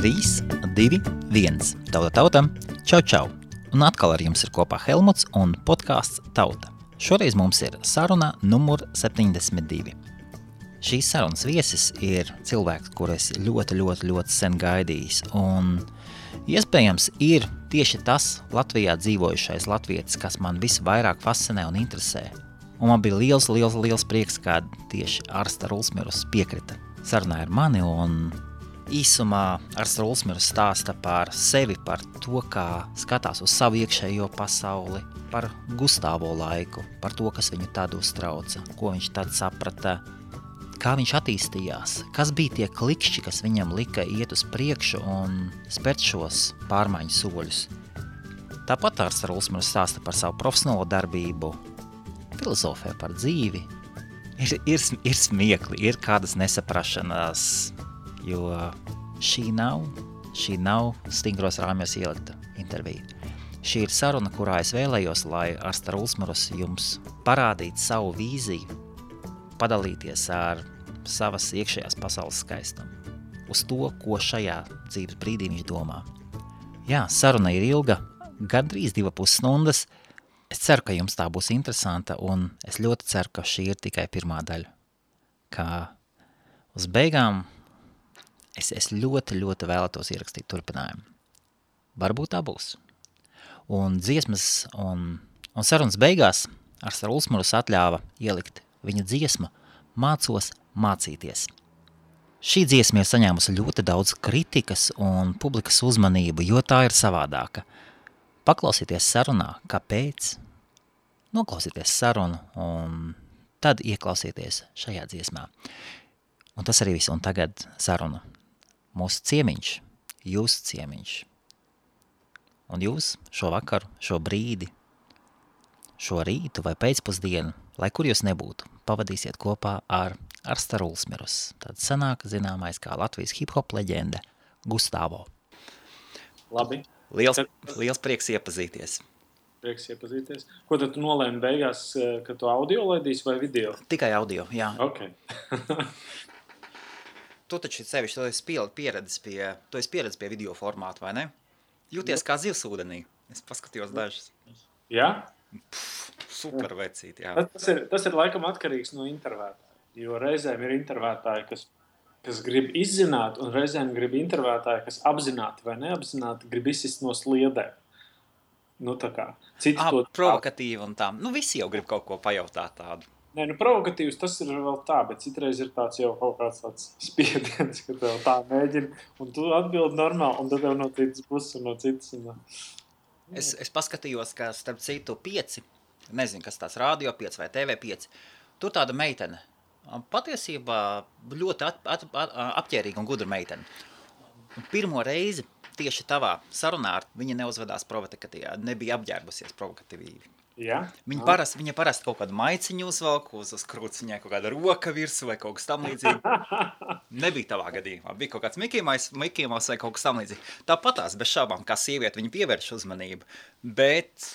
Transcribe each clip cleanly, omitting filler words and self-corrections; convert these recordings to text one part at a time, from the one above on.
3, 2, 1. Tauta. Čau. Un atkal ar jums ir kopā Helmuts un podcasts Tauta. Šoreiz mums ir saruna numur 72. Šīs sarunas viesis ir cilvēks, kuru es ļoti sen gaidījis. Un iespējams ir tieši tas Latvijā dzīvojušais latvietis, kas man visvairāk fascinē un interesē. Un man bija liels prieks, kad tieši Arsta Rulsmirus piekrita sarunā ar mani, un īsumā Arsta Rulsmirus stāsta par sevi, par to, kā skatās uz savu iekšējo pasauli, par Gustāvo laiku, par to, kas viņu tad uztrauca, ko viņš tad saprata, kā viņš attīstījās, kas bija tie klikšķi, kas viņam lika iet uz priekšu un spērt šos pārmaiņu soļus. Tāpat Arsta Rulsmirus stāsta par savu profesionālo darbību, filozofē par dzīvi. Ir smiekli, ir kādas nesaprašanās, jo šī nav stingros rāmjos ielikta intervija. Šī ir saruna, kurā es vēlējos, lai Arsta Rulsmirus jums parādītu savu vīziju, padalīties ar savas iekšējās pasaules skaistumu, uz to, ko šajā dzīves brīdī viņš domā. Jā, saruna ir ilga, gandrīz 2,5 stundas. Es ceru, ka jums tā būs interesanta, un es ļoti ceru, ka šī ir tikai pirmā daļa. Kā uz beigām es ļoti vēlētos ierakstīt turpinājumu. Varbūt tā būs. Un dziesmas un sarunas beigās Arsta Rulsmirus atļāva ielikt viņa dziesmu Mācos mācīties. Šī dziesma ir saņēmusi ļoti daudz kritikas un publikas uzmanību, jo tā ir savādāka. Paklausieties sarunā, kāpēc, noklausieties sarunu un tad ieklausieties šajā dziesmā. Un tas arī viss, un tagad saruna. Mūsu ciemiņš, jūsu ciemiņš. Un jūs šo vakaru, šo brīdi, šo rītu vai pēcpusdienu, lai kur jūs nebūtu, pavadīsiet kopā ar Arsta Rulsmirus. Tad sanāk zināmais kā Latvijas hip-hop leģenda Gustāvo. Labi. Liels prieks iepazīties. Ko tad tu nolēmi beigās, ka tu audio laidīsi vai video? Tikai audio, jā. Ok. Tu taču sevišķi, tu esi pieredzi pie video formāta, vai ne? Jūties kā zivs ūdenī. Es paskatījos dažas. Jā? Super vecīt, jā. Tas ir laikam atkarīgs no intervētāja, jo reizēm ir intervētāji, kas grib izzināt, un reizēm grib intervētāji, kas apzināti vai neapzināti grib izsist no sliedēm. Nu tā kā. Provokatīvi un tā. Nu visi jau grib kaut ko pajautāt tādu. Nē, provokatīvs tas ir vēl tā, bet citreiz ir tāds jau kaut kāds tāds spiediens, ka tev tā mēģina, un tu atbildi normāli, un tad tev no citas puses un no citas. Es paskatījos, ka starp citu 5, nezinu, kas tās radio 5 vai TV 5, tur tāda meitene. Patiesībā ļoti apķērīga un gudra meitene. Un pirmo reizi tieši tavā sarunā viņa neuzvedās provokatīvā, nebija apģērbusies provokatīvi. Ja? Viņa parasti kaut kādu maiciņu uzvelk, uz krūts viņai kaut kāda roka virsū vai kaut kas tam līdzīgi. Nebija tavā gadījumā, bija kaut kāds Mickey Mouse vai kaut kas tam līdzīgi. Tāpatās bez šaubām, kā sieviete, viņa pievērš uzmanību, bet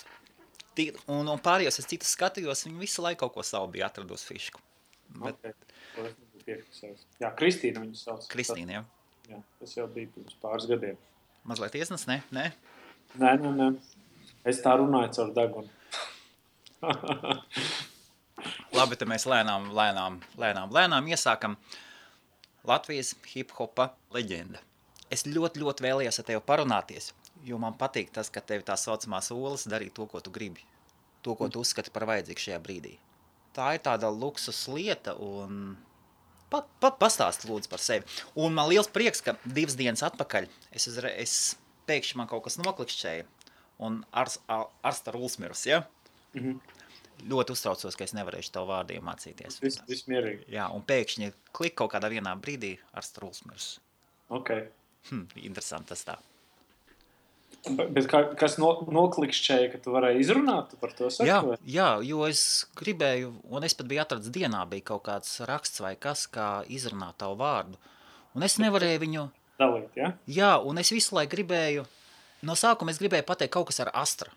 un pārējos es citus skatījos, viņa visu laiku kaut ko savu bija atradusi fišku. Bet... Okay. Jā, Kristīna viņu sauc. Kristīna, jā. Jā, tas jau bija pirms pāris gadiem. Mazliet iesnas, ne? Nē. Es tā runāju caur degunu. Labi, tad mēs lēnām iesākam. Latvijas hip-hopa leģenda. Es ļoti vēlējos ar tevi parunāties, jo man patīk tas, ka tevi tā saucamās olas darīt to, ko tu gribi. To, ko tu uzskati par vajadzīgu šajā brīdī. Tā ir tāda luksus lieta un pastāst lūdzu par sevi. Un man liels prieks, ka 2 dienas atpakaļ es pēkšņi man kaut kas noklikšķēja un Arsta Rulsmirus, ja? Ļoti uztraucos, ka es nevarēšu tavu vārdu iemācīties. Viss mierīgi. Jā, un pēkšņi klik kaut kādā vienā brīdī Arsta Rulsmirus. Ok. Interesanti tas tā. Bet kas noklikšķēja, ka tu varēji izrunāt par to saku? Jā, jo es gribēju, un es pat biju atradis dienā, bija kaut kāds raksts vai kas, kā izrunāt tavu vārdu. Un es nevarēju viņu... Dalīt, ja? Jā, un es visu laiku gribēju, no sākuma es gribēju pateikt kaut kas ar Astra.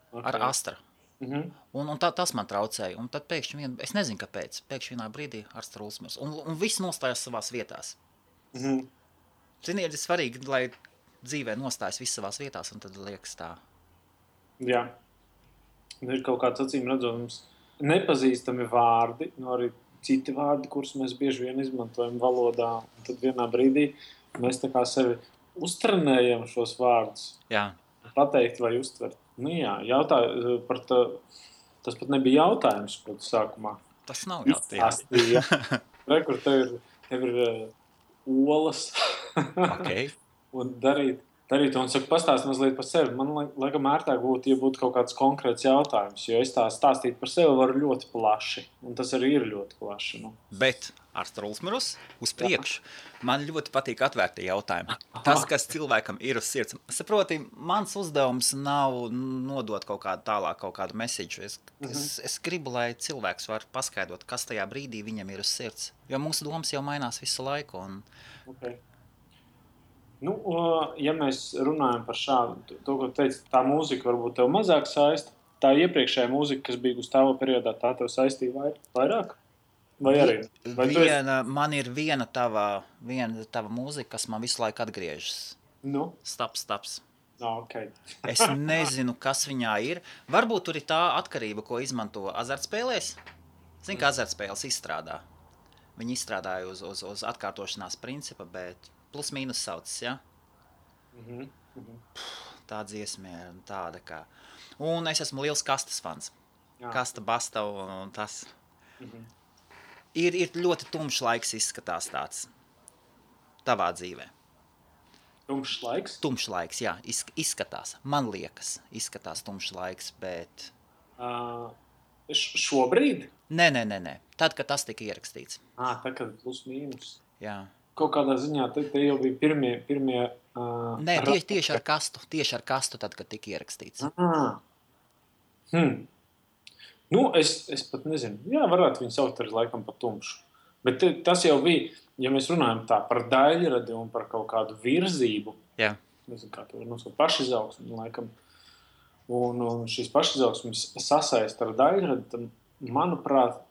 Okay. Ar Astra. Un tas man traucēja. Un tad pēkšņi, es nezinu kāpēc, pēkšņi vienā brīdī Arsta Rulsmirus. Un viss nostājās savās vietās. Zini, ir svarīgi, lai dzīvē nostājas viss savās vietās, un tad liekas tā. Jā. Ir kaut kāds acīm redzams nepazīstami vārdi, arī citi vārdi, kurus mēs bieži vien izmantojam valodā. Un tad vienā brīdī mēs tā kā sevi uztrenējam šos vārdus. Jā. Pateikt vai uztvert. Tas pat nebija jautājums sākumā. Tas nav jautājums. Kur tev ir olas. Okay. Un darīt, un saka, pastāst mazliet par sevi. Man laikam ērtāk būtu, ja būtu kaut kāds konkrēts jautājums, jo es tā stāstīt par sevi varu ļoti plaši, un tas arī ir ļoti plaši. Nu. Bet ar Strulsmerus uz priekšu. Man ļoti patīk atvērti jautājumi. Tas, kas cilvēkam ir uz sirds. Saproti, mans uzdevums nav nodot kaut kādu tālāk, kaut kādu mesiģu. Es gribu, lai cilvēks var paskaidrot, kas tajā brīdī viņam ir uz sirds. Jo mūsu domas jau mainās visu laiku. Un... Okay. Nu, ja mēs runājam par šādu, to, ko teici, tā mūzika varbūt tev mazāk saista, tā iepriekšējā mūzika, kas bija Gustavo periodā, tā tev saistīja vairāk? Vai arī? Man ir viena tava mūzika, kas man visu laiku atgriežas. Nu? Staps. Okay. Es nezinu, kas viņā ir. Varbūt tur ir tā atkarība, ko izmanto azartspēlēs. Zinu, ka azartspēles izstrādā. Viņi izstrādāja uz atkārtošanās principa, bet plus mīnus saucas, ja? Tā dziesma ir tāda kā... Un es esmu liels kastas fans. Jā. Kasta, basta un tas... Ir ļoti tumšs laiks izskatās tāds tavā dzīvē. Tumšs laiks? Tumšs laiks, jā, izskatās. Man liekas, izskatās tumšs laiks, bet... Šobrīd? Nē. Tad, kad tas tika ierakstīts. Tā, kad plus mīnus. Jā. Kaut kādā ziņā te jau bija pirmie Nē, tieši ar kastu tad, kad tika ierakstīts. Nu, es pat nezinu. Jā, varētu viņu saukt arī laikam par tumšu. Bet tas jau bija, ja mēs runājam tā par daļradi un par kaut kādu virzību. Jā. Nezinu, kā to var nosaukt, pašizaugsmi, laikam. Un šīs pašizaugsmes sasaist ar daļradi, tad, manuprāt,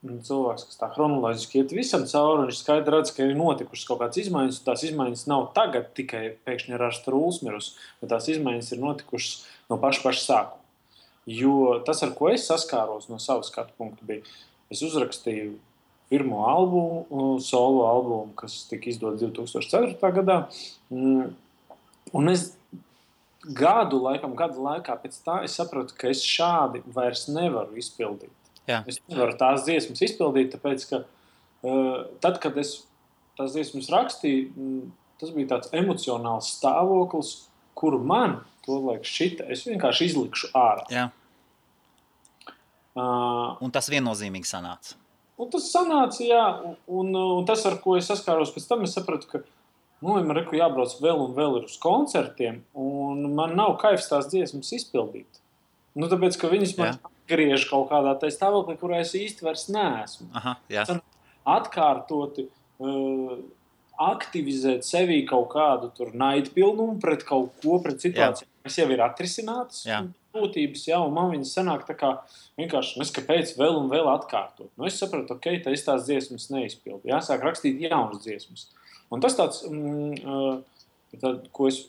cilvēks, kas tā chronoloģiski iet visam cauri, viņš skaidri redz, ka ir notikušas kaut kādas izmaiņas, un tās izmaiņas nav tagad tikai pēkšņi ar Strulsmerus, bet tās izmaiņas ir notikušas no paša sākuma. Jo tas, ar ko es saskāros no savas skatu punkta, bija, es uzrakstīju pirmo albumu, solo albumu, kas tika izdots 2004. Gadā, un es gadu laikā pēc tā es sapratu, ka es šādi vairs nevaru izpildīt. Jā. Es nevaru tās dziesmas izpildīt, tāpēc, ka tad, kad es tās dziesmas rakstīju, tas bija tāds emocionāls stāvoklis, kuru man, tolaik šita, es vienkārši izlikšu ārā. Jā. Un tas viennozīmīgi sanāca. Un tas sanāca, jā, un tas, ar ko es saskāros pēc tam, es sapratu, ka man jābrauc vēl un vēl uz koncertiem, un man nav kaifs tās dziesmas izpildīt. Nu, tāpēc, ka viņas man atgriež kaut kādā tā stāvoklī, kurā es īsti vairs neesmu. Aha, jā. Atkārtoti aktivizēt sevī kaut kādu tur naidpilnumu pret kaut ko, pret situāciju, kas jau ir atrisinātas būtības, un man viņas sanāk tā kā vienkārši kāpēc vēl un vēl atkārtot. Nu, es sapratu, tā es tās dziesmas neizpildu. Jāsāk rakstīt jaunas dziesmas. Un tas tāds, ko es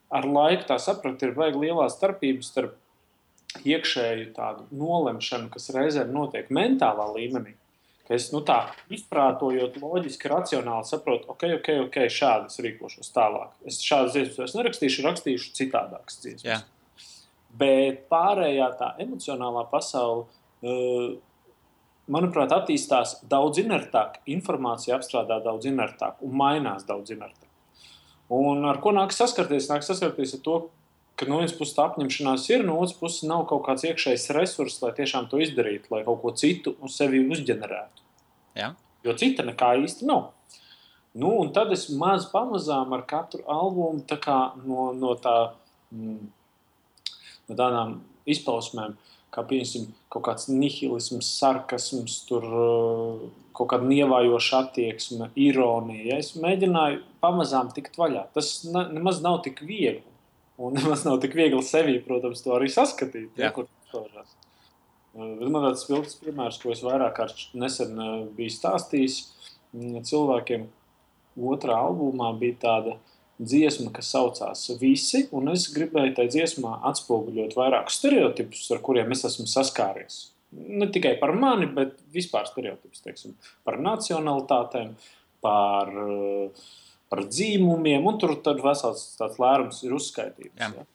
ar laiku tā sapratu, ir baigi lielā starpība starp iekšēju tādu nolemšanu, kas reizēm notiek mentālā līmenī. Ka es tā izprātojot loģiski, racionāli saprotu, ok, šādi es rīkošos tālāk. Es šādas dziesmas rakstīšu citādākas dziesmas. Jā. Bet pārējā tā emocionālā pasaule, manuprāt, attīstās daudz inertāk, informācija apstrādā daudz inertāk un mainās daudz inertāk. Un ar ko nāk saskarties? Nāk saskarties ar to, ka no vienas puses tā apņemšanās ir, no otras puses nav kaut kāds iekšējs resurss, lai tiešām to izdarītu, lai kaut ko citu uz sevi uzģenerētu. Jā. Jo cita nekā īsti nav. Nu, un tad es pamazām ar katru albumu tā kā no tādām izpausmēm, kā pieņemsim kaut kāds nihilisms, sarkasms, tur kaut kāda nievājoša attieksme, ironija. Ja? Es mēģināju pamazām tikt vaļā. Tas nemaz nav tik viegli. Un nemaz nav tik viegli sevī, protams, to arī saskatīt. Ja, kur tas man tāds spilgts piemērs, ko es vairāk kārt nesen biju stāstījis cilvēkiem, otrā albumā bija tāda dziesma, kas saucās Visi, un es gribēju tajā dziesmā atspoguļot vairākus stereotipus, ar kuriem es esmu saskāries. Ne tikai par mani, bet vispār stereotipus, teiksim, par nacionalitātēm, par dzīmumiem, un tur tad vesels tāds lērums ir uzskaitīts. Ja?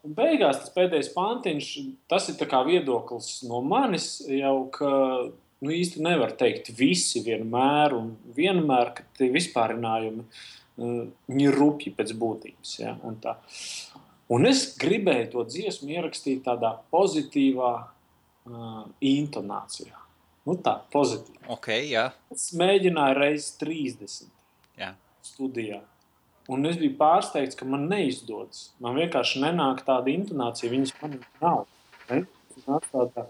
Un beigās tas pēdējais pantiņš, tas ir tā kā viedoklis no manis jau, ka īsti nevar teikt visi vienmēr, un vienmēr, ka tie vispārinājumi viņi ir rupji pēc būtības. Ja? Un es gribēju to dziesmu ierakstīt tādā pozitīvā intonācijā. Tā, pozitīva. Okay, jā. Es mēģināju reizes 30 studijā. Un es biju pārsteigts, ka man neizdodas. Man vienkārši nenāk tāda intonācija, viņas man nav. Nāk tādā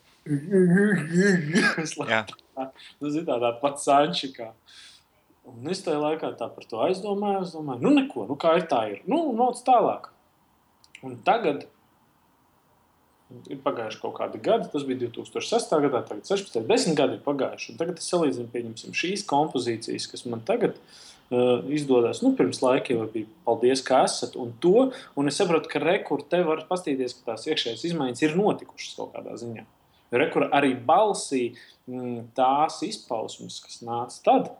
tādā pat sančikā. Un es tajā laikā tā par to aizdomāju, neko, kā ir tā ir. Noc tālāk. Un tagad ir pagājuši kaut kādi gadi, tas bija 2006. gadā, tagad 16, 10 gadi ir pagājuši. Un tagad es salīdzinu, pieņemsim, šīs kompozīcijas, kas man tagad izdodas. Pirms laika jau bija paldies, ka esat, un es saprotu, ka rekur te var pastīties, ka tās iekšējas izmaiņas ir notikušas kaut kādā ziņā. Rekur arī balsī tās izpausmes, kas nāca tad,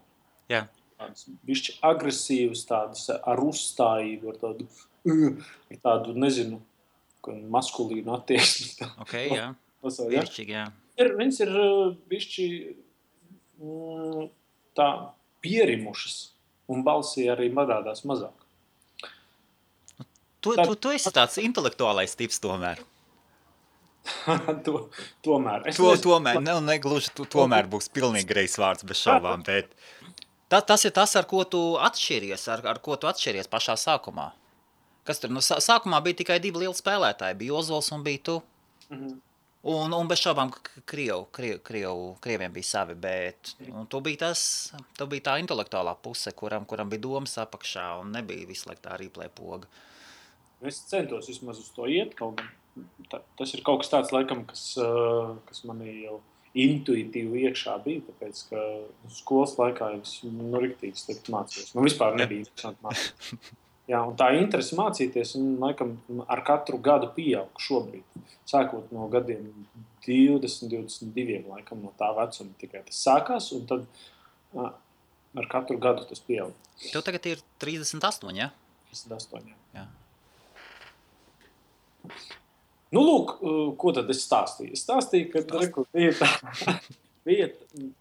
tādas bišķi agresīvas, tādas ar uzstājību, ar tādu, nezinu, maskulīnu attieksmi. Okay, jā. Viršķīgi, jā. Viņas ir bišķi tā pierimušas, un balsī arī parādās mazāk. Tu esi tāds intelektuālais tips tomēr. Tomēr. Tomēr, negluži tomēr būs pilnīgi greizs vārds bez šaubām, bet tas ir tas, ar ko tu atšķiries, ar ko tu atšķiries pašā sākumā. Kas tur? Sākumā bija tikai 2 lieli spēlētāji, bija Ozols un bija tu. Un bez šaubām krieviem bija savi, bet tu bija tā intelektuālā puse, kuram bija domas apakšā un nebija visu laiku tā replay poga. Es centos vismaz uz to iet, kaut gan tas ir kaut kas tāds, laikam, kas manī jau intuitīvi iekšā bija, tāpēc, ka skolas laikā es riktīgi slikti mācījos. Vispār nebija interesanti mācīties. Jā, un tā interese mācīties, un, laikam, ar katru gadu pieaug šobrīd. Sākot no gadiem 20, 22, laikam, no tā vecuma tikai tas sākās, un tad ar katru gadu tas pieaug. Tev tagad ir 38, ja? 38, jā. Lūk, ko tad es stāstīju? Es stāstīju, ka bija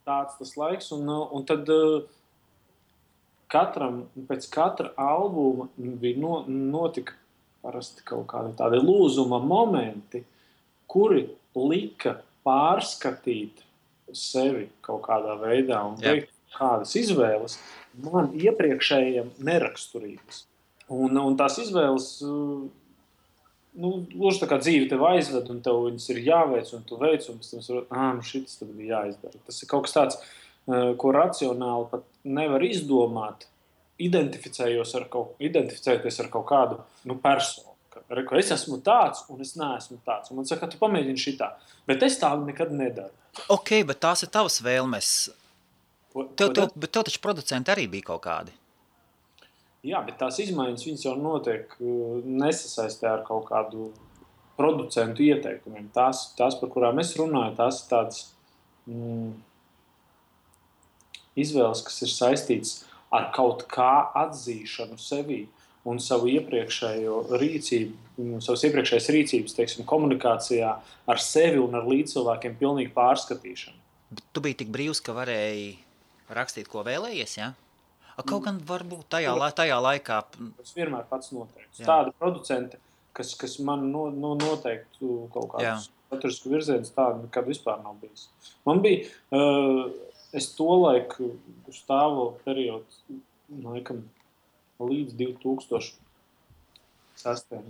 tāds tas laiks, un tad pēc katra albuma bija notika parasti kaut kādi tādi lūzuma momenti, kuri lika pārskatīt sevi kaut kādā veidā un veikt kādas izvēles man iepriekšējiem neraksturības. Un tās izvēles gluži tā kā dzīve tev aizved, un tev viņas ir jāveic, un tu veic, un pēc tam šitas tad bija jāizdara. Tas ir kaut kas tāds, ko racionāli pat nevar izdomāt, identificējoties ar kaut kādu personu. Es esmu tāds, un es neesmu tāds. Un man saka, tu pamēģini šitā. Bet es tā nekad nedaru. Ok, bet tās ir tavas vēlmes. Bet tev taču producenti arī bija kaut kādi. Jā, bet tās izmaiņas viņas jau notiek nesasaistē ar kaut kādu producentu ieteikumiem. Tās, par kurām es runāju, tās ir tādas izvēles, kas ir saistītas ar kaut kā atzīšanu sevī un savu iepriekšējo rīcību, savas iepriekšējas rīcības, teiksim, komunikācijā ar sevi un ar līdzcilvēkiem pilnīgi pārskatīšanu. Bet tu biji tik brīvs, ka varēji rakstīt, ko vēlējies, jā? Kaut gan varbūt tajā laikā... Es vienmēr pats noteiktu. Tāda producente, kas man noteiktu kaut kādus saturisku virzienus, tāda nekad vispār nav bijis. Man bija, es tolaik stāvo periodu, laikam, līdz 2006.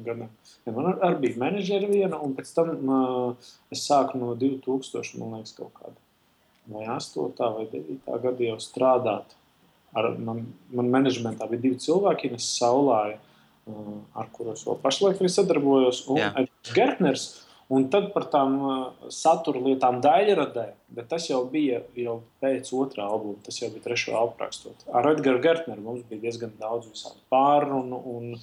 gadam. Man arī bija menedžeri viena, un pēc tam es sāku no 2000, man liekas, kaut kāda vai 8. vai 9. gada jau strādāt. Man menedžmentā bija 2 cilvēki, Ines Saulāja, ar kuros vēl pašlaik arī sadarbojos, un Edgars Gertners. Un tad par tām satura lietām daļradē, bet tas jau bija pēc otrā albuma, tas jau bija trešo albumu rakstot. Ar Edgaru Gertneru mums bija diezgan daudz visādu pārrunu, un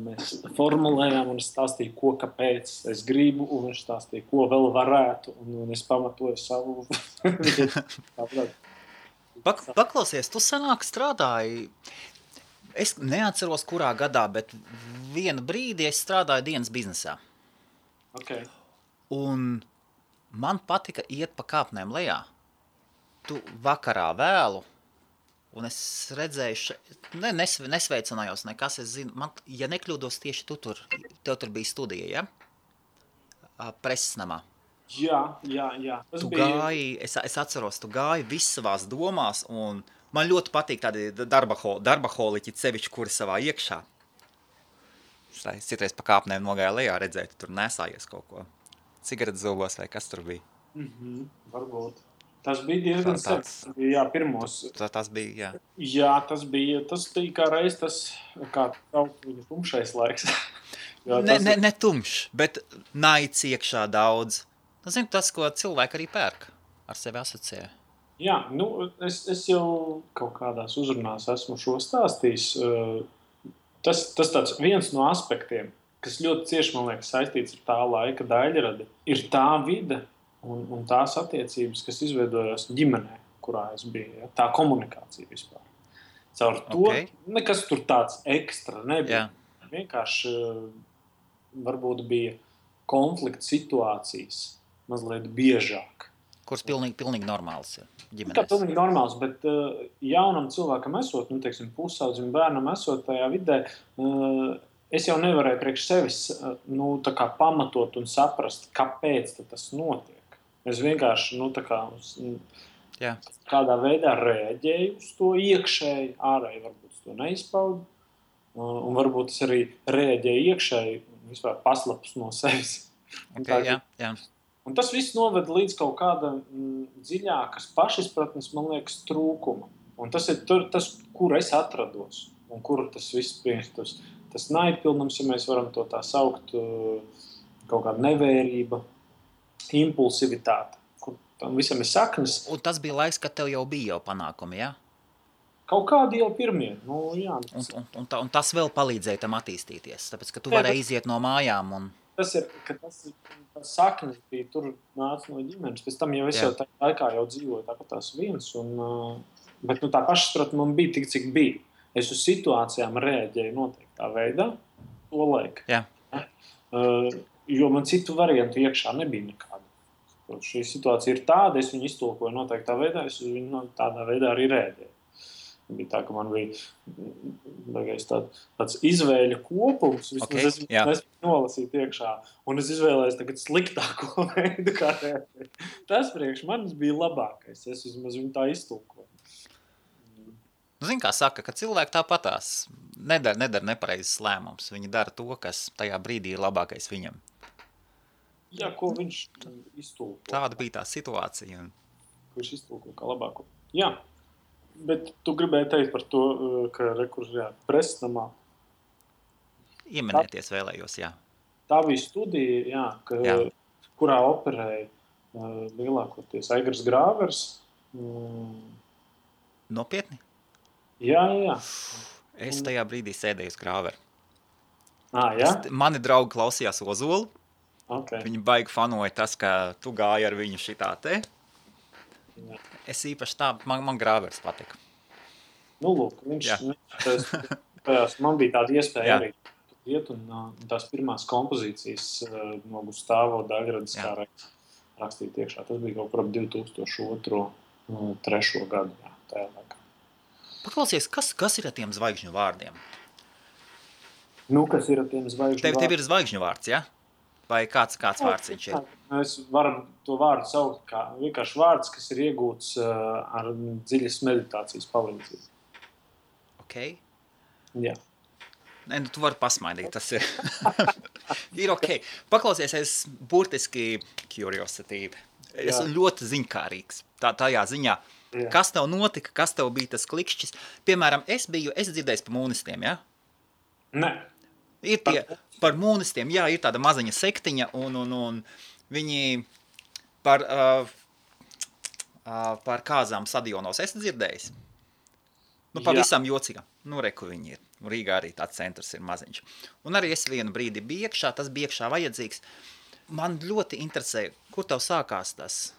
mēs formulējām, un es stāstīju, ko, kāpēc es gribu, un viņš stāstīja, ko vēl varētu, un es pamatoju savu. Paklausies, tu sanāk strādāji, es neatceros kurā gadā, bet vienu brīdi es strādāju dienas biznesā. Okay. Un man patika iet pa kāpnēm lejā. Tu vakarā vēlu, un es redzēju, nesveicinājos nekas, es zinu, man, ja nekļūdos tieši tev tur bija studija, ja? Preses namā. Jā. Tas tu gāji, es atceros, tu gāji viss savās domās, un man ļoti patīk tādi darbaholiķi sevišķi, kuri savā iekšā. Es citreiz pa kāpnēm nogāju lejā, redzēju, tu tur nesājies kaut ko. Cigaretes zobos vai kas tur bija? Varbūt. Tas bija diezgan sen. Jā, pirmos. Tas bija, jā. Jā, tas bija kā reiz tas, kā viņa tumšais laiks. Ne tumšs, bet naids iekšā daudz. Zinu, tas, ko cilvēki arī pērk, ar sevi asociē. Jā, es jau kaut kādās uzrunās esmu šo stāstījis. Tas tāds viens no aspektiem, kas ļoti cieši, man liekas, saistīts ar tā laika daļradi, ir tā vide un tās attiecības, kas izveidojās ģimenē, kurā es biju. Ja? Tā komunikācija vispār. Caur to nekas tur tāds ekstra nebija. Jā. Vienkārši varbūt bija konflikta situācijas mazliet biežāk. Kuras pilnīgi normāls ir ģimenēs. Kā pilnīgi normāls, bet jaunam cilvēkam esot, teiksim, pusaudzim bērnam esot tajā vidē, es jau nevarēju priekš sevis tā kā pamatot un saprast, kāpēc tas notiek. Es vienkārši kādā veidā reaģēju uz to iekšēji, ārēji varbūt to neizpaudu, un varbūt es arī reaģēju iekšēji un vispār paslapus no sevis. Jā. Un tas viss noved līdz kaut kāda dziļākas pašizpratnes, man liekas, trūkuma. Un tas ir tas, kur es atrados un kur tas viss priekš. Tas naidpilnums, ja mēs varam to tā saukt, kaut kāda nevērība, impulsivitāte, kur tam visam ir saknes. Un tas bija laiks, kad tev jau bija panākumi, jā? Kaut kādi jau pirmie. Jā. Un tas vēl palīdzēja tam attīstīties, tāpēc, ka tu varēji iziet no mājām un... Tas saknes bija, tur nāca no ģimenes. Pēc tam jau es jau tā laikā jau dzīvoju tāpat tās viens. Bet tā pašsaprotne man bija tik, cik bija. Es uz situācijām reaģēju noteiktā veidā, to laiku. Jā. Jo man citu variantu iekšā nebija nekāda. Šī situācija ir tāda, es viņu iztulkoju noteiktā veidā, es uz viņu tādā veidā arī reaģēju. Bija tā, ka man bija tāds izvēļu kopums, vismaz es nolasīju iekšā, un es izvēlējos tagad sliktāko veidu, kā reaģēt. Tas priekš manis bija labākais, es vismaz viņu tā iztulkoju. Zini, kā saka, ka cilvēki tāpatās nedara nepareizes lēmumus, viņi dara to, kas tajā brīdī ir labākais viņam. Jā, ko viņš iztulko. Tāda bija tā situācija. Ko viņš iztulko kā labāko. Jā. Bet tu gribēji teikt par to, ka preses namā. Ieminēties vēlējos, jā. Tā bija studija, kurā operēja lielākoties Aigars Grāvers. Nopietni? Jā. Es tajā brīdī sēdēju uz Grāveru. Jā? Mani draugi klausījās Ozolu. Okay. Viņi baigi fanoja tas, ka tu gāji ar viņu šitā te. Jā. Es īpaši tā, man Grāvers patika. Lūk, man bija tāda iespēja arī iet un tās pirmās kompozīcijas no Gustavo Daļradas kā rakstīt iekšā. Tas bija kaut par 2002. 3. gadu, tajā laikā. Paklausies, kas ir ar tiem zvaigžņu vārdiem? Kas ir ar tiem zvaigžņu vārdiem? Tev ir zvaigžņu vārds, ja? Vai kāds vārds viņš ir? Es varu to vārdu saukt kā vienkārši vārds, kas ir iegūts ar dziļas meditācijas palīdzību. Ok. Jā. Nē, tu vari pasmaidīt, tas ir. Ir ok. Paklausies, es burtiski curiosity. Es ļoti ziņkārīgs tajā ziņā. Jā. Kas tev notika, kas tev bija tas klikšķis? Piemēram, es dzirdējis par mūnistiem, ja? Nē. Ir tie par mūnistiem, jā, ir tāda maziņa sektiņa, un viņi par kāzām stadionos esi dzirdējis? Pavisam jocīgā. Reku viņi ir. Rīgā arī tāds centrs ir maziņš. Un arī es vienu brīdi biju iekšā, tas bija iekšā vajadzīgs. Man ļoti interesē, kur tev sākās tas?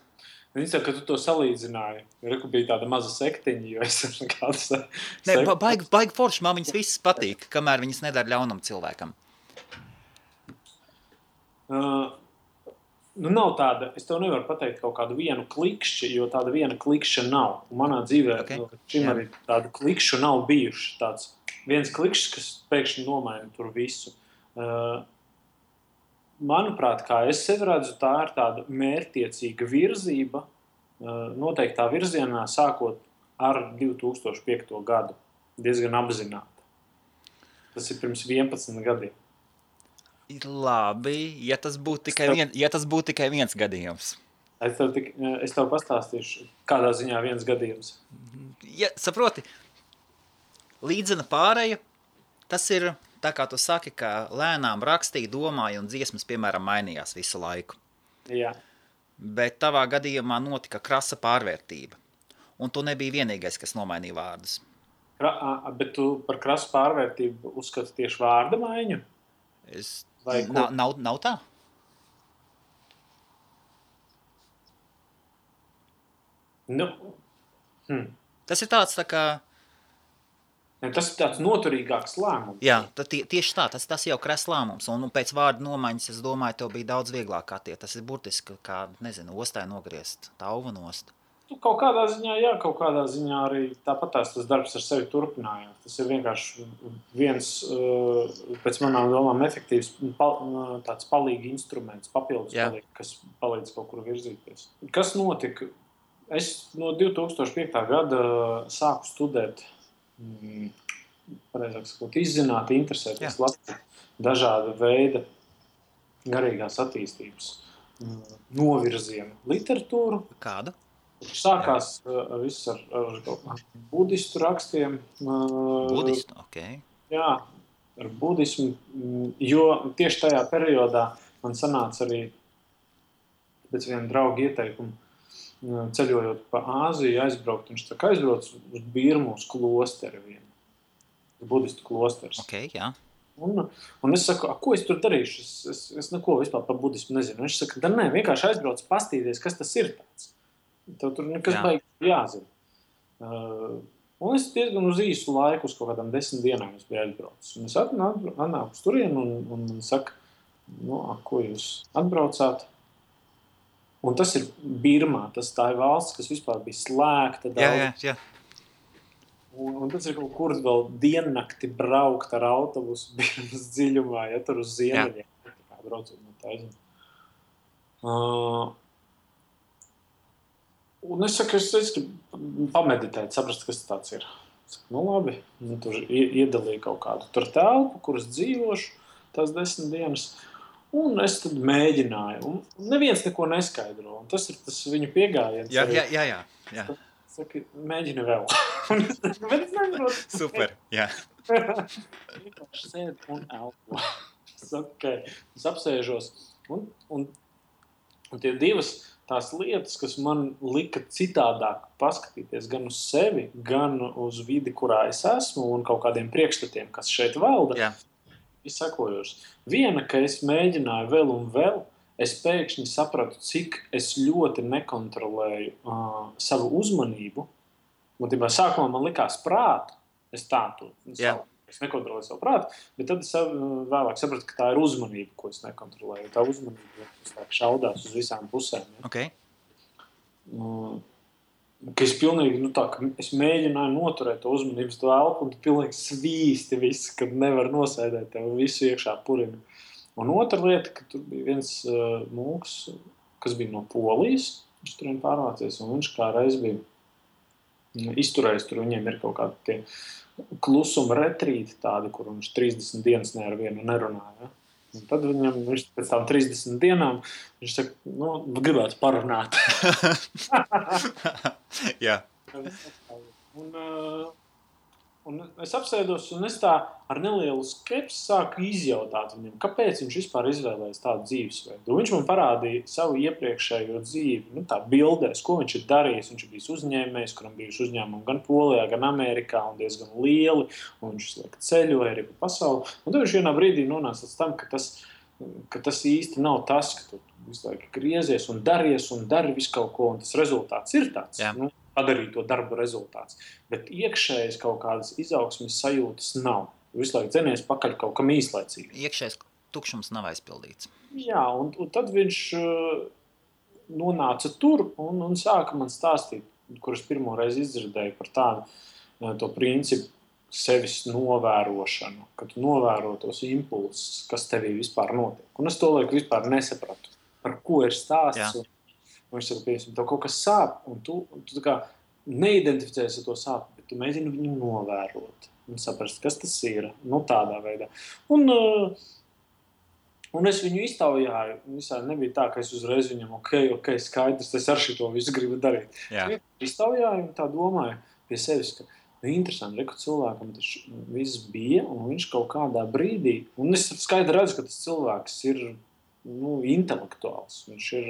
Viņi saka, ka tu to salīdzināji. Reku bija tāda maza sektiņa, jo es esmu kāds... Baigi forši, man viņas visas patīk, kamēr viņas nedara ļaunam cilvēkam. Nav tāda, es tev nevaru pateikt kaut kādu vienu klikšķi, jo tāda viena klikšķa nav. Un manā dzīvē šim arī tādu klikšķu nav bijuši. Tāds viens klikšķis, kas pēkšņi nomaina tur visu. Manuprāt, kā es sevi redzu, tā ir tāda mērķtiecīga virzība, noteiktā virzienā, sākot ar 2005. Gadu. Diezgan apzināta. Tas ir pirms 11 gadiem. Ir labi, ja tas būtu tikai viens gadījums. Es tev pastāstīšu, kādā ziņā viens gadījums. Ja, saproti, līdzena pāreja, tas ir... Tā kā tu saki, ka lēnām rakstīja, domāja un dziesmas, piemēram, mainījās visu laiku. Jā. Bet tavā gadījumā notika krasa pārvērtība. Un tu nebija vienīgais, kas nomainīja vārdus. Bet tu par krasu pārvērtību uzskati tieši vārda maiņu? Nav tā? Tas ir tāds tā kā... Tas ir tāds noturīgāks lēmums. Jā, tieši tā, tas jau kras lēmums. Un pēc vārda nomaiņas, es domāju, tev bija daudz vieglāk kā tie. Tas ir burtiski kā, ostai nogriezt, tauva nost. Kaut kādā ziņā, jā, kaut kādā ziņā arī tāpat tas darbs ar sevi turpinājās. Tas ir vienkārši viens, pēc manām domām, efektīvs tāds palīgi instruments, papildus palīgi, kas palīdz kaut kur virzīties. Kas notika? Es no 2005. Gada sāku studēt pareizāk sakot, izzināt, interesēties dažāda veida garīgās attīstības novirzienu literatūru. Kādu? Sākās viss ar budistu rakstiem. Budistu, ok. Jā, ar budismu, jo tieši tajā periodā man sanāca arī pēc viena drauga ieteikumu ceļojot pa Āziju, aizbraukt, un viņš tā kā aizbrauc uz Birmus klosteri vienu. Budistu klosters. Ok, jā. Un es saku, ko es tur darīšu? Es neko vispār par budismu nezinu. Viņš saka, nē, vienkārši aizbrauc pastīties, kas tas ir tāds. Tev tur nekas baigi jāzina. Un es diezgan uz īsu laiku, uz kaut kādām 10 dienām es biju aizbraucis. Un es atnāku uz turienu un saka, ko jūs atbraucāt? Un tas ir Birmā, tā ir valsts, kas vispār bija slēgta. Jā. Un tas ir kaut kur vēl diennakti braukt ar autobusu Birmas dziļumā, ja tur uz ziemeļiem. Braucot no taisnība. Un es saku, es gribu pameditēt, saprast, kas tāds ir. Es saku, labi, tur iedalīju kaut kādu tur telpu, kuras dzīvošu tās 10 dienas. Un es tad mēģināju, un neviens neko neskaidro, un tas ir tas viņu piegājiens. Jā. Saka, mēģini vēl. Bet es nevaru. Super, jā. Vienkārši sēd un elpo. Es apsēžos, un tie divas tās lietas, kas man lika citādāk paskatīties gan uz sevi, gan uz vidi, kurā es esmu, un kaut kādiem priekšstatiem, kas šeit valda. Jā. Ir sekojošs. Viena, ka es mēģināju vēl un vēl, es pēkšņi sapratu, cik es ļoti nekontrolēju savu uzmanību. Būtībā sākumā man likās prātu, es nekontrolēju savu prātu, bet tad es vēlāk sapratu, ka tā ir uzmanība, ko es nekontrolēju. Tā uzmanība šaudās uz visām pusēm. Ja? Okay. Ka es pilnīgi, es mēģināju noturēt to uzmanības to elpu, un tu pilnīgi svīsti visu, kad nevar nosēdēt tev visu iekšā purina. Un otra lieta, ka tur bija viens mūks, kas bija no Polijas, viņš turien pārvācies, un viņš kā reiz bija izturējis, tur viņiem ir kaut kādi tie klusuma retrīti tādi, kur viņš 30 dienas ne ar vienu nerunāja. Ja? Un tad viņš pēc tām 30 dienām, viņš saka, gribētu parunāt. Jā. Un es apsēdos, un es tā ar nelielu skepsi sāku izjautāt viņam, kāpēc viņš vispār izvēlējās tādu dzīvesveidu. Viņš man parādīja savu iepriekšējo dzīvi, tā bildēs, ko viņš ir darījis. Viņš ir bijis uzņēmējs, kuram bijuši uzņēmumi gan Polijā, gan Amerikā, un diezgan lieli, un viņš ceļoja arī pa pasauli. Un tad viņš vienā brīdī nonāca līdz tam, ka tas īsti nav tas, ka tu visu laiku griezies un dari visu kaut ko, un tas rezultāts ir tāds. Padarīt to darbu rezultāts. Bet iekšējas kaut kādas izaugsmes sajūtas nav. Visu laiku dzenies pakaļ kaut kam īslaicīgi. Iekšējais tukšums nav aizpildīts. Jā, un tad viņš nonāca tur un sāka man stāstīt, kurus pirmo reizi izdzirdēju par tādu to principu sevis novērošanu, ka tu novēro tos impulsus, kas tevī vispār notiek. Un es to laiku vispār nesapratu, par ko ir stāsts. Viņš saka, piemēram, tev kaut kas sāp, un tu tā kā neidentificēsi ar to sāpi, bet tu mēģini viņu novērot un saprast, kas tas ir, tādā veidā. Un es viņu iztaujāju, visādi nebija tā, ka es uzreiz viņam, ok, skaidrs, es ar šito visu gribu darīt. Iztaujāju un tā domāju pie sevis, ka interesanti, ka cilvēkam tas viss bija, un viņš kaut kādā brīdī, un es skaidri redzu, ka tas cilvēks ir intelektuāls, viņš ir...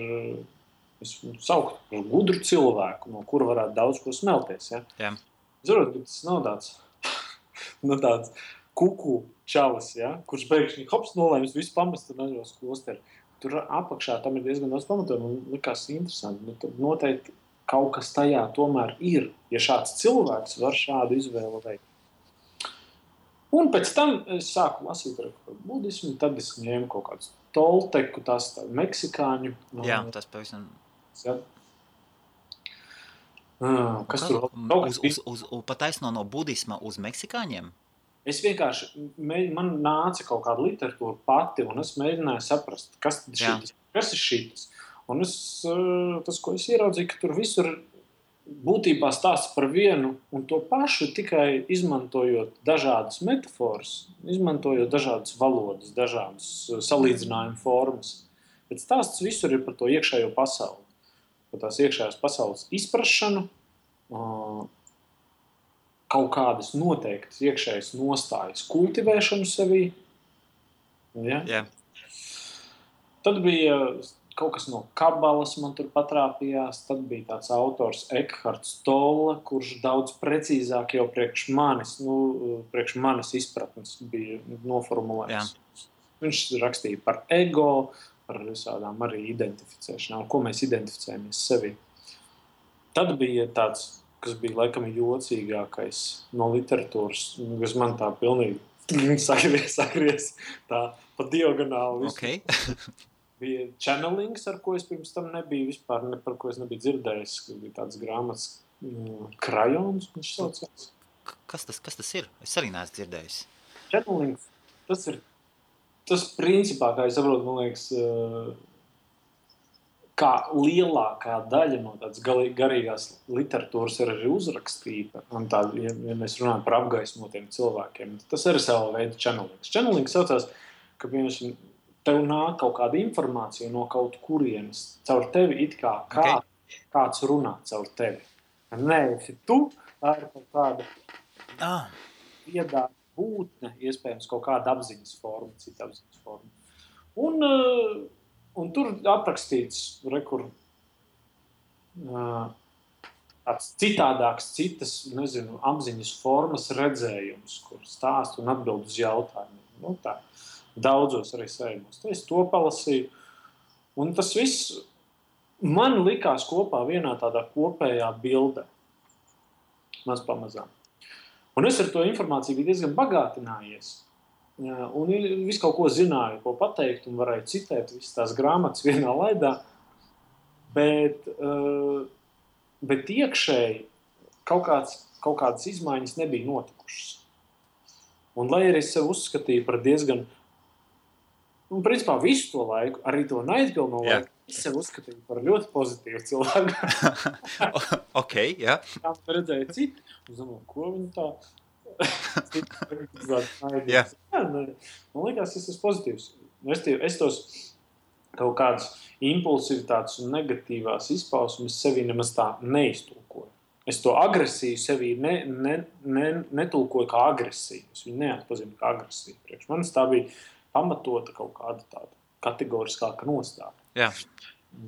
Es sauktu par gudru cilvēku, no kura varētu daudz ko smelties. Ja? Zinu, ka tas nav tāds kuku čalis, kurš beigšņi nolēmis visu pamest un aizvēs klosteri. Tur apakšā tam ir diezgan daudz pamatojumu un likās interesanti. Tad noteikti kaut kas tajā tomēr ir, ja šāds cilvēks var šādu izvēlu veikt. Un pēc tam es sāku lasīt par budismu, tad es ņēmu kaut kādus tolteku, tas meksikāņu. Jā, tas pavisam... Ja. Kas tur pataisno no budisma uz meksikāņiem? Es vienkārši, man nāca kaut kāda literatūra pati, un es mēģināju saprast, kas ir šitas. Un tas, ko es ieraudzīju, ka tur visur būtībā stāsts par vienu un to pašu, tikai izmantojot dažādas metaforas, izmantojot dažādas valodas, dažādas salīdzinājumu formas. Bet stāsts visur ir par to iekšējo pasauli. Par tās iekšējās pasaules izprašanu, kaut kādas noteiktas iekšējas nostājas kultivēšanu sevī. Ja? Yeah. Tad bija kaut kas no kabalas man tur patrāpījās, tad bija tāds autors Ekharts Tolle, kurš daudz precīzāk jau priekš manis izpratnes bija noformulējis. Yeah. Viņš rakstīja par ego, par visādām arī identificēšanām, ko mēs identificējamies sevi. Tad bija tāds, kas bija laikam jocīgākais no literatūras, kas man tā pilnīgi sagries tā pa diagonāli. Okay. Bija channelings, ar ko es pirms tam nebiju vispār, par ko es nebiju dzirdējis, kas bija tāds grāmatas krajons, viņš saucās. Kas tas ir? Es arī neesmu dzirdējis. Channelings, tas principā, kā es saprotu, man liekas, kā lielākā daļa no tādas garīgās literatūras ir arī uzrakstīta. Un tā, ja mēs runājam par apgaismotiem cilvēkiem, tas arī sava veida channelings. Channelings saucās, ka tev nāk kaut kāda informācija no kaut kurienes caur tevi, it kā kāds runā caur tevi. Nē, tu, tā ir kaut kāda viedā būtne, iespējams, kaut kāda apziņas forma, cita apziņas forma. Un tur aprakstīts tāds citādāks, citas, apziņas formas redzējums, kur stāst un atbild uz jautājumiem. Tā, daudzos arī sējumos. Es to palasīju. Un tas viss man likās kopā vienā tādā kopējā bildē. Maz pamazām. Un es ar to informāciju biju diezgan bagātinājies. Un visu kaut ko zināju, ko pateikt, un varēju citēt visas tās grāmatas vienā laidā. Bet iekšēji kaut kādas izmaiņas nebija notikušas. Un lai arī es sev uzskatīju par diezgan, principā visu to laiku, arī to naidpilno laiku, es sev uzskatīju par ļoti pozitīvu cilvēku. Ok, jā. Tā redzēju citu. Es domāju, ko viņi tā? Jā. Man liekas, tas ir pozitīvs. Es tos kaut kādas impulsivitātes un negatīvās izpausmes sevī nemaz tā neiztulkoju. Es to agresiju sevī netulkoju kā agresiju. Es viņu neatpazinu kā agresiju. Priekš manis tā bija pamatota kaut kāda tāda kategoriskāka nostāja. Jā.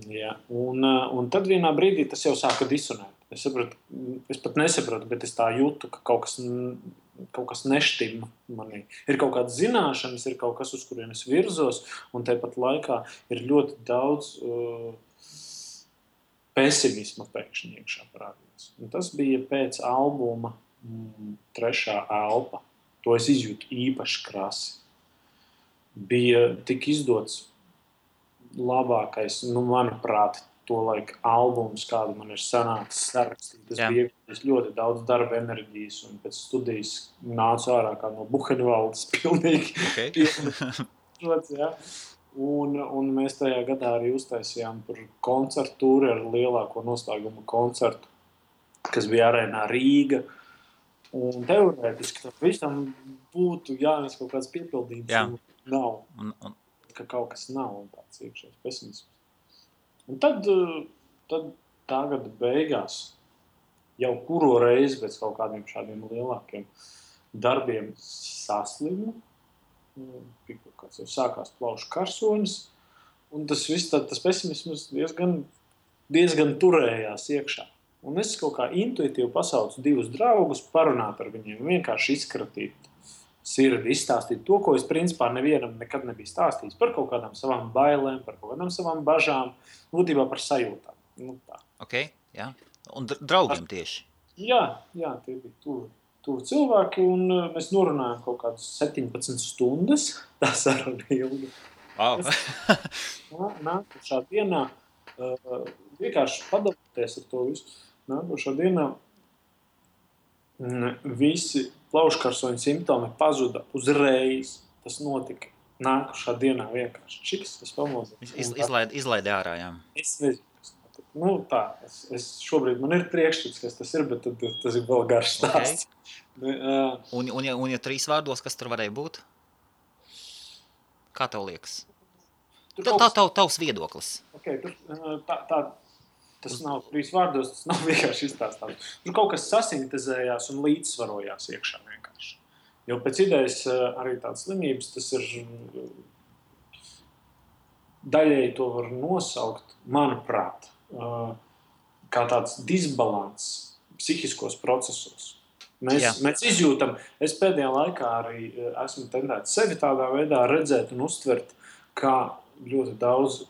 Ja. Un tad vienā brīdī tas jau sāka disonēt. Es pat nesaprotu, bet es tā jūtu, ka kaut kas neštima manī. Ir kaut kādas zināšanas, ir kaut kas, uz kurien es virzos, un tāpat laikā ir ļoti daudz pesimisma pēkšņi iekšā parādījās. Un tas bija pēc albuma Trešā elpa. To es izjūtu īpaši krasi. Bija tik izdots labākais, manuprāt, to laika albums, kādu man ir sanācis sarakstīt. Tas bija ļoti daudz darba enerģijas, un pēc studijas nācu ārā kā no Buhenvaldes pilnīgi. Okay. Ja. Un mēs tajā gadā arī uztaisījām tur koncertu tūri ar lielāko noslēguma koncertu, kas bija arēnā Rīga. Un teorētiski tam visam būtu jānes kaut kāds piepildījums. Jā. Nav. Ka kaut kas nav un tāds iekšējs pesimisms. Un tad tā gada beigās jau kuro reizi pēc kaut kādiem šādiem lielākiem darbiem saslimu. Kāds jau sākās plaušu karsonis, un tas viss tas pesimisms diezgan turējās iekšā. Un es kaut kā intuitīvi pasaucu 2 draugus, parunāt ar viņiem, vienkārši izkratīt sirdi, izstāstīt to, ko es principā nevienam nekad nebiju stāstījis, par kaut kādām savām bailēm, par kaut kādām savām bažām, būtībā par sajūtām. Tā. Okay, jā. Un draugiem tieši? Jā, tie bija tuvi cilvēki, un mēs norunājām kaut kādas 17 stundas. Tā saruna ilga. Wow. Nākošā dienā, vienkārši padalīties ar to visu, nākošā dienā visi plauškarsoņu simptomi pazuda uzreiz. Tas notika nākošā dienā vienkārši. Čiks, es pamodījos. Izlaidi ārā, jā. Es nezinu. Es šobrīd man ir priekšstats, kas tas ir, bet tas ir vēl garš stāsts. Okay. Un ja 3 vārdos, kas tur varēja būt? Kā tev liekas? Tavs viedoklis. Okay, tas nav 3 vārdos, tas nav vienkārši izstāstāms. Tur kaut kas sasintezējās un līdzsvarojās iekšā vienkārši. Jo pēc idejas arī tādas slimības, tas ir daļēji to var nosaukt, manuprāt, kā tāds disbalans psihiskos procesos. Mēs izjūtam, es pēdējā laikā arī esmu tendēts sevi tādā veidā redzēt un uztvert, kā ļoti daudz,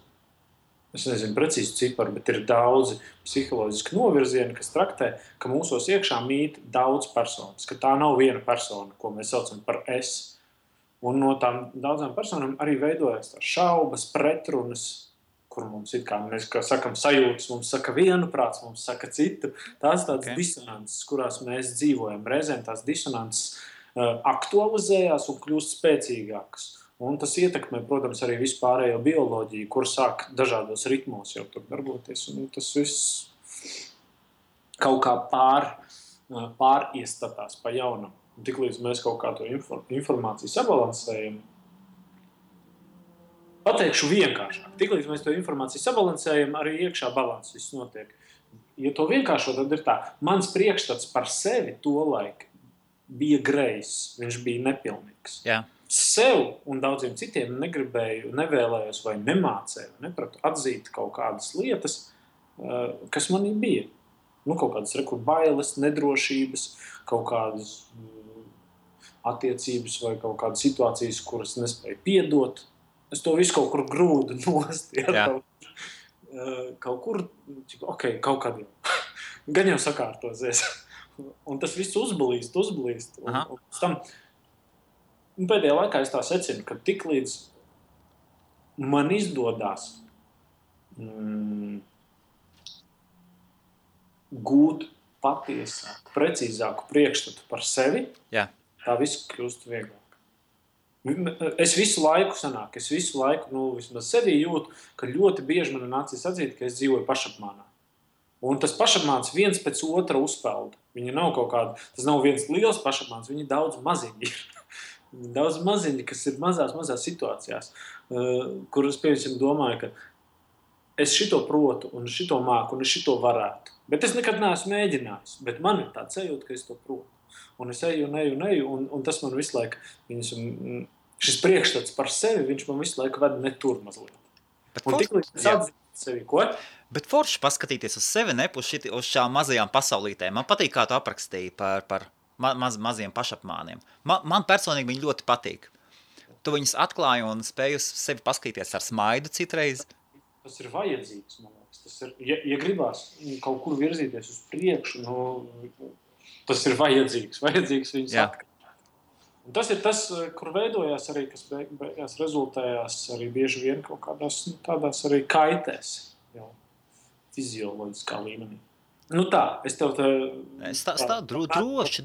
es nezinu precīzi ciparu, bet ir daudzi psiholoģiski novirzieni, kas traktē, ka mūsos iekšā mīt daudz personas, ka tā nav viena persona, ko mēs saucam par es. Un no tām daudzām personām arī veidojas tās šaubas, pretrunas, kur mums ir, kā mēs sakam, sajūtas, mums saka vienu prāts, mums saka citu. Tās tādas disonances, kurās mēs dzīvojam. Reizēm tās disonances aktualizējās un kļūst spēcīgākas. Un tas ietekmē, protams, arī vispārējo bioloģiju, kur sāk dažādos ritmos jau tur darboties. Un tas viss kaut kā pāriestatās pa jaunam. Tiklīdz mēs kaut kā to informāciju sabalansējam, pateikšu vienkāršāk. Tiklīdz mēs to informāciju sabalansējam, arī iekšā balans viss notiek. Ja to vienkāršo, tad ir tā. Mans priekšstats par sevi tolaik bija grejs, viņš bija nepilnīgs. Jā. Sev un daudziem citiem negribēju, nevēlējos vai nemācēju, nepratu atzīt kaut kādas lietas, kas manī bija. Kaut kādas bailes, nedrošības, kaut kādas attiecības vai kaut kādas situācijas, kuras nespēju piedot. Es to visu kaut kur grūdu nost. Kaut kur, kaut kad jau. Gan jau sakārtosies. Un tas viss uzblīst. Un tam, pēdējā laikā es tā secinu, ka tiklīdz man izdodās gūt patiesāku, precīzāku priekšstatu par sevi, tā viss kļūst vieglāk. Es visu laiku vismaz sevī jūtu, ka ļoti bieži man nācies atzīt, ka es dzīvoju pašapmānā. Un tas pašapmāns viens pēc otra uzpelda. Viņi nav kaut kāda, tas nav viens liels pašapmāns, viņi daudz maziņi ir. Daudz maziņi, kas ir mazās situācijās, kuras, piemēram, domāju, ka es šito protu, un šito māku, un es šito varētu. Bet es nekad neesmu mēģinājis. Bet man ir tāds sajūta, ka es to protu. Un es eju, un tas man visu laiku, šis priekšstats par sevi, viņš man visu laiku ved ne tur mazliet. Un tik līdz atzīst sevi, ko? Bet forši paskatīties uz sevi, ne uz šām mazajām pasaulītēm. Man patīk, kā tu aprakstīji par maziem pašapmāniem. Man personīgi viņi ļoti patīk. Tu viņus atklāji un spēji uz sevi paskatīties ar smaidu citreiz. Tas ir vajadzīgs, man liekas. Tas ir, ja gribās kaut kur virzīties uz priekšu, tas ir vajadzīgs viņus atklāt. Un tas ir tas, kur veidojās arī, kas beigās rezultējās arī bieži vien kaut kādās tādās arī kaitēs, jau fizioloģiskā līmenī. Tā, es tev te... Droši.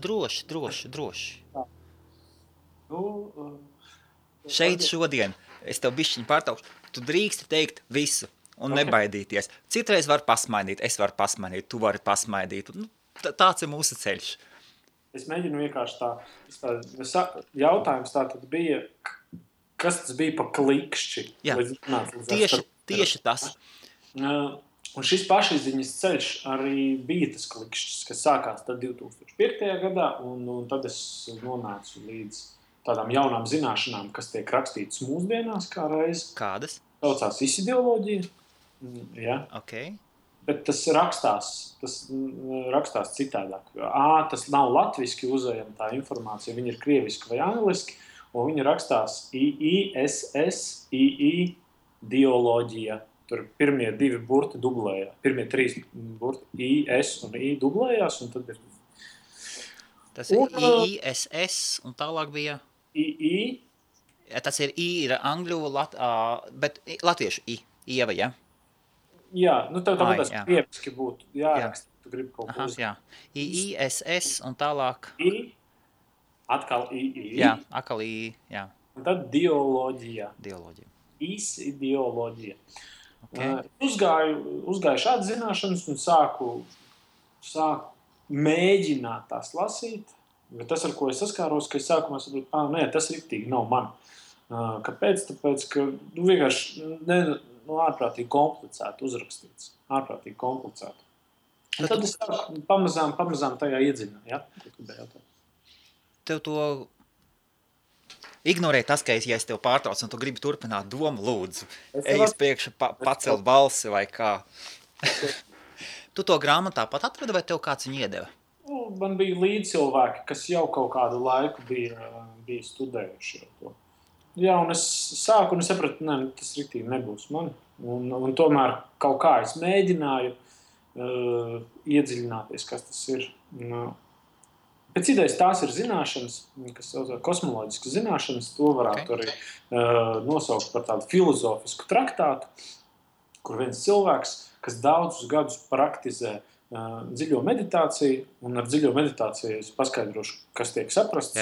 Šeit šodien es tev bišķiņu pārtaukšu. Tu drīksti teikt visu un nebaidīties. Citreiz var pasmaidīt, es varu pasmaidīt, tu vari pasmaidīt. Tāds ir mūsu ceļš. Es mēģinu vienkārši jautājums tā tad bija, kas tas bija pa klikšķi? Jā, tieši tas. Un šis pašizziņas ceļš arī bija tas klikšķis, kas sākās tad 2005. gadā, un tad es nonācu līdz tādām jaunām zināšanām, kas tiek rakstītas mūsdienās kā reiz. Kādas? Saucās isideoloģija. Ja. Okay. Bet tas rakstās citādāk. Tas nav latviski uzējama tā informācija, viņa ir krieviski vai angliski, un viņa rakstās IISS, Tur pirmie 2 burti dublējās, pirmie 3 burti IS un I dublējās, un tad ir... Tas ir IISS, un tālāk bija... II. Tas ir I, ir angļu, bet latviešu I, Ieva, ja? Jā, tev tas krieviski būtu jāraksta, tu gribi kaut ko jā. IISS un tālāk... I, atkal II. Jā, atkal I, jā. Un tad dioloģija. Isideoloģija. Okay. Uzgāju šādas zināšanas un sāku mēģināt tās lasīt, bet tas, ar ko es saskāros, ka es sākumā saprotu, nē, tas riktīgi nav man. Kāpēc? Tāpēc, ka vienkārši ārprātīgi komplicēti uzrakstīts. Ārprātīgi komplicēti. Un tad es pamazām tajā iedzinu. Ja? Tev to ignorē tas, ka ja es tev pārtraucu un tu gribi turpināt domu, lūdzu. Ej uz priekšu, pacelt balsi vai kā. Tu to grāmatā pat atradi vai tev kāds viņu iedeva? Man bija līdzcilvēki, kas jau kaut kādu laiku bija studējuši to. Jā, un es sāku un es sapratu, tas riktīgi nebūs man. Un tomēr kaut kā es mēģināju iedziļināties, kas tas ir. Pēc idejas tās ir zināšanas, kas saucās kosmoloģiskas zināšanas, to varētu arī nosaukt par tādu filozofisku traktātu, kur viens cilvēks, kas daudzus gadus praktizē dziļo meditāciju, un ar dziļo meditāciju es paskaidrošu, kas tiek saprasts.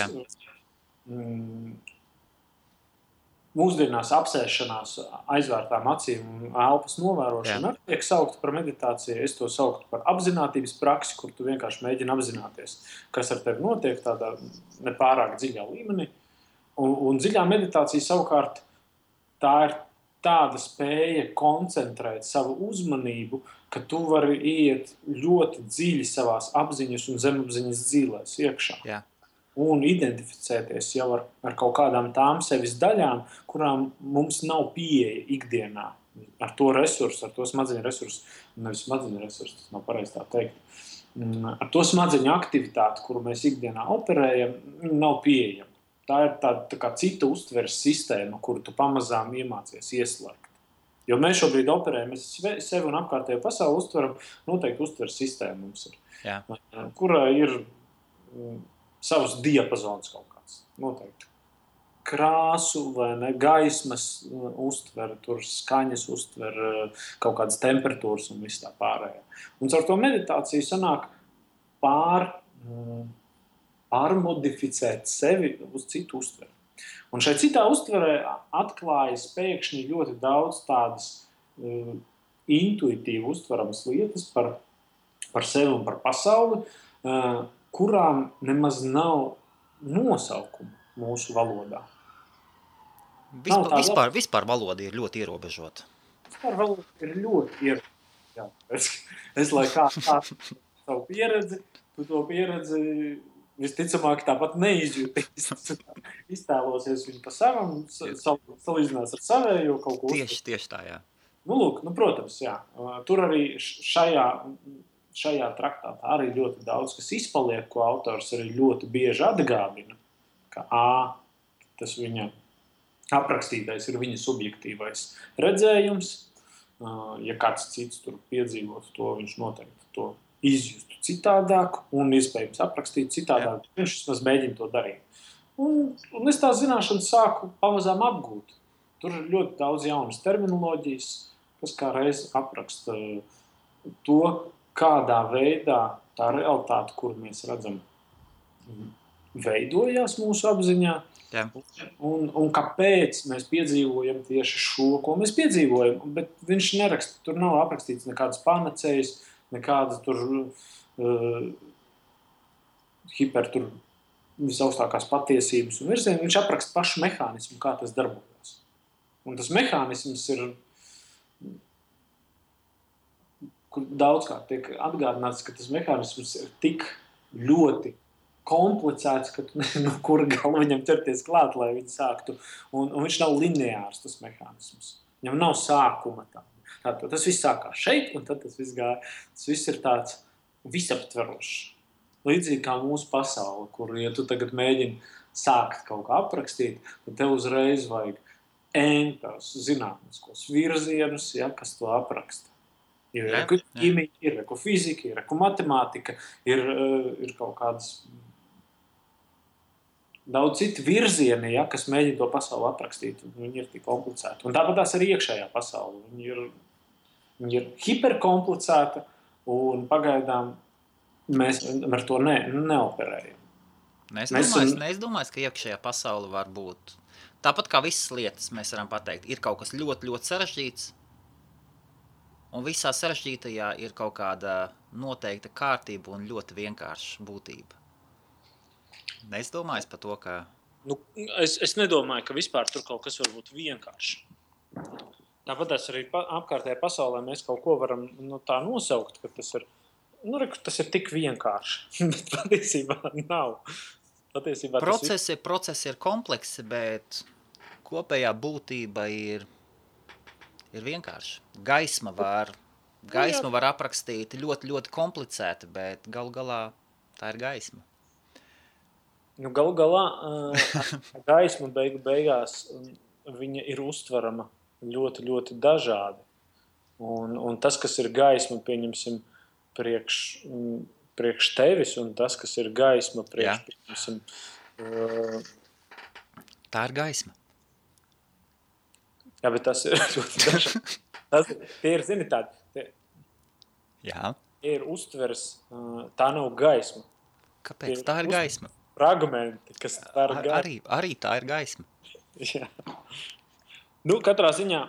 Mūsdienās apsēšanās aizvērtām acīm un elpas novērošana tiek saukta par meditāciju. Es to sauktu par apzinātības praksi, kur tu vienkārši mēģini apzināties, kas ar tevi notiek tādā nepārāk dziļā līmenī. Un dziļā meditācija savukārt tā ir tāda spēja koncentrēt savu uzmanību, ka tu vari iet ļoti dziļi savās apziņas un zemapziņas dzīlēs iekšā. Jā. Un identificēties jau ar kaut kādām tām sevis daļām, kurām mums nav pieeja ikdienā. Ar to resursu, ar to smadzeņu resursu, nevis smadzeņu resursu, tas nav pareizi tā teikt. Ar to smadzeņu aktivitāti, kuru mēs ikdienā operējam, nav pieejama. Tā ir tā kā cita uztveres sistēma, kuru tu pamazām iemācies ieslēgt. Jo mēs šobrīd operējam, mēs sevi un apkārtējo pasauli uztveram, noteikti uztveres sistēma mums ir. Jā. Kurā ir savs diapazons kaut kāds, noteikti. Krāsu vai ne, gaismas uztver, tur skaņas uztver, kaut kādas temperatūras un viss tā pārējā. Un caur to meditāciju sanāk pārmodificēt sevi uz citu uztveri. Un šai citā uztverē atklājas pēkšņi ļoti daudz tādas intuitīvi uztveramas lietas par sevi un par pasauli, kurām nemaz nav nosaukuma mūsu valodā. Vispār valoda ir ļoti ierobežota. vispār valoda ir ļoti ierobežota. Es lai kā savu pieredzi, tu to pieredzi visticamāk tāpat neizjūtīs. Iztēlosies viņu pa savam, salīdzinās ar savējo kaut ko. Tieši tā, jā. Lūk, protams, jā. Tur arī šajā traktātā arī ļoti daudz, kas izpaliek, ko autors arī ļoti bieži atgādina, ka tas viņa aprakstītais ir viņa subjektīvais redzējums. Ja kāds cits tur piedzīvot to, viņš noteikti to izjustu citādāk un iespējams aprakstīt citādāk. Jā. Viņš vismaz mēģina to darīt. Un es tās zināšanas sāku pamazām apgūt. Tur ir ļoti daudz jaunas terminoloģijas, kas kā reiz apraksta to, kādā veidā tā realitāte, kuru mēs redzam, veidojās mūsu apziņā. Jā. Un kāpēc mēs piedzīvojam tieši šo, ko mēs piedzīvojam. Bet viņš neraksta, tur nav aprakstīts nekādas panacējas, nekādas tur visaugstākās patiesības un virzieni. Viņš apraksta pašu mehānismu, kā tas darbojas. Un tas mehānisms ir, kur daudzkārt tiek atgādināts, ka tas mehānisms ir tik ļoti komplicēts, ka tu nezinu, no kura gala viņam ķerties klāt, lai viņi sāktu. Un viņš nav lineārs, tas mehānisms. Viņam nav sākuma tā. Tātad tas viss sākās šeit, un tad tas viss gāja. Tas viss ir tāds visaptverošs. Līdzīgi kā mūsu pasaule, kur, ja tu tagad mēģini sākt kaut kā aprakstīt, tad tev uzreiz vajag tos zinātniskos virzienus, ja, kas to apraksta. Ir ķīmija, ir fizika, ir matemātika, ir kaut kādas daudz citu virzieni, ja, kas mēģina to pasauli aprakstīt. Viņi ir tik komplicēti. Un tāpat tās arī iekšējā pasaule. Viņi ir hiperkomplicēta un pagaidām mēs ar to neoperējam. Es domāju, ka iekšējā pasaule var būt. Tāpat kā visas lietas mēs varam pateikt, ir kaut kas ļoti, ļoti sarežģīts. Un visā sarežģītajā ir kaut kāda noteikta kārtība un ļoti vienkārša būtība. Es domāju par to, ka... Es nedomāju, ka vispār tur kaut kas var būt vienkārši. Tāpat arī apkārtējā pasaulē mēs kaut ko varam tā nosaukt, ka tas ir tik vienkārši. Bet patiesībā nav. Procesi ir kompleksi, bet kopējā būtība ir vienkārši. Gaisma var aprakstīt ļoti, ļoti komplicēti, bet galu galā tā ir gaisma. Galu galā gaisma beigās viņa ir uztverama ļoti, ļoti dažādi. Un tas, kas ir gaisma, pieņemsim, priekš tevis, un tas, kas ir gaisma pieņemsim... Tā ir gaisma. Jā, bet tas ir ļoti dažādi. Tie ir, zini, tādi. Jā. Tie ir uztvers, tā nav gaisma. Kāpēc? Tā ir gaisma. Fragmenti, kas tā ir gaisma. Arī tā ir gaisma. Jā. Katrā ziņā...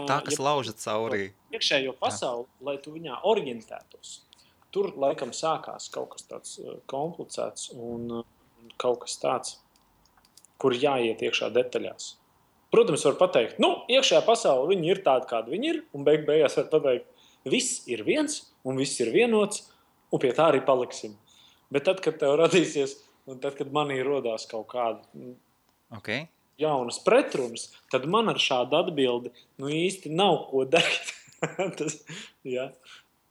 Tā, kas lauža caurī. Iekšējo pasauli, lai tu viņā orientētos. Tur laikam sākās kaut kas tāds komplicēts un kaut kas tāds, kur jāiet iekšā detaļās. Protams, var pateikt, iekšējā pasaule viņi ir tādi, kādi viņi ir, un beigās var pateikt, viss ir viens, un viss ir vienots, un pie tā arī paliksim. Bet tad, kad tev radīsies, un tad, kad manī rodās kaut kāda jaunas pretrunas, tad man ar šādu atbildi īsti nav ko darīt. Jā.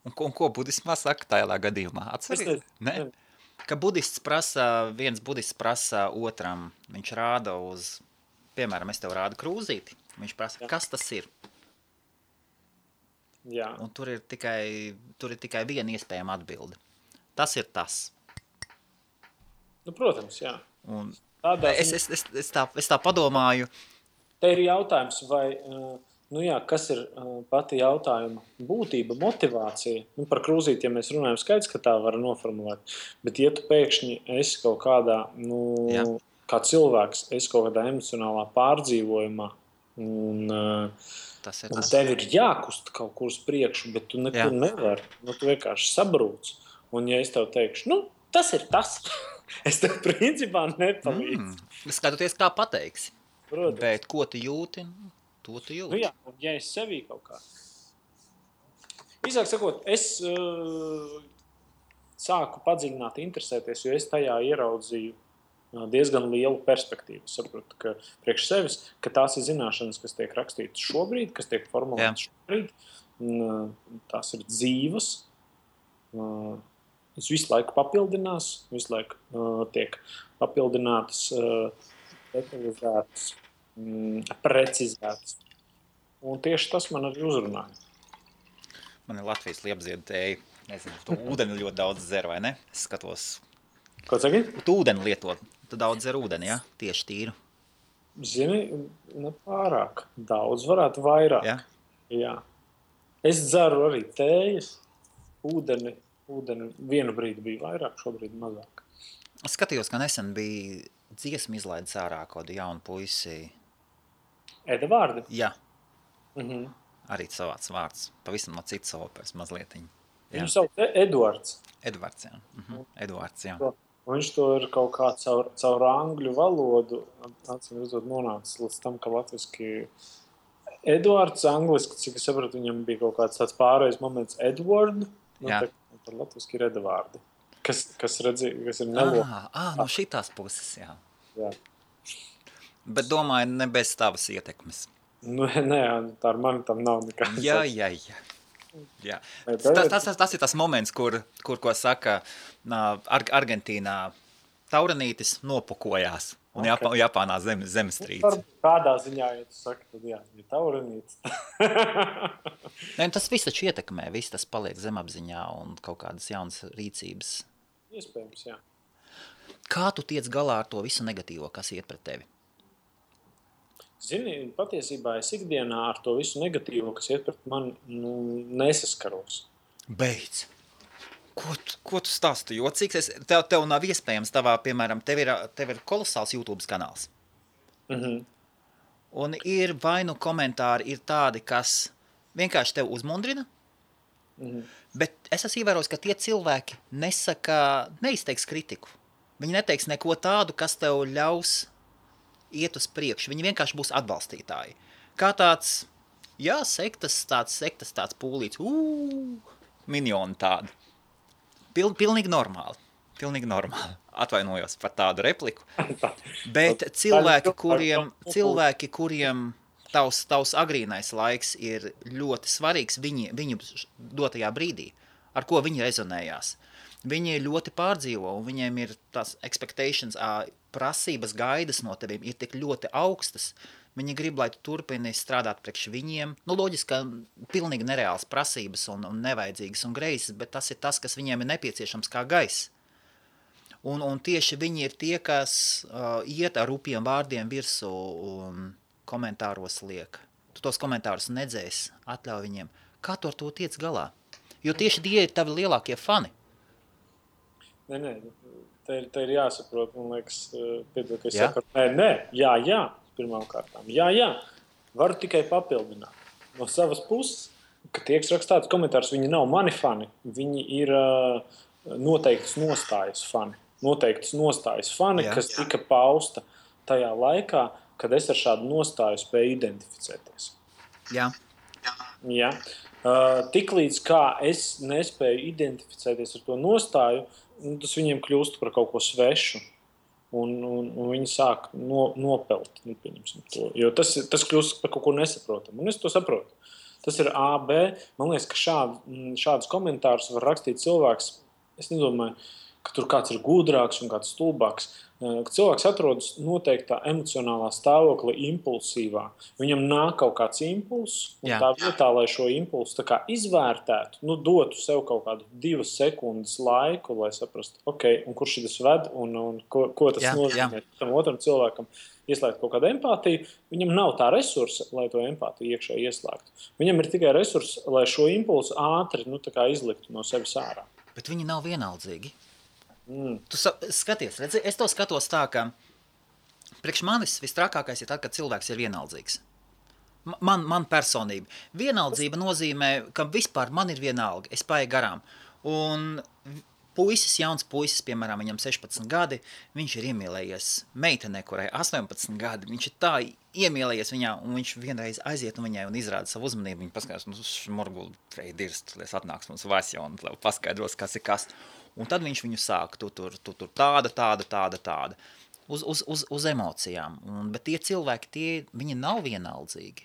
Un ko budismā saka tajā gadījumā? Atceries? Ne? Ka viens budists prasa otram, viņš rāda uz, piemēram, es tev rādu krūzīti, viņš prasa, kas tas ir? Jā. Un tur ir tikai viena iespējama atbilde. Tas ir tas. Protams, jā. Un es tā padomāju. Te ir jautājums, vai... kas ir pati jautājuma būtība, motivācija? Par krūzīti, ja mēs runājam, skaidrs, ka tā var noformulēt. Bet, ja tu pēkšņi esi kaut kādā, kā cilvēks, esi kaut kādā emocionālā pārdzīvojumā, un tev ir jākust kaut kur uz priekšu, bet tu nekur nevari. Tu vienkārši sabrūc. Un, ja es tev teikšu, tas ir tas, es tev principā nepalīdzu. Skatoties, kā pateiksi. Protams. Bet ko tu jūti? To tu jūti. Nu jā, un ja es sevī kaut kā. Īsāk sakot, es sāku padziļināt, interesēties, jo es tajā ieraudzīju diezgan lielu perspektīvu. Saprotu, ka priekš sevis, ka tās ir zināšanas, kas tiek rakstītas šobrīd, kas tiek formulētas šobrīd, tās ir dzīvas, es visu laiku papildinās, visu laiku tiek papildinātas, detalizētas, precizētas. Un tieši tas man arī uzrunāja. Man ir Latvijas liepziedu tēja. Nezinu, tu ūdeni ļoti daudz dzer, vai ne? Es skatos. Ko saki? Tu ūdeni lietot. Tu daudz dzer ūdeni, ja? Tieši tīru. Zini, ne pārāk. Daudz varētu vairāk. Ja? Jā. Es dzeru arī tējas. Ūdeni vienu brīdi bija vairāk, šobrīd mazāk. Es skatījos, ka nesen bija dziesmu izlaidis ārā kādu jaunu puisi. Edvardi? Jā. Mhm. Arī savāds vārds. Pavisam no citas operas mazlietiņ. Viņu sauc Edvards. Edvards, jā. Edvards, jā. Viņš to ir kaut kā caur angļu valodu acīm redzot nonācis līdz tam, ka latviski Edvards angliski, cik es sapratu, viņam bija kaut kāds tāds pārējais moments Edward, par latviski ir Edvardi, kas ir nelo. No šitās puses, jā. Jā. Bet domāju, ne bez tavas ietekmes. Nu, nē, tā ar mani tam nav nekāds. Jā. Tas ir tas moments, kur ko saka Argentīnā taurenītis nopukojās un Japānā zemestrīce. Kādā ziņā, ja tu saki, tad jā, ir taurenītis. Nē, tas viss taču ietekmē, viss tas paliek zemapziņā un kaut kādas jaunas rīcības. Iespējams, jā. Kā tu tiec galā ar to visu negatīvo, kas iet pret tevi? Zini, patiesībā es ikdienā ar to visu negatīvo, kas iet pret mani, nesaskaros. Beidz! Ko tu stāsti jocīgs? Tev nav iespējams tavā, piemēram, tev ir kolosāls YouTube kanāls. Un ir vai nu komentāri ir tādi, kas vienkārši tev uzmundrina, bet es esmu ievērojis, ka tie cilvēki neizteiks kritiku. Viņi neteiks neko tādu, kas tev ļaus iet uz priekšu. Viņi vienkārši būs atbalstītāji. Kā tāds, sektas tāds pūlīts, minioni tādi. Pilnīgi normāli. Atvainojos par tādu repliku. Bet cilvēki, kuriem tavs agrīnais laiks ir ļoti svarīgs viņu dotajā brīdī, ar ko viņi rezonējās. Viņi ļoti pārdzīvo, un viņiem ir tās expectations, prasības gaidas no teviem ir tik ļoti augstas. Viņi grib, lai tu turpini strādāt priekš viņiem. Loģiski, ka pilnīgi nereāls prasības un nevajadzīgas un greizes, bet tas ir tas, kas viņiem ir nepieciešams kā gaiss. Un tieši viņi ir tie, kas iet ar rupjiem vārdiem virsū un komentāros liek. Tu tos komentārus nedzēsi, atļauj viņiem. Kā tu ar to tiec galā? Jo tieši tie ir tavi lielākie fani. Nē, te ir jāsaprot, man liekas, piedod, ka es saku, nē, jā, pirmām kārtām. Jā, varu tikai papildināt no savas puses, ka tieks rakstāts komentārs, viņi nav mani fani, viņi ir noteiktas nostājas fani, kas tika pausta tajā laikā, kad es ar šādu nostāju spēju identificēties. Jā. Tiklīdz kā es nespēju identificēties ar to nostāju, tas viņiem kļūst par kaut ko svešu, un viņi sāk nopelt, to, jo tas kļūst par kaut ko nesaprotamu, un es to saprotu. Tas ir A, B, man liekas, ka šādus komentārus var rakstīt cilvēks, es nedomāju, ka tur kāds ir gudrāks un kāds stulbāks, ka cilvēks atrodas noteiktā emocionālā stāvoklī impulsīvā. Viņam nāk kaut kāds impulss, un tā vietā, lai šo impulsu tā kā izvērtētu, dotu sev kaut kādu 2 sekundes laiku, lai saprastu, un kurš šitas ved, un ko tas nozīmē tam otram cilvēkam, ieslēgt kaut kādu empātiju, viņam nav tā resursa, lai to empātiju iekšā ieslēgtu. Viņam ir tikai resurss, lai šo impulsu ātri tā kā izliktu no sevis ārā. Bet viņi nav vienaldzīgi. Tu skaties, redzi, es to skatos tā, ka priekš manis vistrakākais ir tad, kad cilvēks ir vienaldzīgs. Man personība. Vienaldzība nozīmē, ka vispār man ir vienalga, es paeju garām. Un jauns puisis, piemēram, viņam 16 gadi, viņš ir iemīlējies meitenē, kurai 18 gadi, viņš ir tā iemīlējies viņā, un viņš vienreiz aiziet un viņai un izrāda savu uzmanību, viņa paskatās, šmurguli dirst, lies atnāks mums Vasja un paskaidros, kas ir kas. Un tad viņš viņu sāk, tu tur tāda. Uz emocijām. Bet tie cilvēki, viņi nav vienaldzīgi.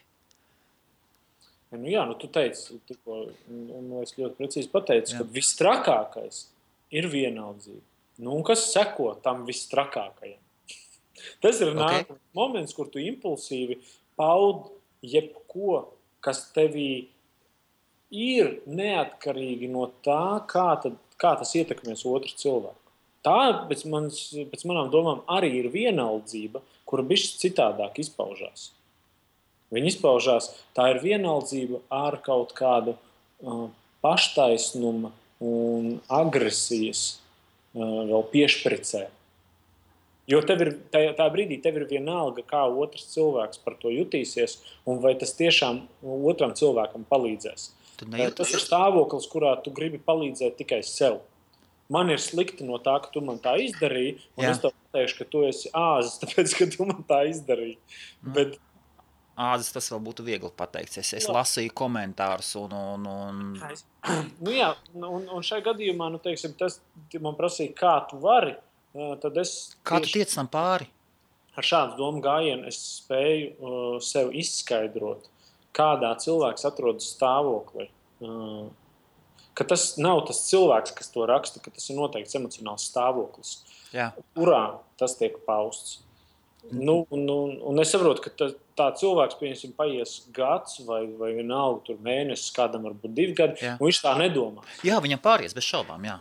Nu jā, tu teici, un es ļoti precīzi pateicu, ka visstrakākais ir vienaldzība. Un kas seko tam visstrakākajam? Tas ir nākamais moments, kur tu impulsīvi paud jebko, kas tevī ir neatkarīgi no tā, kā tas ietekmēs otru cilvēku. Tā, pēc manām domām, arī ir vienaldzība, kura bišķi citādāk izpaužās. Viņa izpaužās, tā ir vienaldzība ar kaut kādu paštaisnuma un agresijas vēl piešpricē. Jo tā brīdī tev ir vienalga, kā otrs cilvēks par to jutīsies, un vai tas tiešām otram cilvēkam palīdzēs. Tas ir stāvoklis, kurā tu gribi palīdzēt tikai sev. Man ir slikti no tā, ka tu man tā izdarīji, un es tev pateikšu, ka tu esi āzis, tāpēc, ka tu man tā izdarīji. Bet āzis tas vēl būtu viegli pateikt. Es lasīju komentārus un... Nu jā, un šajā gadījumā, teiksim, tas man prasīja, kā tu vari, tad es... Kā tu tiec tam pāri? Ar šādu domu gājienu es spēju sev izskaidrot, kādā cilvēks atrodas stāvoklī. Ka tas nav tas cilvēks, kas to raksta, ka tas ir noteikts emocionāls stāvoklis, kurā tas tiek pausts. Un es saprotu, ka tā cilvēks, piemēram, paies gads vai vienalga tur mēnesis, kādam varbūt 2 gadi, un viņš tā nedomā. Jā, viņam pāries, bez šaubām, jā.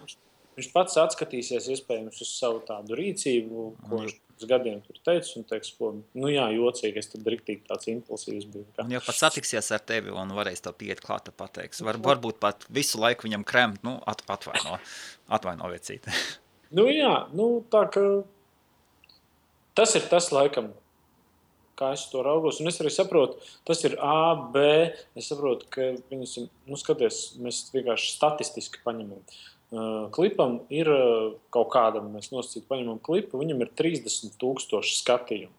Viņš pats atskatīsies iespējams uz savu tādu rīcību, ko viņš uz gadiem tur teica, un teiks, jocīgi, es tad riktīgi tāds impulsīvs biju. Un jau pat satiksies ar tevi un varēs tev pieiet klāt, pateiks. Varbūt pat visu laiku viņam kremt, atvaino vecīti. Tā ka tas ir tas laikam, kā es to raugos, un es arī saprotu, tas ir A, B, es saprotu, ka viņas, skaties, mēs vienkārši statistiski paņemam. Klipam ir kaut kādam, mēs nosacīt paņemam klipu, viņam ir 30,000 skatījumu.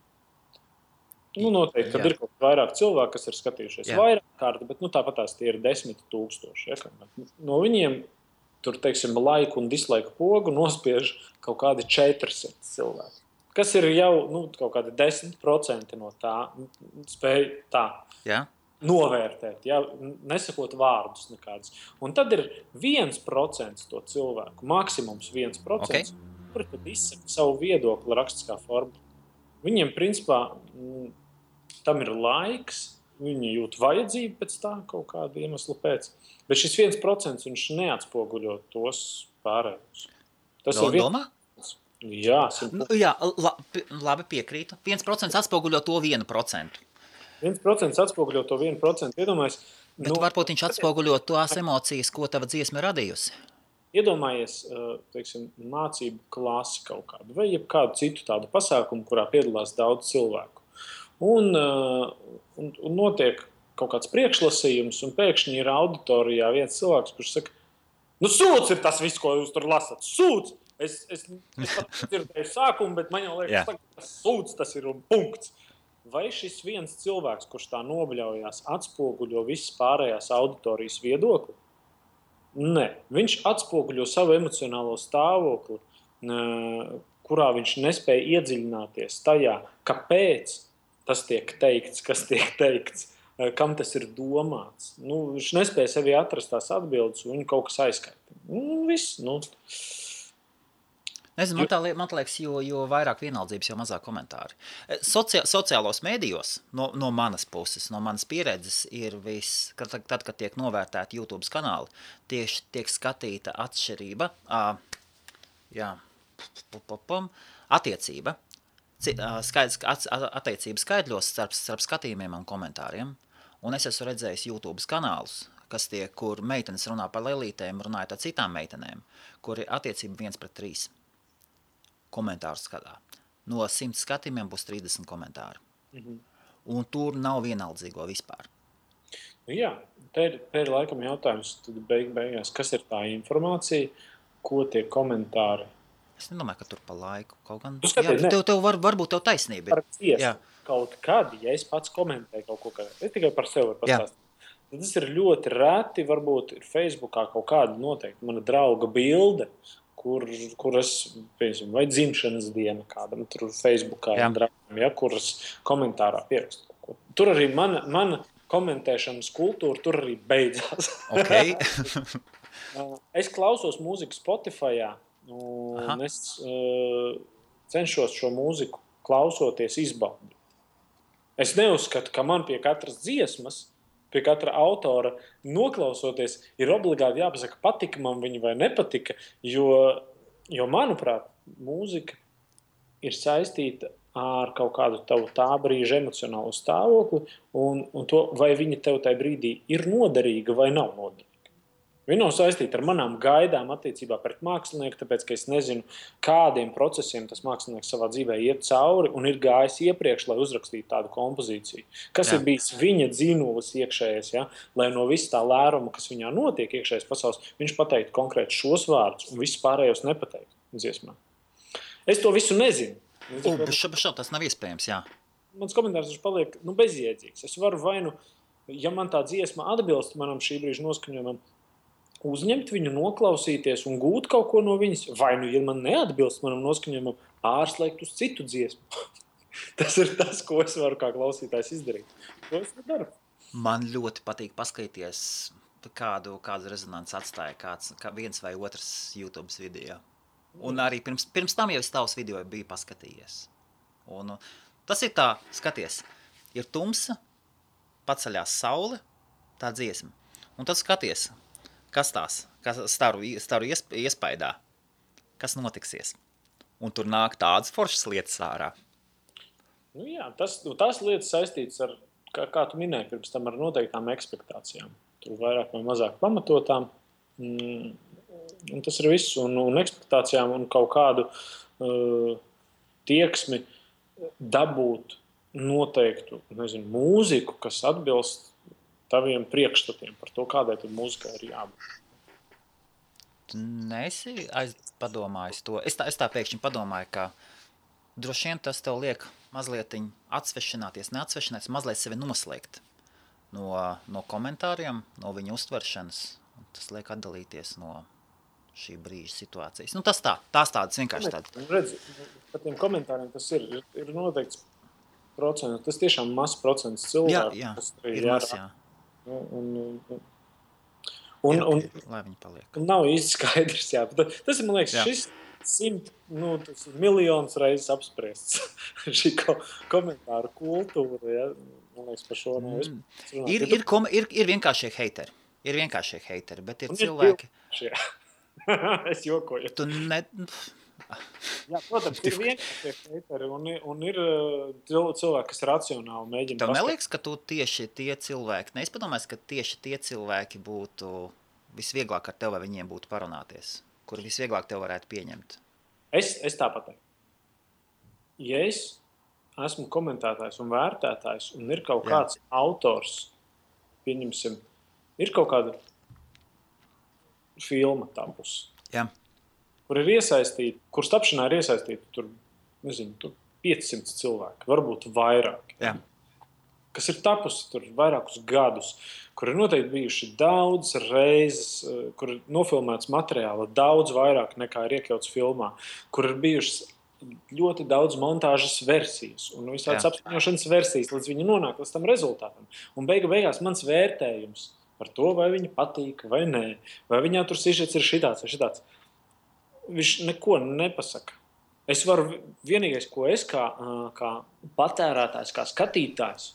Noteikti, kad ir kaut vairāk cilvēku, kas ir skatījušies vairāk kārti, bet tāpat tās tie ir 10,000. Ja? No viņiem tur, teiksim, laiku un dislaiku pogu nospiež kaut kādi 400 cilvēki. Kas ir jau kaut kādi 10% no tā spēj tā. Jā. Novērtēt, nesakot vārdus nekādus. Un tad ir 1% to cilvēku, maksimums 1%, kuri tad izsaka savu viedokli rakstiskā formā. Viņiem, principā, tam ir laiks, viņi jūt vajadzību pēc tā kaut kāda iemesla pēc, bet šis 1% viņš neatspoguļo tos pārējos. Tas ir domā? Jā, labi piekrītu. 1% atspoguļo to 1%. 1% atspoguļo to 1%. Iedomājies, bet varbūt viņš atspoguļo tās emocijas, ko tava dziesma radījusi. Iedomājies, teiksim, mācību klasi kaut kādu vai jebkādu citu tādu pasākumu, kurā piedalās daudz cilvēku. Un notiek kaut kāds priekšlasījums, un pēkšņi ir auditorijā viens cilvēks, kurš saka, sūds ir tas viss, ko jūs tur lasat. Sūds! Es pat dzirdēju sākumu, bet man jau liekas, ka sūds tas ir un punkts. Vai šis viens cilvēks, kurš tā nobļaujās, atspoguļo visas pārējās auditorijas viedokli? Nē, viņš atspoguļo savu emocionālo stāvokli, kurā viņš nespēja iedziļināties tajā, kāpēc tas tiek teikts, kas tiek teikts, kam tas ir domāts. Viņš nespēja sevi atrast tās atbildes, un viņu kaut kas aizskaita. Viss, Nezinu, man liekas, jo vairāk vienaldzības, jo mazāk komentāri. Sociālos mēdījos no manas puses, no manas pieredzes ir tad, kad tiek novērtēti YouTube kanāli, tieši tiek skatīta atšķirība, attiecība, attiecības skaidļos starp skatījumiem un komentāriem. Un es esmu redzējis YouTube kanālus, kur meitenes runā par lelītēm, runājot ar citām meitenēm, kur ir attiecība 1:3. Komentāru skatā. No 100 skatījumiem būs 30 komentāri. Un tur nav vienaldzīgo vispār. Jā, te ir laikam jautājums, tad beigās, kas ir tā informācija, ko tie komentāri. Es nedomāju, ka tur pa laiku kaut gan... Skaties, varbūt tev taisnība. Par dziesmu. Kaut kad, ja es pats komentēju kaut ko, es tikai par sevi varu pastāstīt. Tad tas ir ļoti reti, varbūt ir Facebookā kaut kāda noteikti mana drauga bilde, kur es, piemēram, vai dzimšanas diena kādam tur Facebookā, draugam, kuras komentārā pierakstu kaut ko. Tur arī mana komentēšanas kultūra tur arī beidzās. Okay. Es klausos mūziku Spotifyā, un es cenšos šo mūziku klausoties izbaudīt. Es neuzskatu, ka man pie katras dziesmas, pie katra autora noklausoties, ir obligāti jāpasaka, patika man viņa vai nepatika, jo manuprāt, mūzika ir saistīta ar kaut kādu tavu tā brīža emocionālu stāvokli un to, vai viņa tev tajā brīdī ir noderīga vai nav noderīga. Viņa nav saistīta ar manām gaidām attiecībā pret mākslinieku, tāpēc, ka es nezinu, kādiem procesiem tas mākslinieks savā dzīvē iet cauri un ir gājis iepriekš, lai uzrakstītu tādu kompozīciju. Kas ir bijis viņa dzīnulis iekšējais, lai no viss tā lēruma, kas viņā notiek iekšējais pasaules, viņš pateiktu konkrēti šos vārdus un visus pārējos nepateiktu dziesmā. Es to visu nezinu. Tas nav iespējams, jā. Mans komentārs paliek bezjēdzīgs. Es varu ja man tā dziesma atbilst manam šī brīža noskaņojumam, uzņemt viņu, noklausīties un gūt kaut ko no viņas, vai ja man neatbilst manam noskaņojumam, pārslēgt uz citu dziesmu. Tas ir tas, ko es varu kā klausītājs izdarīt. To es daru. Man ļoti patīk paskatīties, kādu rezonanci atstāja kā viens vai otrs YouTube video. Un arī pirms tam jau es tavus video biju paskatījies. Un tas ir tā, skaties, ir tumsa, paceļās saule, tā dziesma. Un tad skaties, kas staru iespaidā, kas notiksies. Un tur nāk tādas foršas lietas ārā. Jā, tās lietas saistītas ar, kā tu minēji, pirms tam ar noteiktām ekspektācijām. Tur vairāk vai mazāk pamatotām. Un tas ir viss. Un ekspektācijām un kaut kādu tieksmi dabūt noteiktu, mūziku, kas atbilst taviem priekšstatiem par to, kādai tur mūzikai ir jābūt. Tu neesi padomājis to. Es tā pēkšņi padomāju, ka droši vien tas tev liek mazliet atsvešināties, mazliet sevi noslēgt no komentāriem, no viņa uztveršanas. Tas liek atdalīties no šī brīža situācijas. Tas tās tādas vienkārši tādas. Redzi, par tiem komentāriem tas ir noteikts procents. Tas tiešām mazs procents cilvēku. Jā, ir mazs, jā. Lai viņi paliek. Nav īsti skaidrs, jā. Tas ir, man liekas, šis 100 miljonus reizes apspriests. Šī komentāru kultūra, jā. Man liekas, par šo nav ir vienkāršie heiteri. Ir vienkāršie heiteri, bet ir cilvēki. Es jokoju. Tu ne... Jā, protams, ir vienkārši heiteri un ir cilvēki, kas racionāli mēģina. Tev neliekas, ka tu tieši tie cilvēki, es padomāju, ka tieši tie cilvēki būtu visvieglāk ar tev, vai viņiem būtu parunāties, kur visvieglāk tev varētu pieņemt? Es tāpat. Ja es esmu komentētājs un vērtētājs un ir kaut kāds autors, pieņemsim, ir kaut kāda filma tapus. Jā. Kur ir iesaistīti, kur tapšanā ir iesaistīti tur 500 cilvēki, varbūt vairāk. Jā. Kas ir tapusi tur vairākus gadus, kur ir noteikti bijuši daudz reizes, kur ir nofilmēts materiāla daudz vairāk nekā ir iekļauts filmā, kur ir bijušas ļoti daudz montāžas versijas un visādas apskaņošanas versijas, līdz viņi nonāk līdz tam rezultātam. Un beigās mans vērtējums par to, vai viņa patīk vai nē, vai viņā tur sižets ir šitāds vai šitāds. Viņš neko nepasaka. Es varu, vienīgais, ko es kā patērētājs, kā skatītājs,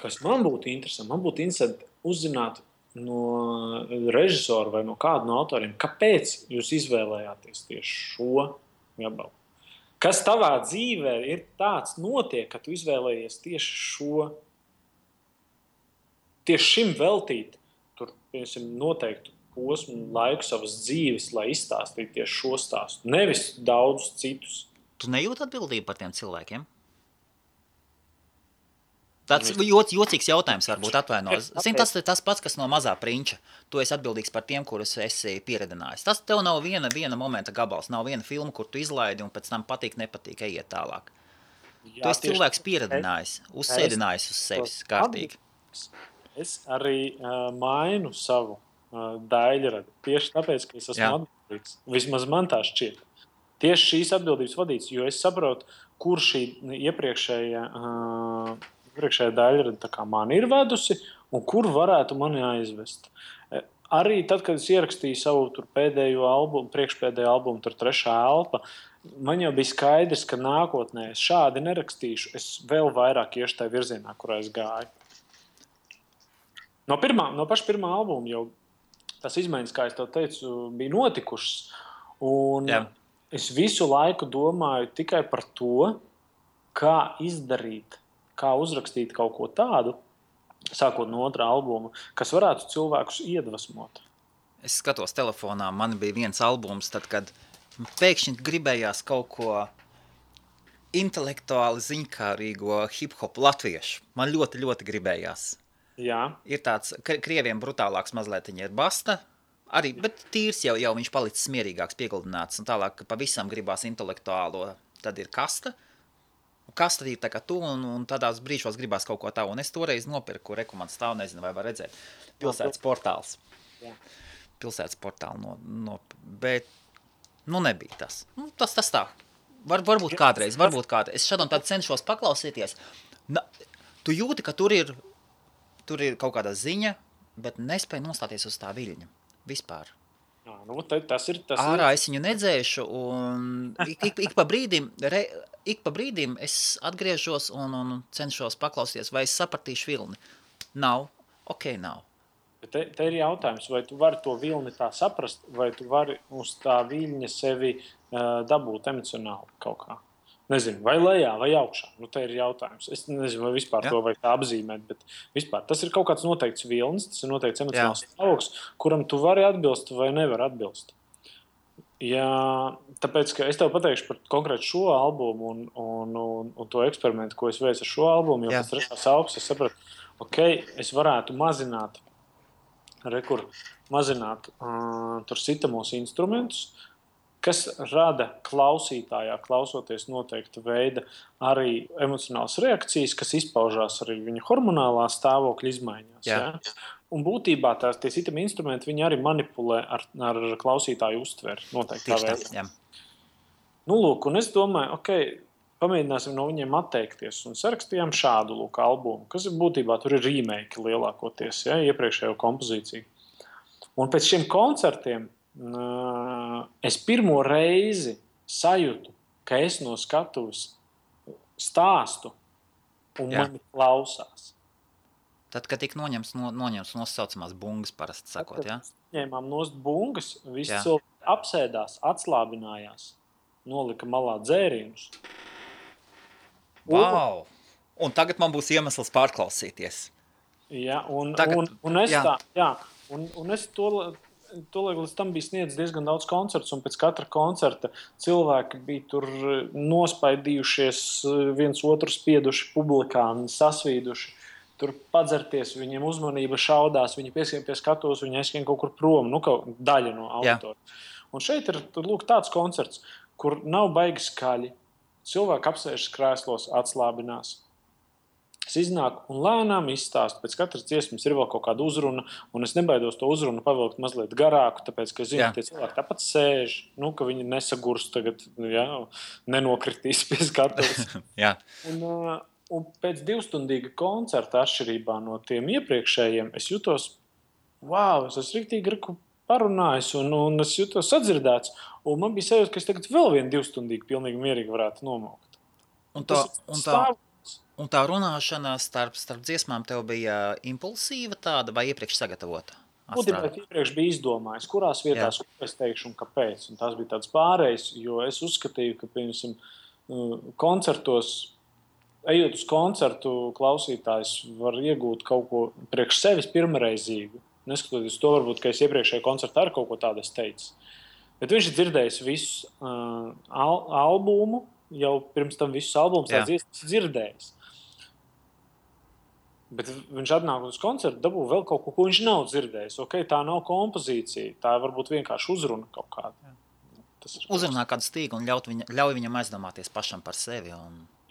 kas man būtu interesanti uzzināt no režisora vai no kāda no autoriem, kāpēc jūs izvēlējāties tieši šo gabalu. Kas tavā dzīvē ir tāds notiek, ka tu izvēlējies tieši šim veltīt, tur, piemēram, noteiktu posmu laiku savas dzīves, lai izstāstītu tieši šo stāstu. Nevis daudzus citus. Tu nejūti atbildību par tiem cilvēkiem? Tāds jocīgs jautājums varbūt atvainojas. Zini, tas pats, kas no mazā prinča. Tu esi atbildīgs par tiem, kurus esi pieredinājis. Tas tev nav viena momenta gabals, nav viena filma, kur tu izlaidi un pēc tam patīk, nepatīk, ejiet tālāk. Jā, tu esi cilvēks pieredinājis, uzsēdinājis uz sevis kārtīgi. Es arī mainu savu daļradu. Tieši tāpēc, ka es esmu atbildīgs. Vismaz man tā šķiet. Tieši šīs atbildības vadīts, jo es saprotu, kur šī iepriekšējā daļrada tā kā man ir vedusi un kur varētu mani aizvest. Arī tad, kad es ierakstīju savu pēdējo albumu, priekšpēdējo albumu, tur Trešā elpa, man jau bija skaidrs, ka nākotnē es šādi nerakstīšu, es vēl vairāk iešu tajā virzienā, kurā es gāju. No paša pirmā albuma jau tas izmaiņas, kā es tev teicu, bija notikušas. Un es visu laiku domāju tikai par to, kā izdarīt, kā uzrakstīt kaut ko tādu, sākot no otrā albuma, kas varētu cilvēkus iedvesmot. Es skatos telefonā, man bija viens albums, tad, kad pēkšņi gribējās kaut ko intelektuāli ziņkārīgo hip-hop latviešu. Man ļoti, ļoti gribējās. Jā. Ir tāds, krieviem brutālāks mazliet ir Basta, arī, bet tīrs jau viņš palicis mierīgāks, pieguldināts, un tālāk pavisam gribās intelektuālo, tad ir Kasta. Kasta ir tā kā tu, un tādās brīžos gribās kaut ko tā, un es toreiz nopirku, man stāv, nezinu, vai var redzēt, Pilsētas portāls. Jā. Pilsētas portāli, bet, nebija tas. Tas tā. Varbūt kādreiz. Es šādam tādu cenšos paklausīties. Tu jūti, ka tur ir kaut kāda ziņa, bet nespēju nostāties uz tā viļņa. Vispār. Jā, tas ir. Ārā es viņu nedzēšu, un ik pa brīdim es atgriežos un cenšos paklausīties, vai es sapratīšu vilni. Nav. Te ir jautājums, vai tu vari to vilni tā saprast, vai tu vari uz tā viļņa sevi dabūt emocionāli kaut kā. Nezinu, vai lejā, vai augšā. Te ir jautājums. Es nezinu, vai vispār to vajag tā apzīmēt, bet vispār tas ir kaut kāds noteikts vilnis, tas ir noteikts emocionāls stāvoklis, kuram tu vari atbilst vai nevar atbilst. Jā, tāpēc, ka es tev pateikšu par konkrētu šo albumu un to eksperimentu, ko es veicu ar šo albumu, jo pēc Trešās elpas es sapratu, es varētu mazināt tur sitamos instrumentus, kas rada klausītājā, klausoties noteikta veida arī emocionālas reakcijas, kas izpaužās arī viņa hormonālā stāvokļa izmaiņās. Jā. Ja? Un būtībā tie sitami instrumenti, viņi arī manipulē ar klausītāju uztveri noteiktā veidā. Lūk, un es domāju, pamēģināsim no viņiem atteikties un sarakstījām šādu albumu, kas būtībā tur ir remake lielākoties, iepriekšējo kompozīciju. Un pēc šiem koncertiem es pirmo reizi sajūtu, ka es no skatuves stāstu un mani klausās. Tad, kad tik noņems nosaucamās bungas parasti sakot, jā? Ņēmām nost bungas, visi cilvēki apsēdās, atslābinājās, nolika malā dzērienus. Wow! Un tagad man būs iemesls pārklausīties. Jā, un es to līdz tam bija sniedz diezgan daudz koncertus, un pēc katra koncerta cilvēki bija tur nospaidījušies, viens otru spieduši publikā, sasvīduši, tur padzerties, viņiem uzmanība šaudās, viņi pieskiem pie skatuves, viņi aizskiem kaut kur prom, daļa no auditora. Un šeit ir tāds koncerts, kur nav baigi skaļi, cilvēki apsēžas krēslos, atslābinās. Es iznāku un lēnām izstāstu. Pēc katras dziesmas ir vēl kaut kāda uzruna, un es nebaidos to uzrunu pavilkt mazliet garāku, tāpēc, ka es zinu, ka tie cilvēki tāpat sēž, ka viņi nesagurs tagad, nenokritīs pie skatuves. Un pēc 2-stundīga koncerta atšķirībā no tiem iepriekšējiem, es jutos, es esmu riktīgi parunājis, un es jutos sadzirdēts, un man bija sajūta, ka es tagad vēl vienu 2-stundīgu pilnīgi mierīgi varētu nomaukt. Un tā runāšana starp dziesmām tev bija impulsīva tāda vai iepriekš sagatavota? Būtībā iepriekš bija izdomājis, kurās vietās es teikšu un kāpēc. Un tās bija tāds pārējs, jo es uzskatīju, ka, piemēram, koncertos, ejot uz koncertu, klausītājs var iegūt kaut ko priekš sevis pirmreizīgu. Neskatoties to, varbūt, ka es iepriekšējā koncertā ar kaut ko tādu es teicu. Bet viņš ir dzirdējis visu albumu, jau pirms tam visus albumus dzirdējis. Bet viņš atnāk uz koncertu, dabū vēl kaut ko viņš nav dzirdējis. Okay, tā nav kompozīcija, tā varbūt vienkārši uzruna kaut kāda. Uzrunā kādu stīgu un ļauj viņam aizdomāties pašam par sevi.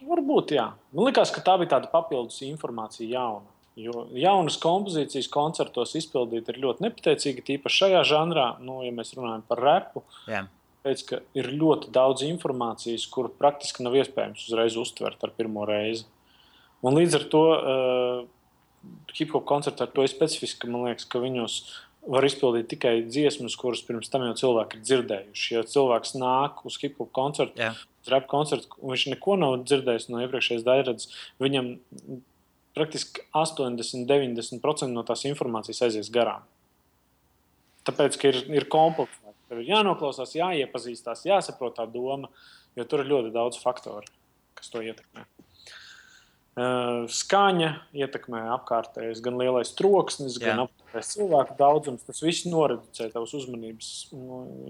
Varbūt, jā. Man likās, ka tā bija tāda papildus informācija jauna. Jo jaunas kompozīcijas koncertos izpildīt ir ļoti nepateicīgi, tīpaši šajā žanrā, ja mēs runājam par repu. Jā. Pēc, ka ir ļoti daudz informācijas, kuru praktiski nav iespējams uzreiz uztvert ar pirmo reizi. Un līdz ar to hip-hop koncerti ar to ir specifiski, man liekas, ka viņos var izpildīt tikai dziesmas, kuras pirms tam jau cilvēki ir dzirdējuši. Ja cilvēks nāk uz hip-hop koncertu, uz rap koncertu, un viņš neko nav dzirdējis no iepriekšējās daļradas, viņam praktiski 80-90% no tās informācijas aizies garām. Tāpēc, ka ir kompleksāk. Tev ir jānoklausās, jāiepazīstās, jāsaprot tā doma, jo tur ir ļoti daudz faktoru, kas to ietekmē. Skaņa ietekmē apkārtējais, gan lielais troksnis, gan apkārtējais cilvēku daudzums. Tas viss noreducē tavas uzmanības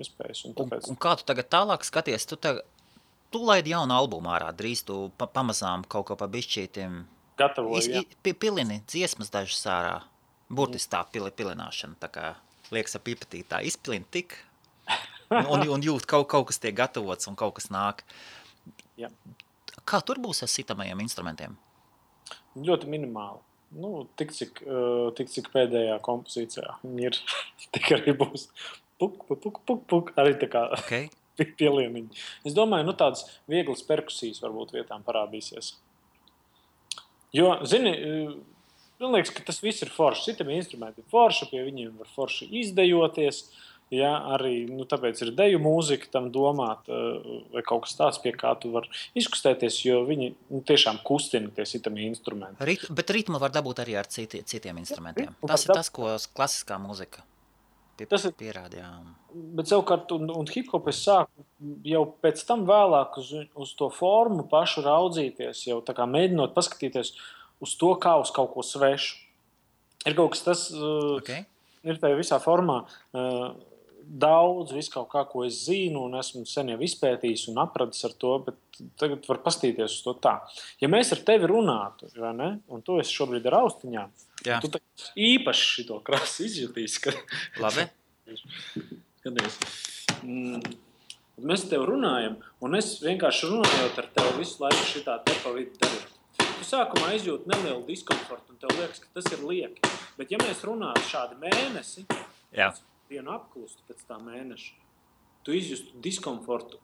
iespējas. Un kā tu tagad tālāk skaties? Tu laidi jaunu albumu ārā, drīz tu pamazām kaut ko pa bišķītim. Gatavoju, pilini dziesmas dažas ārā. Burtiski tā pilināšana, tā kā liekas ap pipatītā. Izpilini tik un jūt kaut kas tiek gatavots un kaut kas nāk. Jā. Kā tur būs ar sitamajiem instrumentiem? Ļoti minimāli. Tik cik pēdējā kompozīcijā viņi ir, tik arī būs puk, arī tā kā pielieniņi. Es domāju, tādas vieglas perkusijas varbūt vietām parādīsies. Jo, zini, man liekas, ka tas viss ir forši. Citam instrumenti ir forši, pie viņiem var forši izdejoties. Ja, arī tāpēc ir deju mūzika tam domāt, vai kaut kas tāds, pie kā tu var izkustēties, jo viņi tiešām kustina tie citami instrumenti. Bet ritmu var dabūt arī ar citiem instrumentiem. Tas ir tas, ko klasiskā mūzika pierāda. Jā. Bet savukārt, un hip-hop es sāku jau pēc tam vēlāk uz to formu pašu raudzīties, jau tā kā mēģinot paskatīties uz to, kā uz kaut ko svešu. Ir kaut kas tas, ir tajā visā formā, daudz, visu kaut kā, ko es zinu, un esmu sen jau izpētījis un apradis ar to, bet tagad var pastīties uz to tā. Ja mēs ar tevi runātu, vai ne, un tu esi šobrīd ar austiņām, tu īpaši šito krasu izjutīs. Labi. Skaties. Mēs ar tevi runājam, un es vienkārši runājot ar tevi visu laiku šitā te pa vidu darot. Tu sākumā izjūti nelielu diskomfortu, un tev liekas, ka tas ir lieki. Bet ja mēs runātu šādi mēnesi, vienu apklustu pēc tā mēneša, tu izjustu diskomfortu,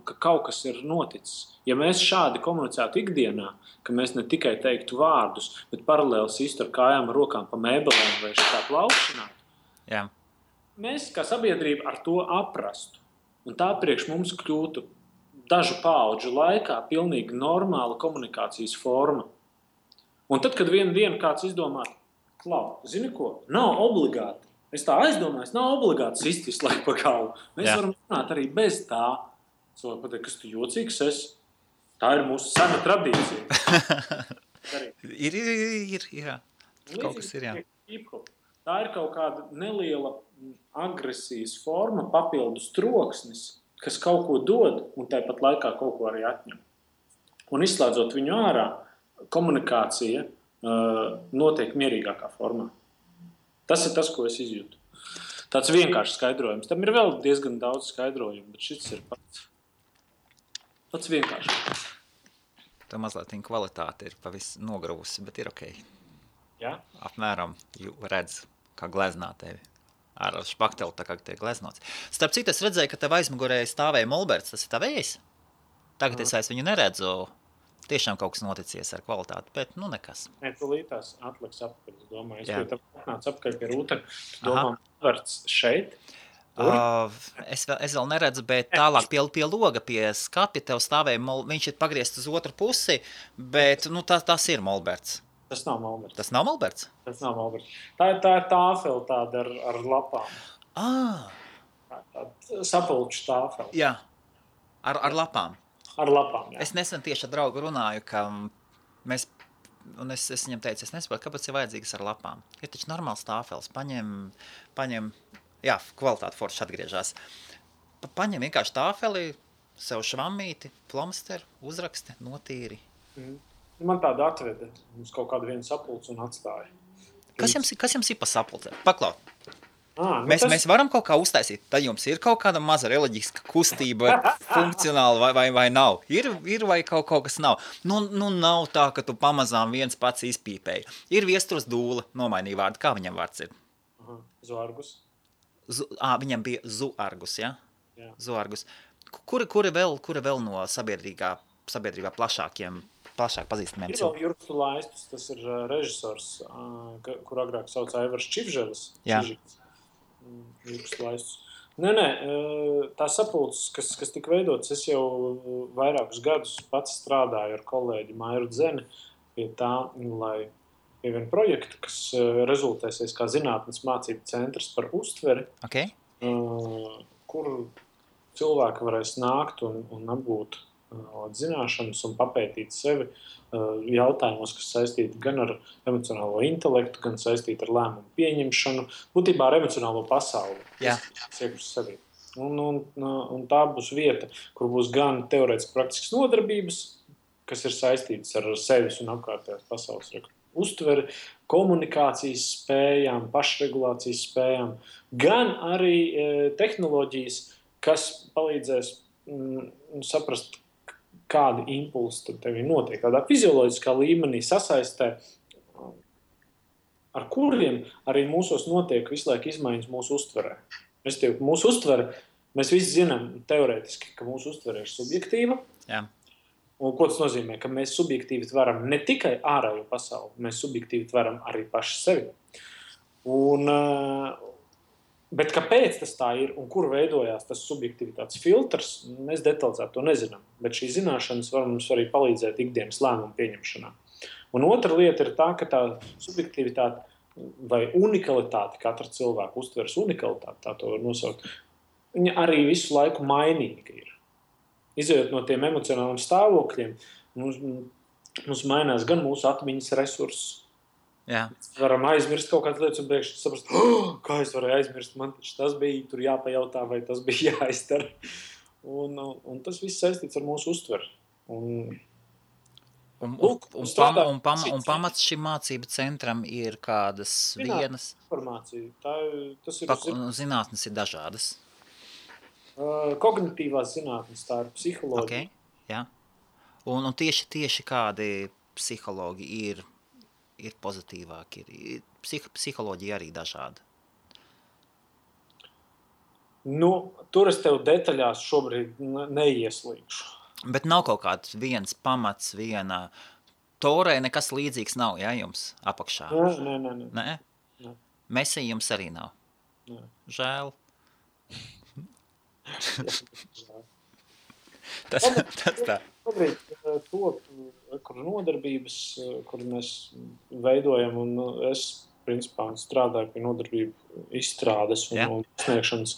ka kaut kas ir noticis. Ja mēs šādi komunicētu ikdienā, ka mēs ne tikai teiktu vārdus, bet paralēli sistu ar kājām, rokām pa mēbelēm vai šitā plaukšanātu, mēs kā sabiedrība ar to aprastu. Un tā priekš mums kļūtu dažu paudžu laikā pilnīgi normāla komunikācijas forma. Un tad, kad vienu dienu kāds izdomā, zini ko, nav obligāti. Es tā aizdomājos, nav obligāti sist visu laiku pa galvu. Mēs varam runāt arī bez tā. Cilvēki pateikt, kas tu jocīgs esi. Tā ir mūsu sena tradīcija. Ir. Kaut kas ir, jā. Tā ir kaut kāda neliela agresijas forma, papildus troksnis, kas kaut ko dod un tāpat laikā kaut ko arī atņem. Un izslēdzot viņu ārā, komunikācija notiek mierīgākā formā. Tas ir tas, ko es izjūtu. Tāds vienkāršs skaidrojums. Tam ir vēl diezgan daudz skaidrojumu, bet šis ir pats vienkāršs. Tā mazliet kvalitāte ir pavisam nogravusi, bet ir ok. Jā? Apmēram redz, kā gleznā tevi. Ar špakteli tā kā tiek gleznots. Starp citu, es redzēju, ka tev aizmugurē stāvēja Molberts. Tas ir tavējs? Tagad es viņu neredzu. Tiešām kaut kas noticies ar kvalitāti, bet nekas. Nē, tu lītās atliks apakaļ, es domāju. Es pie tev atnācu apakaļ pie rūtara. Tu domā, Molberts šeit? Es vēl neredzu, bet tālāk pie loga, pie skapja tev stāvēja, viņš ir pagriezts uz otru pusi, bet tas ir Molberts. Tas nav Molberts. Tas nav Molberts? Tas nav Molberts. Tā ir tāfeli tāda ar lapām. Tāda sapulču tāfeli. Jā, ar lapām. Ar lapām, jā. Es nesen tieši ar draugu runāju, ka es viņam teicu, es nesaprotu, kāpēc ir vajadzīgas ar lapām. Ir taču normāls tāfels, paņem, kvalitāte forši atgriežās. Paņem vienkārši tāfeli, sev švammīti, plomsteri, uzraksti, notīri. Man tāda atveda uz kaut kādu vienu sapulci un atstāja. Kas jums ir pa sapulcē? Paklau. Mēs Tas... varam kaut kā uztaisīt. Tad jums ir kaut kāda maza reliģiska kustība, funkcionāla vai nav? Ir vai kaut kas nav? Nu, nav tā, ka tu pamazām viens pats izpīpēji. Ir Viesturs Dūle, nomainīja vārdu. Kā viņam vārds ir? Zuargus. Viņam bija Zuargus, ja? Jā. Zuargus. Kuri vēl no sabiedrībā plašāk pazīstamiem? Ir vēl Jurks Laistus, tas ir režisors, kur agrāk sauc Aivars Čivželis. Jā. Jurks Laistus. Nē, tā sapulces, kas tika veidots, es jau vairākus gadus pats strādāju ar kolēģi Mairu Dzeni pie tā, lai pie viena projekta, kas rezultēsies kā zinātnes mācību centrs par uztveri, Okay. kur cilvēki varēs nākt un apgūt zināšanas un papētīt sevi jautājumos, kas saistīti gan ar emocionālo intelektu, gan saistīti ar lēmumu pieņemšanu, būtībā ar emocionālo pasauli. Jā. Sevi. Un tā būs vieta, kur būs gan teorētiski praktiskas nodarbības, kas ir saistītas ar sevis un apkārtējās pasaules uztveri, komunikācijas spējām, pašregulācijas spējām, gan arī tehnoloģijas, kas palīdzēs saprast, kādi impulsi tev notiek, tādā fizioloģiskā līmenī sasaistē, ar kuriem arī mūsos notiek visu laiku izmaiņas mūsu uztverē. Mūsu uztvere, mēs visi zinām teorētiski, ka mūsu uztvere ir subjektīva. Jā. Un ko tas nozīmē? Ka mēs subjektīvi tveram ne tikai ārējo pasauli, mēs subjektīvi tveram arī paši sevi. Bet kāpēc tas tā ir un kur veidojās tas subjektivitātes filtrs, mēs detalizēti to nezinām. Bet šī zināšanas var mums arī palīdzēt ikdienas lēmumu pieņemšanā. Un otra lieta ir tā, ka tā subjektivitāte vai unikalitāte, katra cilvēka uztveres unikalitāte, tā to var nosaukt, viņa arī visu laiku mainīga ir. Izejot no tiem emocionāliem stāvokļiem, mums mainās gan mūsu atmiņas resursi. Jā. Varam aizmirst kaut kādas lietas un priekš saprast, kā es varēju aizmirst, man taču tas bija tur jāpajautā vai tas bija jāizdara. Un tas viss saistīts ar mūsu uztveri. Un pamats šim mācību centram ir kādas vienas... Informācija. Tas ir zinātnes ir dažādas. Kognitīvās zinātnes, tā ir psiholoģija. Okay, jā. Un tieši kādi psihologi ir pozitīvāki, psiholoģija arī dažāda. Tur es tev detaļās šobrīd neieslīgšu. Bet nav kaut kāds viens pamats, viena torē, nekas līdzīgs nav, jā, jums apakšā? Nē. Mesī jums arī nav? Nē. Žēl. Tas tā. Šobrīd kur nodarbības, kur mēs veidojam, un es, principā, strādāju pie nodarbību izstrādes un sniegšanas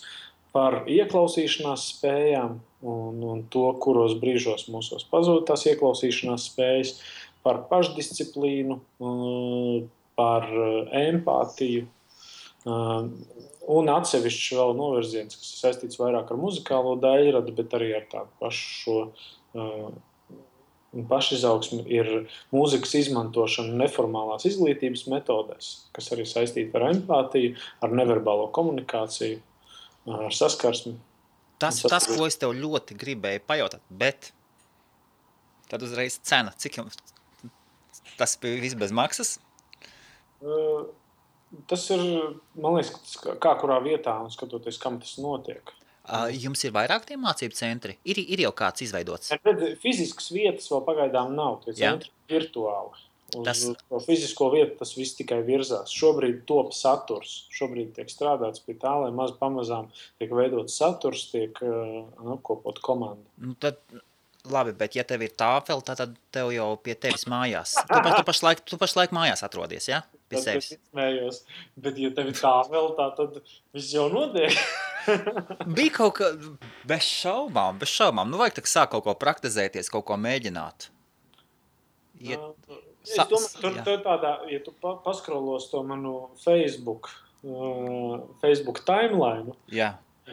par ieklausīšanās spējām un to, kuros brīžos mūsos pazūd tās ieklausīšanās spējas, par pašdisciplīnu, par empātiju, un atsevišķi vēl novirziens, kas ir saistīts vairāk ar muzikālo daļradu, bet arī ar tādu pašu pašizaugsmi, ir mūzikas izmantošana neformālās izglītības metodēs, kas arī saistīta ar empātiju, ar neverbālo komunikāciju, ar saskarsmi. Tas, ko es tev ļoti gribēju pajautāt, bet tad uzreiz cena. Cik jums tas bija viss bez maksas? Tas ir, man liekas, kā kurā vietā un skatoties, kam tas notiek. Jums ir vairāk tie mācību centri? Ir jau kāds izveidots? Fiziskas vietas vēl pagaidām nav, tie centri virtuāli. Uz to fizisko vietu tas viss tikai virzās. Šobrīd top saturs. Šobrīd tiek strādāts pie tā, lai pamazām tiek veidots saturs, tiek apkopot komanda. Tad, labi, bet ja tev ir tāfeli, tad tev jau pie tevis mājās. Tu pašlaik mājās atrodies, ja? Pie sevis. Izmējos. Bet ja tev ir tāfeli, tad viss jau notiek. Bija kaut kā bez šaubām. Vajag tak sāk kaut ko praktizēties, kaut ko mēģināt. Es domāju, tur tādā, ja tu paskrolos to manu Facebook timeline,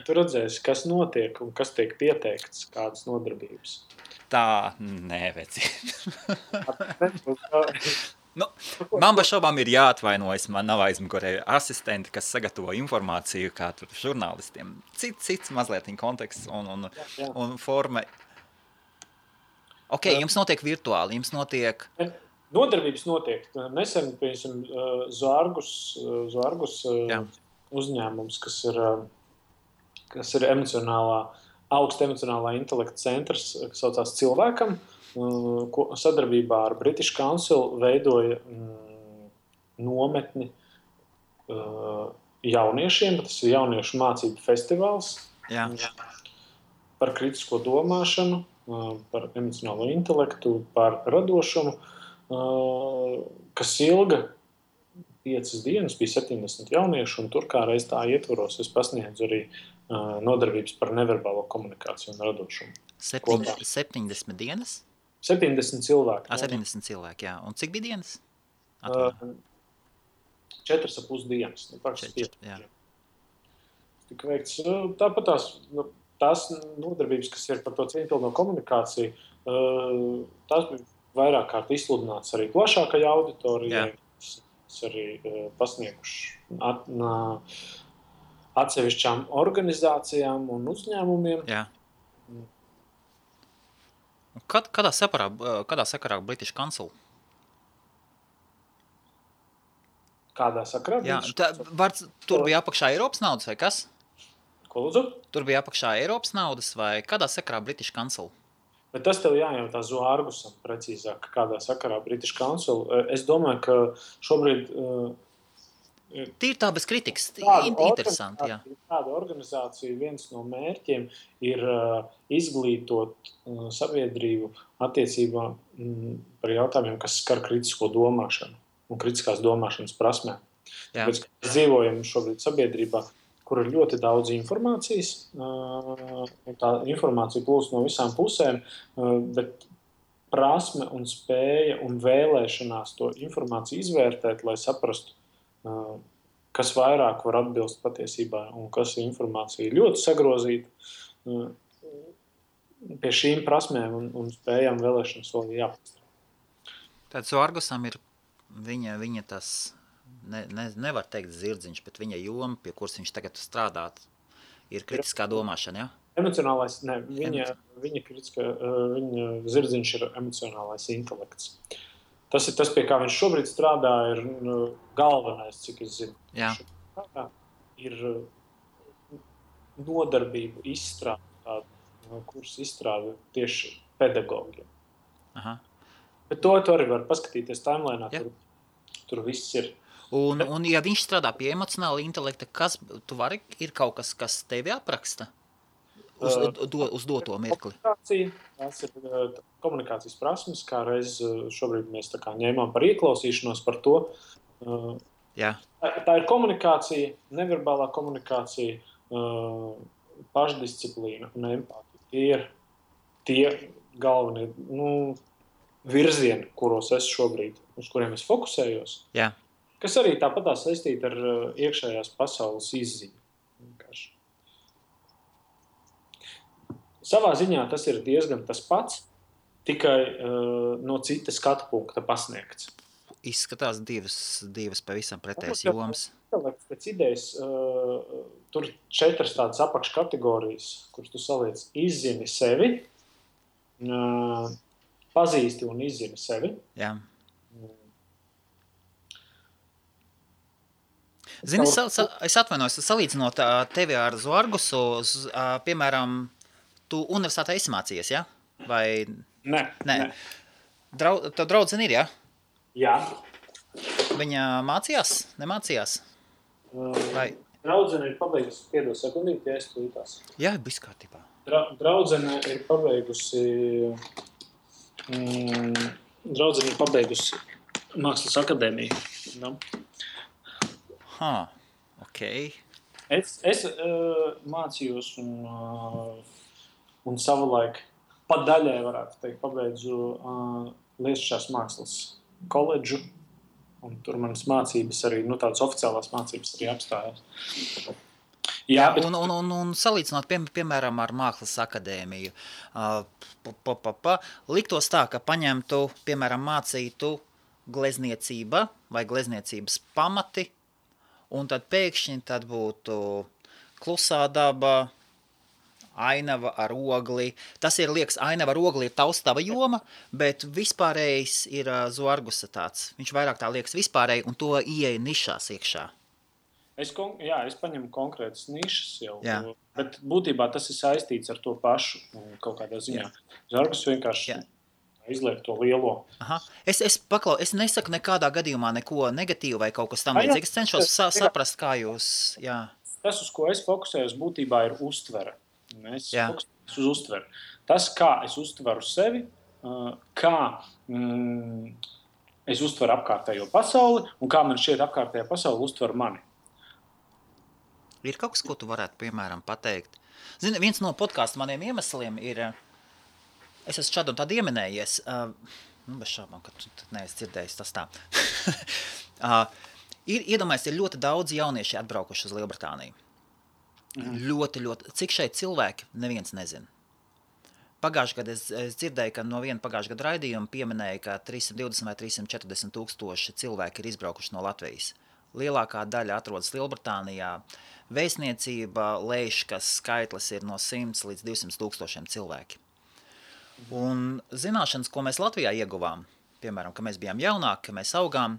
Tu redzēsi, kas notiek un kas tiek pieteikts, kādas nodarbības. Tā, nē, veci. Man bez šaubām ir jāatvainojas. Man nav aizmugurē asistenti, kas sagatavo informāciju, kā tur žurnālistiem. Cits mazliet konteksts un forma. Ok, jums notiek virtuāli, jums notiek... Nodarbības notiek. Nesen, piemēram, Zoargus uzņēmums, kas ir augsta emocionālā intelekta centrs, kas saucās Cilvēkam, sadarbībā ar British Council veidoja nometni jauniešiem. Tas ir jauniešu mācību festivāls par kritisko domāšanu, par emocionālo intelektu, par radošumu, kas ilga 5 dienas, bija 70 jauniešu, un tur kā reiz tā ietvaros es pasniedzu arī nodarbības par neverbālo komunikāciju un radošumu. 70 dienas? 70 cilvēki. 70 cilvēki, jā. Un cik bija dienas? 4,5 dienas. Tika veikts. Tāpat tās nodarbības, kas ir par to cieņpilno komunikāciju, tās bija vairāk kārt izsludināts arī plašākai auditorijai, kas arī pasnieguši atsevišķām organizācijām un uzņēmumiem. Jā. Kādā sakarā British Council? Kādā sakarā? Jā, tur bija apakšā Eiropas naudas vai kas? Ko lūdzu? Tur bija apakšā Eiropas naudas vai kādā sakarā British Council? Bet tas tev jājautā Zoargusam precīzāk, kādā sakarā British Council. Es domāju, ka šobrīd... Tīri tā bez kritikas, interesanti, jā. Tāda organizācija, viens no mērķiem ir izglītot sabiedrību attiecībā par jautājumiem, kas skar kritisko domāšanu un kritiskās domāšanas prasmēm. Tāpēc, ka mēs dzīvojam šobrīd sabiedrībā, kur ir ļoti daudz informācijas, tā informācija plūst no visām pusēm, bet prasme un spēja un vēlēšanās to informāciju izvērtēt, lai saprastu, kas vairāk var atbilst patiesībā un kas informācija ļoti sagrozīta, pie šīm prasmēm un spējām vēlēšanas vēl jāpastāv. Tad Zoargusam ir viņa tas, nevar teikt zirdziņš, bet viņa joma, pie kuras viņš tagad strādāt, ir kritiskā domāšana, jā? Emocionālais, ne, viņa zirdziņš ir emocionālais intelekts. Tas ir tas, pie kā viņš šobrīd strādā, ir galvenais, cik es zinu. Jā. Ir nodarbību izstrāde, kurus izstrāda tieši pedagogiem. Aha. Bet to arī var paskatīties timelinā, tur viss ir. Un ja viņš strādā pie emocionāla intelekta, ir kaut kas, kas tevi apraksta? Uz doto mirkli. Tās ir komunikācijas prasmes, kā reiz šobrīd mēs tā kā ņēmām par ieklausīšanos par to. Jā. Tā ir komunikācija, neverbālā komunikācija, pašdisciplīna un empātija. Tie ir tie galvenie virzieni, kuros es šobrīd, uz kuriem es fokusējos. Jā. Kas arī tāpatās saistīti ar iekšējās pasaules izziņu. Vienkārši. Savā ziņā tas ir diezgan tas pats, tikai no cita skatu punkta pasniegts. Izskatās divas pavisam pretējas jomas. Pēc idejas tur 4 tādas apakškategorijas, kuras tu saliec izzini sevi, pazīsti un izzini sevi. Jā. Zini, es atvainojos, salīdzinot tevi ar Zoargusu, piemēram, tu universitātē esi mācījies, ja? Vai... Nē. Tev draudzene ir, ja? Jā. Viņa mācījās? Nemācījās? Vai... Draudzene ir pabeigusi, piedod sekundīt, ja es tulītās. Jā, viss kārtībā. Draudzene ir pabeigusi Mākslas akadēmiju. No? Ok. Es mācījos un savulaik pat daļai varētu teikt pabeidzu Lietišķās mākslas koledžu, un tur manas mācības arī, tādas oficiālās mācības arī apstājās. Jā, un salīdzinot, piemēram, ar Mākslas akadēmiju, liktos tā, ka paņemtu, piemēram, mācītu glezniecība vai glezniecības pamati, un tad pēkšņi tad būtu klusā daba, ainava ar ogli. Tas ir, liekas, ainava ar ogli ir taustava joma, bet vispārējais ir Zorgusa tāds. Viņš vairāk tā liekas vispārēji, un to ieeja nišās iekšā. Es paņemu konkrētas nišas jau, bet būtībā tas ir saistīts ar to pašu kaut kādā ziņā. Zorgus vienkārši izliek to lielo. Aha. Es nesaku nekādā gadījumā neko negatīvu vai kaut kas tam līdzīgs. Es cenšos saprast, kā jūs... Jā. Tas, uz ko es fokusējos, būtībā ir uztvere. Es fokusējos uz uztveri. Tas, kā es uztveru sevi, kā es uztveru apkārtējo pasauli un kā man šķiet apkārtējā pasauli uztver mani. Ir kaut kas, ko tu varētu, piemēram, pateikt? Zini, viens no podkāstu maniem iemesliem ir, es esmu šādu un tādu ieminējies, bez šābām, ka tu neesi dzirdējis tas tā. Iedomājies, ir ļoti daudz jaunieši atbraukuši uz Lielbritāniju. Ļoti. Cik šeit cilvēki, neviens nezina. Pagājušajā gadā es dzirdēju, ka no viena pagājušā gada raidījuma pieminēja, ka 320 vai 340 tūkstoši cilvēki ir izbraukuši no Latvijas. Lielākā daļa atrodas Lielbritānijā. Vēstniecība lēš, ka skaitlis ir no 100 līdz 200 tūkstošiem cilvēki. Un zināšanas, ko mēs Latvijā ieguvām, piemēram, ka mēs bijām jaunāki, ka mēs augām,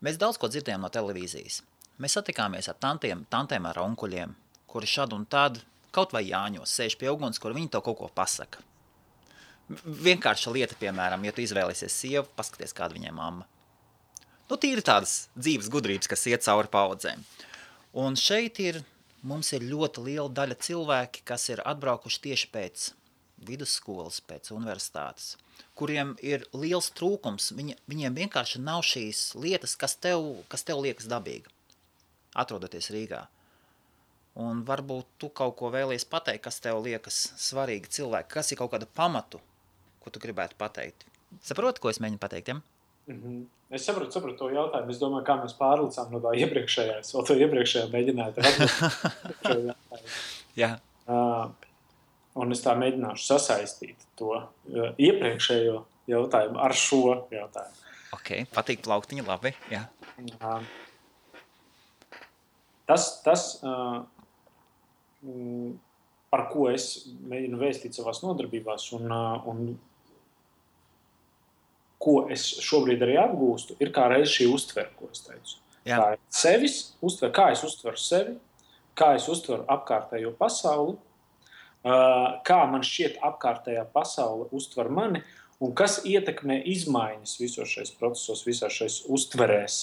mēs daudz ko dzirdējām no televīzijas. Mēs satikāmies ar tantēm ar onkuļiem, kuri šad un tad, kaut vai Jāņos, sēž pie uguns, kur viņi to kaut ko pasaka. Vienkārša lieta, piemēram, ja tu izvēlēsies sievu, paskaties, kāda viņai mamma. Tīri tādas dzīves gudrības, kas iet cauri paudzēm. Un šeit mums ir ļoti liela daļa cilvēki, kas ir atbraukuši tieši pēc vidusskolas, pēc universitātes, kuriem ir liels trūkums. Viņiem vienkārši nav šīs lietas, kas tev liekas dabīga, atrodoties Rīgā. Un varbūt tu kaut ko vēlies pateikt, kas tev liekas svarīgi cilvēki, kas ir kaut kāda pamatu, ko tu gribētu pateikt. Saproti, ko es mēģinu pateikt, ja? Es sapratu to jautājumu. Es domāju, kā mēs pārlicām no tā iepriekšējā. Es vēl to iepriekšējā mēģināju atbildēt. Jā. Un es tā mēģināšu sasaistīt to iepriekšējo jautājumu ar šo jautājumu. Ok, patīk plauktiņi, labi. Jā. Tas par ko es mēģinu vēstīt savās nodarbībās un ko es šobrīd arī apgūstu, ir kā reiz šī uztvere, ko es teicu. Jā. Kā sevis uztver, kā es uztveru sevi, kā es uztveru apkārtējo pasauli, kā man šķiet apkārtējā pasaule uztver mani un kas ietekmē izmaiņas visos šais procesos, visās šais uztverēs.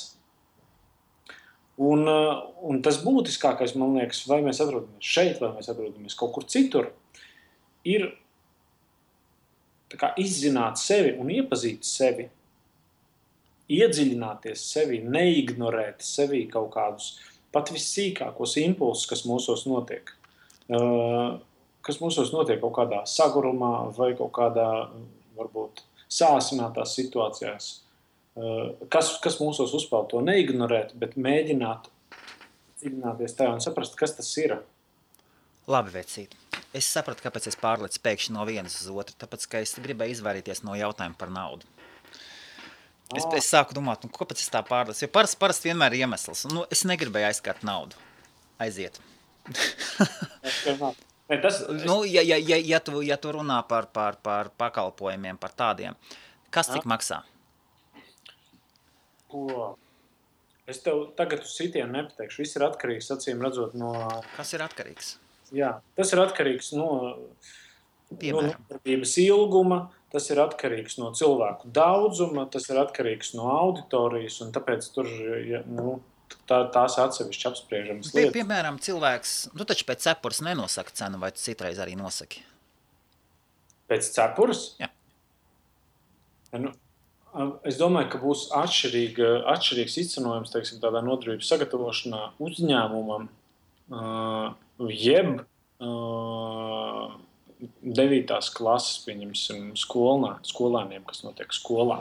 Un tas būtiskākais, man liekas, vai mēs atrodamies šeit, vai mēs atrodamies kaut kur citur, ir tā kā izzināt sevi un iepazīt sevi, iedziļināties sevi, neignorēt sevi kaut kādus pat vissīkākos impulsus, kas mūsos notiek. Kas mūsos notiek kaut kādā sagurumā vai kaut kādā, varbūt, sāsinātās situācijās. Kas mūsos uzpeld to neignorēt, bet mēģināt dziļināties tajā un saprast, kas tas ir. Labi, vecīt. Es sapratu, kāpēc es pārlecu pēkšņi no vienas uz otru, tāpēc, ka es gribēju izvairīties no jautājuma par naudu. Es sāku domāt, kāpēc es tā pārlecu, jo parasti vienmēr ir iemesls. Es negribēju aizskart naudu. Aiziet. Ja tu runā par pakalpojumiem, par tādiem, kas cik maksā? Es tev tagad uz sitienu nepateikšu. Viss ir atkarīgs, acīm redzot, no... Kas ir atkarīgs? Jā, tas ir atkarīgs no nodarbības ilguma, tas ir atkarīgs no cilvēku daudzuma, tas ir atkarīgs no auditorijas, un tāpēc tur tās atsevišķi apspriežamas lietas. Piemēram, cilvēks, tu taču pēc cepures nenosaka cenu, vai tu citreiz arī nosaki? Pēc cepures? Jā. Es domāju, ka būs atšķirīgs izcenojums, teiksim, tādā nodarbības sagatavošanā uzņēmumam, jeb 9. klases, pieņemsim, skolēniem, kas notiek skolā.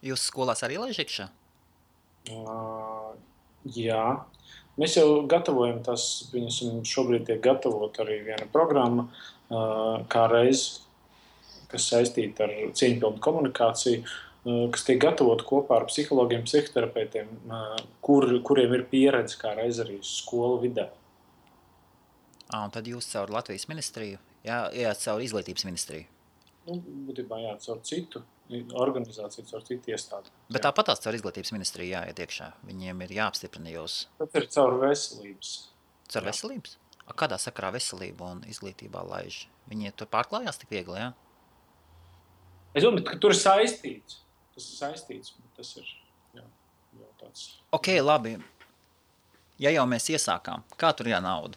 Jūs skolās arī laiž iekšā? Jā. Mēs jau gatavojam tas, viņam šobrīd tiek gatavot arī viena programma, kā reiz, kas saistīta ar cieņpilnu komunikāciju, kas tiek gatavot kopā ar psihologiem, psihoterapeitiem, kuriem ir pieredze kā reiz arī skolu vidē. Un tad jūs caur Latvijas ministriju, ejāt caur izglītības ministriju? Būtībā caur citu organizāciju, caur citu iestādi. Bet tāpatās caur izglītības ministriju jāiet iekšā. Viņiem ir jāapstiprina jūs. Tas ir caur veselības. Caur veselības? Kādā sakarā veselība un izglītībā laiž? Viņi tur pārklājās tik viegli, jā? Es domāju, ka tur ir saistīts. Tas ir saistīts, bet tas ir jau tāds. Ok, labi. Ja jau mēs iesākām, kā tur jānauda?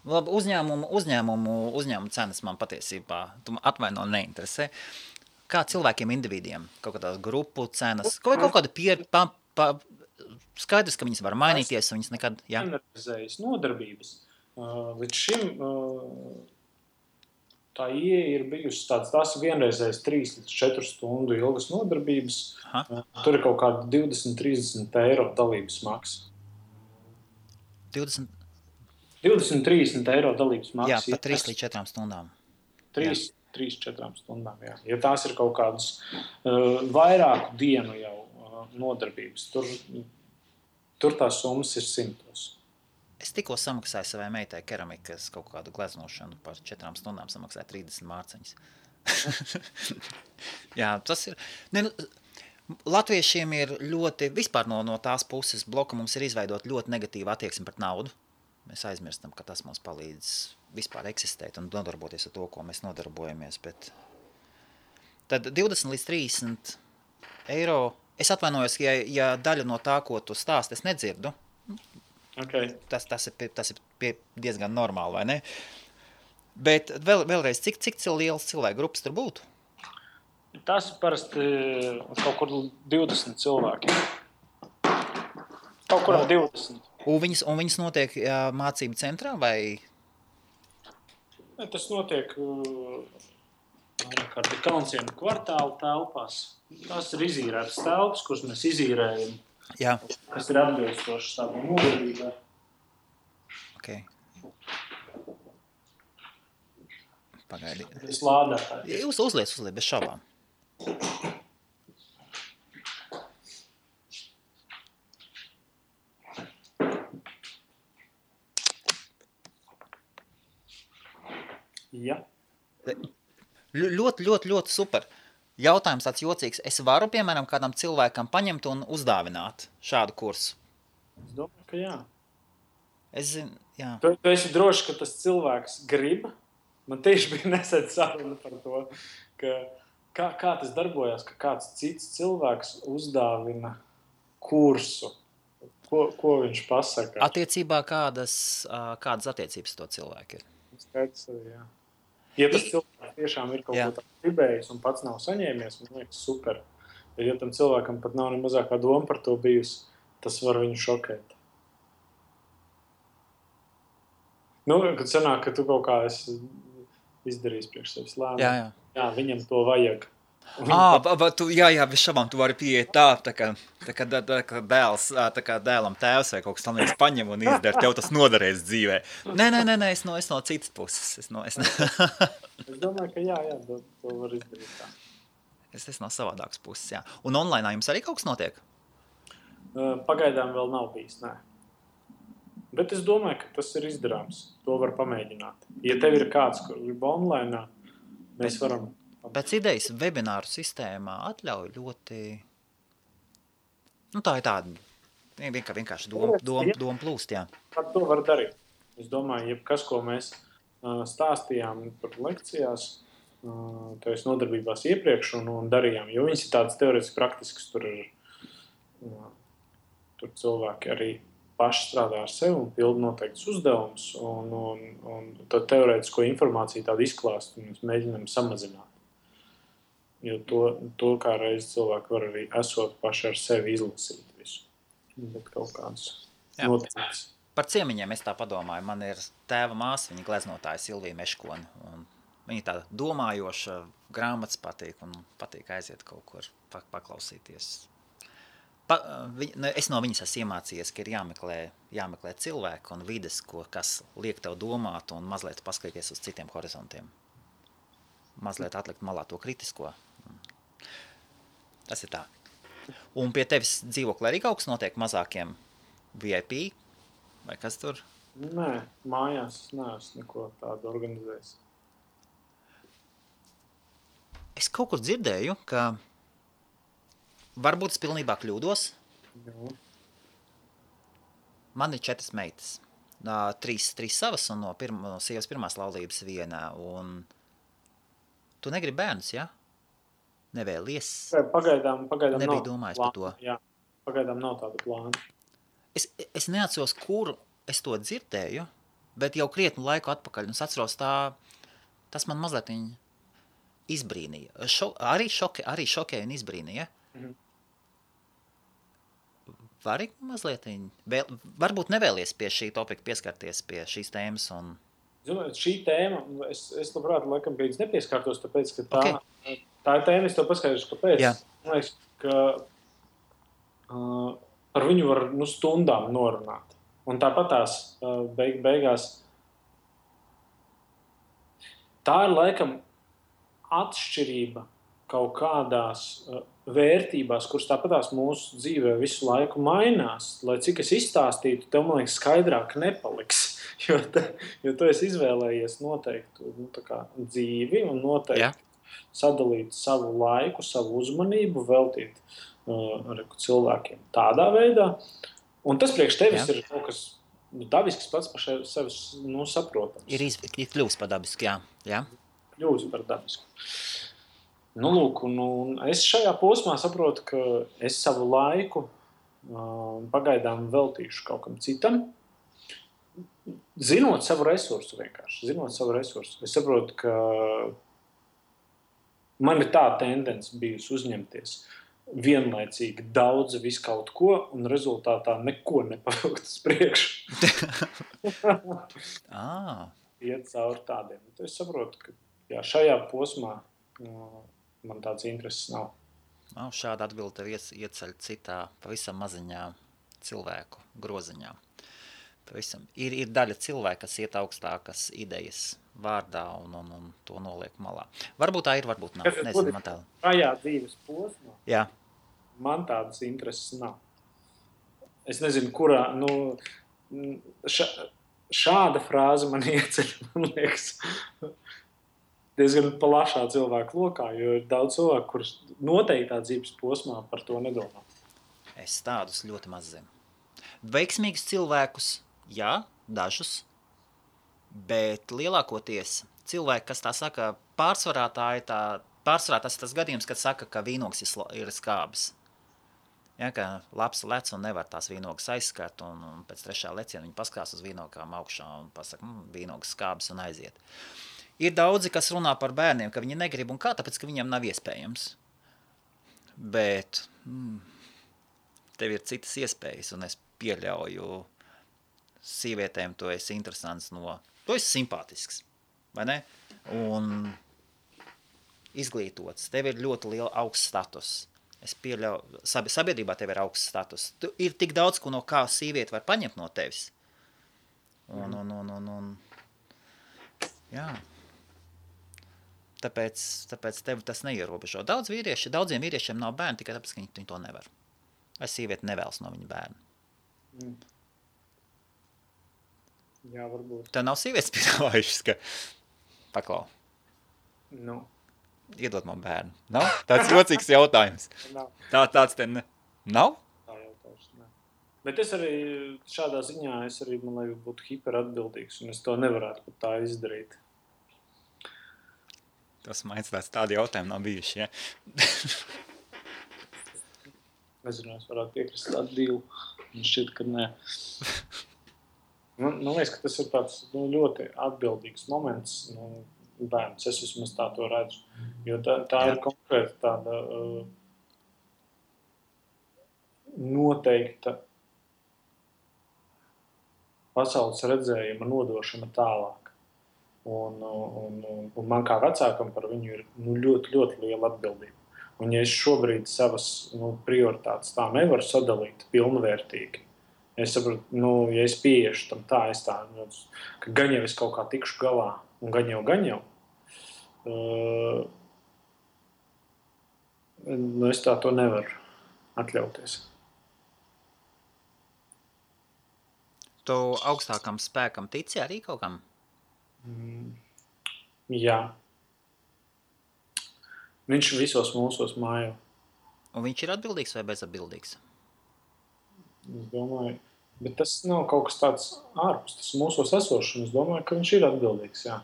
Labi, uzņēmumu cenas man patiesībā atvaino neinteresē. Kā cilvēkiem, individiem, kaut kādās grupu cenas, kaut kāda skaidrs, ka viņas var mainīties, un viņas nekad, jā. Vienreizējas nodarbības. Līdz šim tā ieeja ir bijusi tās vienreizējas 3 līdz 4 stundu ilgas nodarbības. Aha. Tur ir kaut kāda 20-30 eiro dalības maksa. 20-30 eiro dalības maksa. Jā, pa 3 līdz 4 stundām. 3-4 stundām, jā. Ja tās ir kaut kādas vairāku dienu jau nodarbības, tur tās summas ir 100. Es tikko samaksāju savai meitai keramikas kaut kādu gleznošanu par 4 stundām samaksāju 30 mārciņas. Jā, tas ir... Latviešiem ir ļoti, vispār no tās puses bloka mums ir izveidot ļoti negatīva attieksme pret naudu. Mēs aizmirstam, ka tas mums palīdz vispār eksistēt un nodarboties ar to, ko mēs nodarbojamies. Bet tad 20 līdz 30 eiro. Es atvainojos, ja daļa no tā, ko tu stāsti, es nedzirdu. Okay. Tas ir diezgan normāli, vai ne? Bet vēlreiz, cik liels cilvēku grupas tur būtu? Tas ir parasti kaut kur 20 cilvēki. Kaut kurā 20. Un viņas notiek mācību centrā vai? Tas notiek Kalncienu kvartāla telpās. Tās ir izīrētas telpas, kuras mēs izīrējam. Jā. Kas ir atbilstošas tādām nodarbībai. Okay. Pagaidi. Es lādētāju. Jūs uzliec, bez šaubām. Ja. Ļoti super. Jautājums tāds jocīgs. Es varu, piemēram, kādam cilvēkam paņemt un uzdāvināt šādu kursu? Es domāju, ka jā. Es zinu, jā. Tu esi droši, ka tas cilvēks grib. Man tieši bija nesen saruna par to, ka kā tas darbojās, ka kāds cits cilvēks uzdāvina kursu. Ko viņš pasaka? Attiecībā kādas attiecības to cilvēku ir? Skaidrs arī, jā. Ja tas cilvēks tiešām ir kaut ko tā gribējis un pats nav saņēmies, man liekas super. Ja tam cilvēkam pat nav ne mazākā doma par to bijusi, tas var viņu šokēt. Kad sanāk, ka tu kaut kā esi izdarījis priekš sevis lēmumu. Jā, viņam to vajag. Jā, bez šabām tu vari pieiet tā kā dēlam tēvs vai kaut kas tam liekas paņem un izdara, tev tas noderēs dzīvē. Nē, es no citas puses. Es domāju, ka jā, to var izdarīt tā. Es no savādākas puses, jā. Un online jums arī kaut kas notiek? Pagaidām vēl nav bijis, nē. Bet es domāju, ka tas ir izdarāms. To var pamēģināt. Ja tev ir kāds, kur grib online, mēs varam... Pēc idejas webināru sistēmā atļauj ļoti... tā ir tāda vienkārši doma plūst, jā. Par to var darīt. Es domāju, jebkas, ko mēs stāstījām par lekcijās, tādas nodarbībās iepriekš un darījām, jo viņas ir tādas teorētiski praktiskas, tur cilvēki arī paši strādā ar sevi un pilda noteikts uzdevums un tad teorētisko informāciju tādu izklāstu un mēs mēģinām samazināt. Jo to kā reiz cilvēki var arī esot paši ar sevi izlasīt visu. Bet kaut kāds noticis. Par ciemiņiem es tā padomāju. Man ir tēva māsa, viņa gleznotāja Silvija Meškona. Viņa tāda domājoša, grāmatas patīk un patīk aiziet kaut kur paklausīties. Es no viņas esmu iemācījies, ka ir jāmeklē cilvēki un vides, kas liek tev domāt un mazliet paskatīties uz citiem horizontiem. Mazliet atlikt malā to kritisko. Tas ir tā. Un pie tevis dzīvoklī arī kaut kas notiek mazākiem VIP? Vai kas tur? Nē, mājās es neesmu neko tādu organizējis. Es kaut kur dzirdēju, ka varbūt es pilnībā kļūdos. Jā. Man ir 4 meitas. 3 savas un no sievas pirmās laulības viena. Un tu negribi bērnus, ja? Nevēlies? Pagaidām nebija domājis par to. Jā, pagaidām nav tāda plāna. Es neatceros, kur es to dzirdēju, bet jau krietnu laiku atpakaļ. Un es atceros, tas man mazliet izbrīnīja. Arī šokēja un izbrīnīja. Mhm. Vari mazliet varbūt nevēlies pie šī topika pieskarties pie šīs tēmas. Un... Zinu, šī tēma, es labprāt, laikam, pēc nepieskārtos, tāpēc, ka tā ir tēma, es tev paskaidrošu, kāpēc. Jā. Man liekas, ka par viņu var stundām norunāt. Un tāpat tās beigās tā ir laikam atšķirība kaut kādās vērtībās, kuras tāpatās mūsu dzīvē visu laiku mainās. Lai cik es izstāstītu, tev, man liekas, skaidrāk nepaliks. Jo tu esi izvēlējies noteiktu dzīvi un noteikti sadalīt savu laiku, savu uzmanību, veltīt cilvēkiem tādā veidā. Un tas priekš tevis ir kaut kas dabisks pats par sevi saprotams. Ir kļūst par dabisku, jā. Kļūst par dabisku. Lūk, un es šajā posmā saprotu, ka es savu laiku pagaidām veltīšu kaut kam citam. Zinot savu resursu vienkārši. Es saprotu, ka man ir tā tendence bijusi uzņemties vienlaicīgi daudz visu kaut ko un rezultātā neko nepavilkt uz priekšu. Iet cauri tādiem. Es saprotu, ka šajā posmā man tāds intereses nav. Šāda atbilde tev ieceļ citā pavisam maziņā cilvēku groziņā. Pavisam. Ir daļa cilvēka, kas iet augstākas idejas vārdā un to noliek malā. Varbūt tā ir, varbūt nav. Nezinu, man tā. Šajā dzīves posmā. Jā. Man tādas intereses nav. Es nezinu, kurā, šāda frāze man ieceļ, man liekas, diezgan plašā cilvēku lokā, jo ir daudz cilvēku, kurus noteiktā dzīves posmā par to nedomā. Es tādus ļoti maz zinu. Veiksmīgus cilvēkus, jā, dažus, bet lielākoties cilvēki, kas tā saka, pārsvarā tas ir tas gadījums, kad saka, ka vīnogs ir skābis. Ja, ka labs lec un nevar tās vīnogas aizskart, un pēc 3. leciena viņi paskās uz vīnogām augšā un pasaka, vīnogas skābis un aiziet. Ir daudzi, kas runā par bērniem, ka viņi negrib un kā, tāpēc, ka viņiem nav iespējams. Bet tev ir citas iespējas, un es pieļauju sīvietēm, tu esi interesants tu esi simpātisks, vai ne? Un izglītots, tev ir ļoti liela augsts status. Es pieļauju, sabiedrībā tev ir augsts status. Ir tik daudz, ko no kā sīvieti var paņemt no tevis. Jā. Tāpēc tev tas neierobežo. Daudziem vīriešiem nav bērni, tikai tāpēc, ka viņi to nevar. Vai sīvieti nevēlas no viņa bērnu. Jā, varbūt. Tev nav sievietes piedāvājušas, ka paklau. Iedod man bērnu. Nav? Tāds jocīgs jautājums. Tāds te nav? Tā jautājums, ne. Bet es arī šādā ziņā, man liekas, būtu hiperatbildīgs, un es to nevarētu pat tā izdarīt. Tas man tādi jautājumi nav bijuši, ja? Nezinu, es varētu piekrist tādu divu. Man šķiet, ka nē. Man liekas, ka tas ir tāds ļoti atbildīgs moments, bērns, es vismaz tā to redzu. Jo tā ir konkrēti tāda noteikta pasaules redzējuma nodošana tālāk. Un man kā vecākam par viņu ir ļoti, ļoti liela atbildība. Un ja es šobrīd savas prioritātes tā nevaru sadalīt pilnvērtīgi, es saprotu, ja es pieiešu tam tā, ka gan jau es kaut kā tikšu galā, un gan jau, es tā to nevaru atļauties. Tu augstākam spēkam tici arī kaut kam? Jā. Viņš visos mūsos mājo. Un viņš ir atbildīgs vai bezatbildīgs? Es domāju, bet tas nav kaut kas tāds ārpus, tas mūsos esošs, un es domāju, ka viņš ir atbildīgs, jā.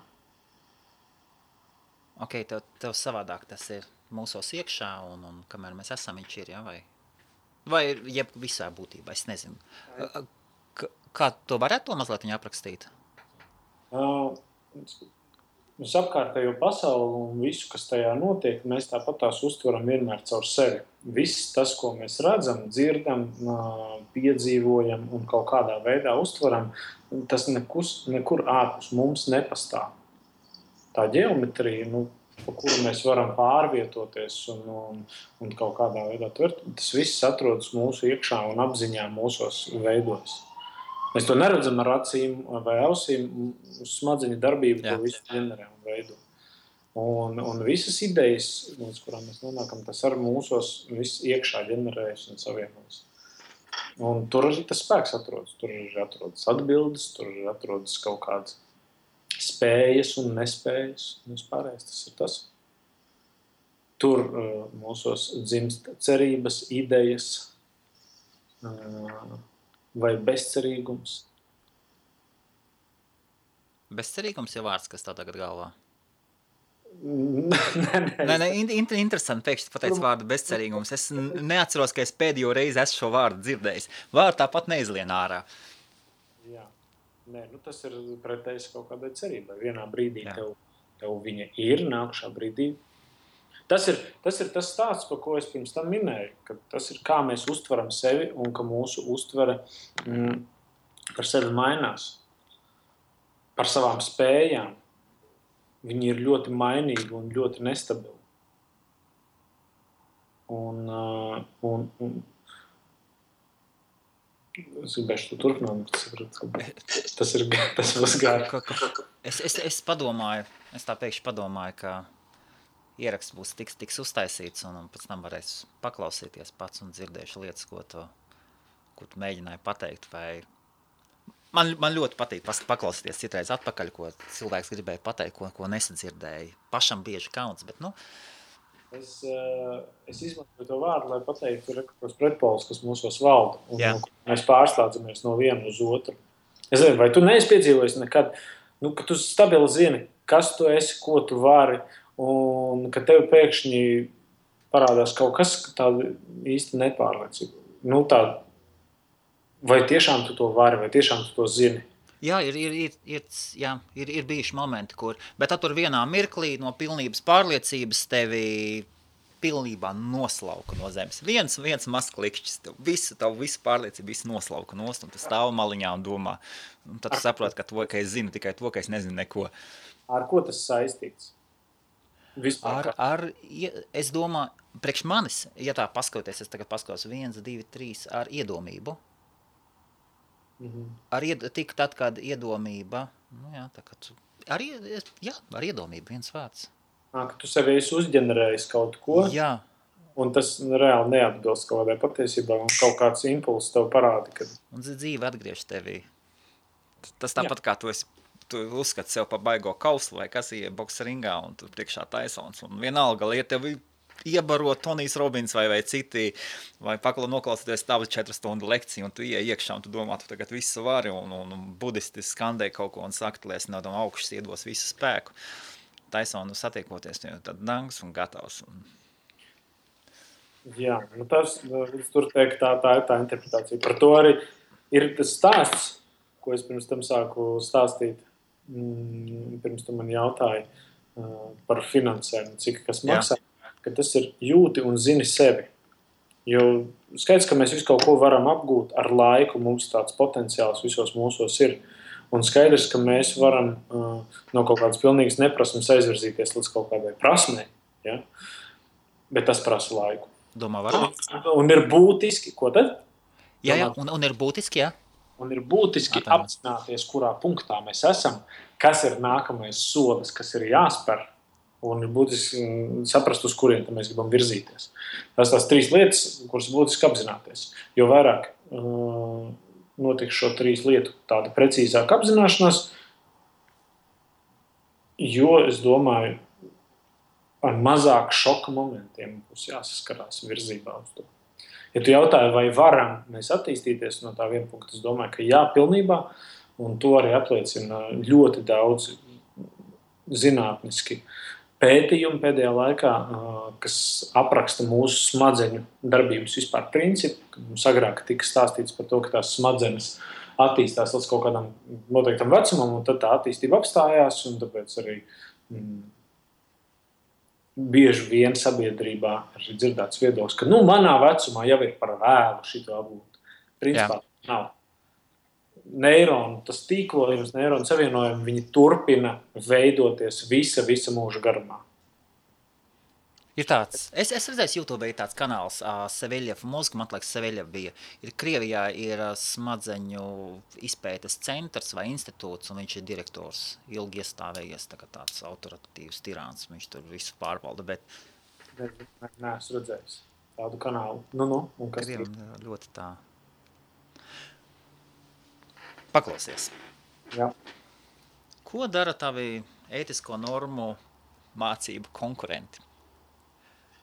Ok, tev savādāk tas ir mūsos iekšā, un kamēr mēs esam, viņš ir, jā, vai jeb visā būtībā, es nezinu. Kā to varētu to mazliet viņa aprakstīt? Mēs apkārtējo pasauli un visu, kas tajā notiek, mēs tāpat tās uztveram vienmēr caur sevi. Viss tas, ko mēs redzam, dzirdam, piedzīvojam un kaut kādā veidā uztveram, tas nekur ārpus mums nepastāv. Tā ģeometrija, pa kuru mēs varam pārvietoties un kaut kādā veidā tvert, tas viss atrodas mūsu iekšā un apziņā mūsos veidojas. Mēs to neredzam ar acīm vai ausīm, uz smadzeņu darbību to visu ģenerē un veido. Un visas idejas, līdz kurām mēs nonākam, tas ar mūsos viss iekšā ģenerējas un savienojas. Un tur arī tas spēks atrodas. Tur arī atrodas atbildes, tur arī atrodas kaut kādas spējas un nespējas. Un vispārējais tas ir tas. Tur mūsos dzimst cerības, idejas, vai bezcerīgums? Bezcerīgums ir vārds, kas tā tagad galvā? Nē. Interesanti pēkšņi pateic vārdu bezcerīgums. Es neatceros, ka es pēdējo reizi esmu šo vārdu dzirdējis. Vārdu tāpat neizlien ārā. Jā. Nē, tas ir pretējs kaut kādai cerībai. Vienā brīdī tev viņa ir, nākušā brīdī. Tas ir tas stāsts, par ko es pirms tam minēju, ka tas ir kā mēs uztveram sevi un ka mūsu uztvere par sevi mainās. Par savām spējām. Viņi ir ļoti mainīgi un ļoti nestabili. Un es gribēšu to turpināt, tas būs gāri. Es padomāju, es tā pēkšņi padomāju, ka ieraksts būs tiks uztaisīts, un pēc tam varēs paklausīties pats un dzirdēšu lietas, ko tu mēģināji pateikt. Vai... Man ļoti patīk paklausīties citreiz atpakaļ, ko cilvēks gribēja pateikt, ko nesadzirdēja. Pašam bieži kauns, bet Es izmantoju to vārdu, lai pateiktu tos pretpolus, kas mūsos valda. Un mēs pārslēdzamies no viena uz otru. Es nezinu, vai tu neesi piedzīvojis nekad, ka tu stabili zini, kas tu esi, ko tu vari, un ka tev pēkšņi parādās kaut kas tāda īsti nepārliecība. Vai tiešām tu to vari, vai tiešām tu to zini? Jā, ir bijuši momenti, kur, bet tur vienā mirklī no pilnības pārliecības tevi pilnībā noslauka no zemes. Viens mazs klikšķis, tavu visu pārliecību visu noslauka nost, un tu stāv maliņā un domā. Un tad tu saproti, ka es zinu tikai to, ka es nezinu neko. Ar ko tas saistīts? Es domāju, priekš manis, ja tā paskatoties, es tagad paskatos 1, 2, 3 ar iedomību. Tik tad, kad iedomība, ar iedomību viens vārds. Ka tu sevi esi uzģenerējis kaut ko, un tas reāli neatbilst kaut kādai patiesībā, un kaut kāds impulss tev parāda, ka... Un dzīve atgriež tevī. Tas tāpat kā tu uzskati sev pa baigo kauslu, vai kas ir bokseringā, un tu priekšā taisons, un vienalga lieta tev iebarot Tonijs Robins vai citi, vai noklausīties tavu 4 stundu lekciju, un tu iekšā, un tu domā, tu tagad visu vari, un budisti skandē kaut ko, un saka, tu liesi no tam augšas iedos visu spēku. Taisonu satiekoties, tad dangs un gatavs. Jā, tur teikt, tā ir tā interpretācija. Par to arī ir tas stāsts, ko es pirms tam sāku stāstīt, pirms tu man jautāji par finansēm, cik kas maksā. Ka tas ir jūti un zini sevi. Jo skaidrs, ka mēs visu kaut ko varam apgūt ar laiku, mums tāds potenciāls visos mūsos ir. Un skaidrs, ka mēs varam no kaut kādas pilnīgas neprasmes aizvirzīties līdz kaut kādai prasmei. Ja? Bet tas prasa laiku. Domā, varbūt? Un ir būtiski, ko tad? Jā, un ir būtiski, jā. Un ir būtiski apzināties, kurā punktā mēs esam, kas ir nākamais solis, kas ir jāspēr. Un ir būtiski saprast, uz kurien mēs gribam virzīties. Tās 3 lietas, kuras būtiski apzināties. Jo vairāk notiks šo 3 lietu tāda precīzāka apzināšanās, jo, es domāju, ar mazāk šoka momentiem būs jāsaskarās virzībā uz to. Ja tu jautāji, vai varam mēs attīstīties no tā viena punkta, es domāju, ka jā, pilnībā, un to arī apliecina ļoti daudz zinātniski pētījumi pēdējā laikā, kas apraksta mūsu smadzeņu darbības vispār principu. Mums agrāk tika stāstīts par to, ka tās smadzenes attīstās līdz kaut kādam noteiktam vecumam, un tad tā attīstība apstājās, un tāpēc arī bieži vien sabiedrībā ir dzirdēts viedoklis, ka manā vecumā jau ir par vēlu šito apgūt. Principā nav. Neironu, tas tīklojums, neironu savienojumi, viņi turpina veidoties visa mūža garumā. Ir tāds, es redzēju, YouTube ir tāds kanāls Seveļev mozga, man liekas, Seveļev bija. Krievijā ir smadzeņu izpētes centrs vai institūts, un viņš ir direktors, ilgi iestāvējies, tāds autoritatīvs tirāns, viņš tur visu pārvalda, bet... Nē, es redzējis tādu kanālu. Un kas Krievim ļoti tā... Paklausies. Jā. Ko dara tavi ētisko normu mācību konkurenti?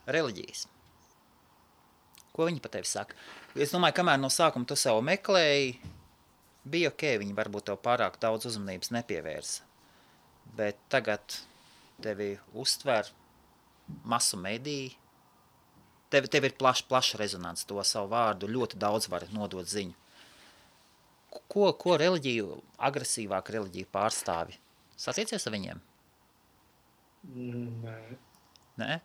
Reliģijas. Ko viņi par tevi saka? Es domāju, kamēr no sākuma tu sev meklēji, bija ok, viņi varbūt tev pārāk daudz uzmanības nepievērsa. Bet tagad tevi uztver masu mediji, tev ir plaša rezonance, to savu vārdu ļoti daudz var nodot ziņu. Ko reliģiju, agresīvāk reliģiju pārstāvi? Satiecies ar viņiem? Nē. Nē?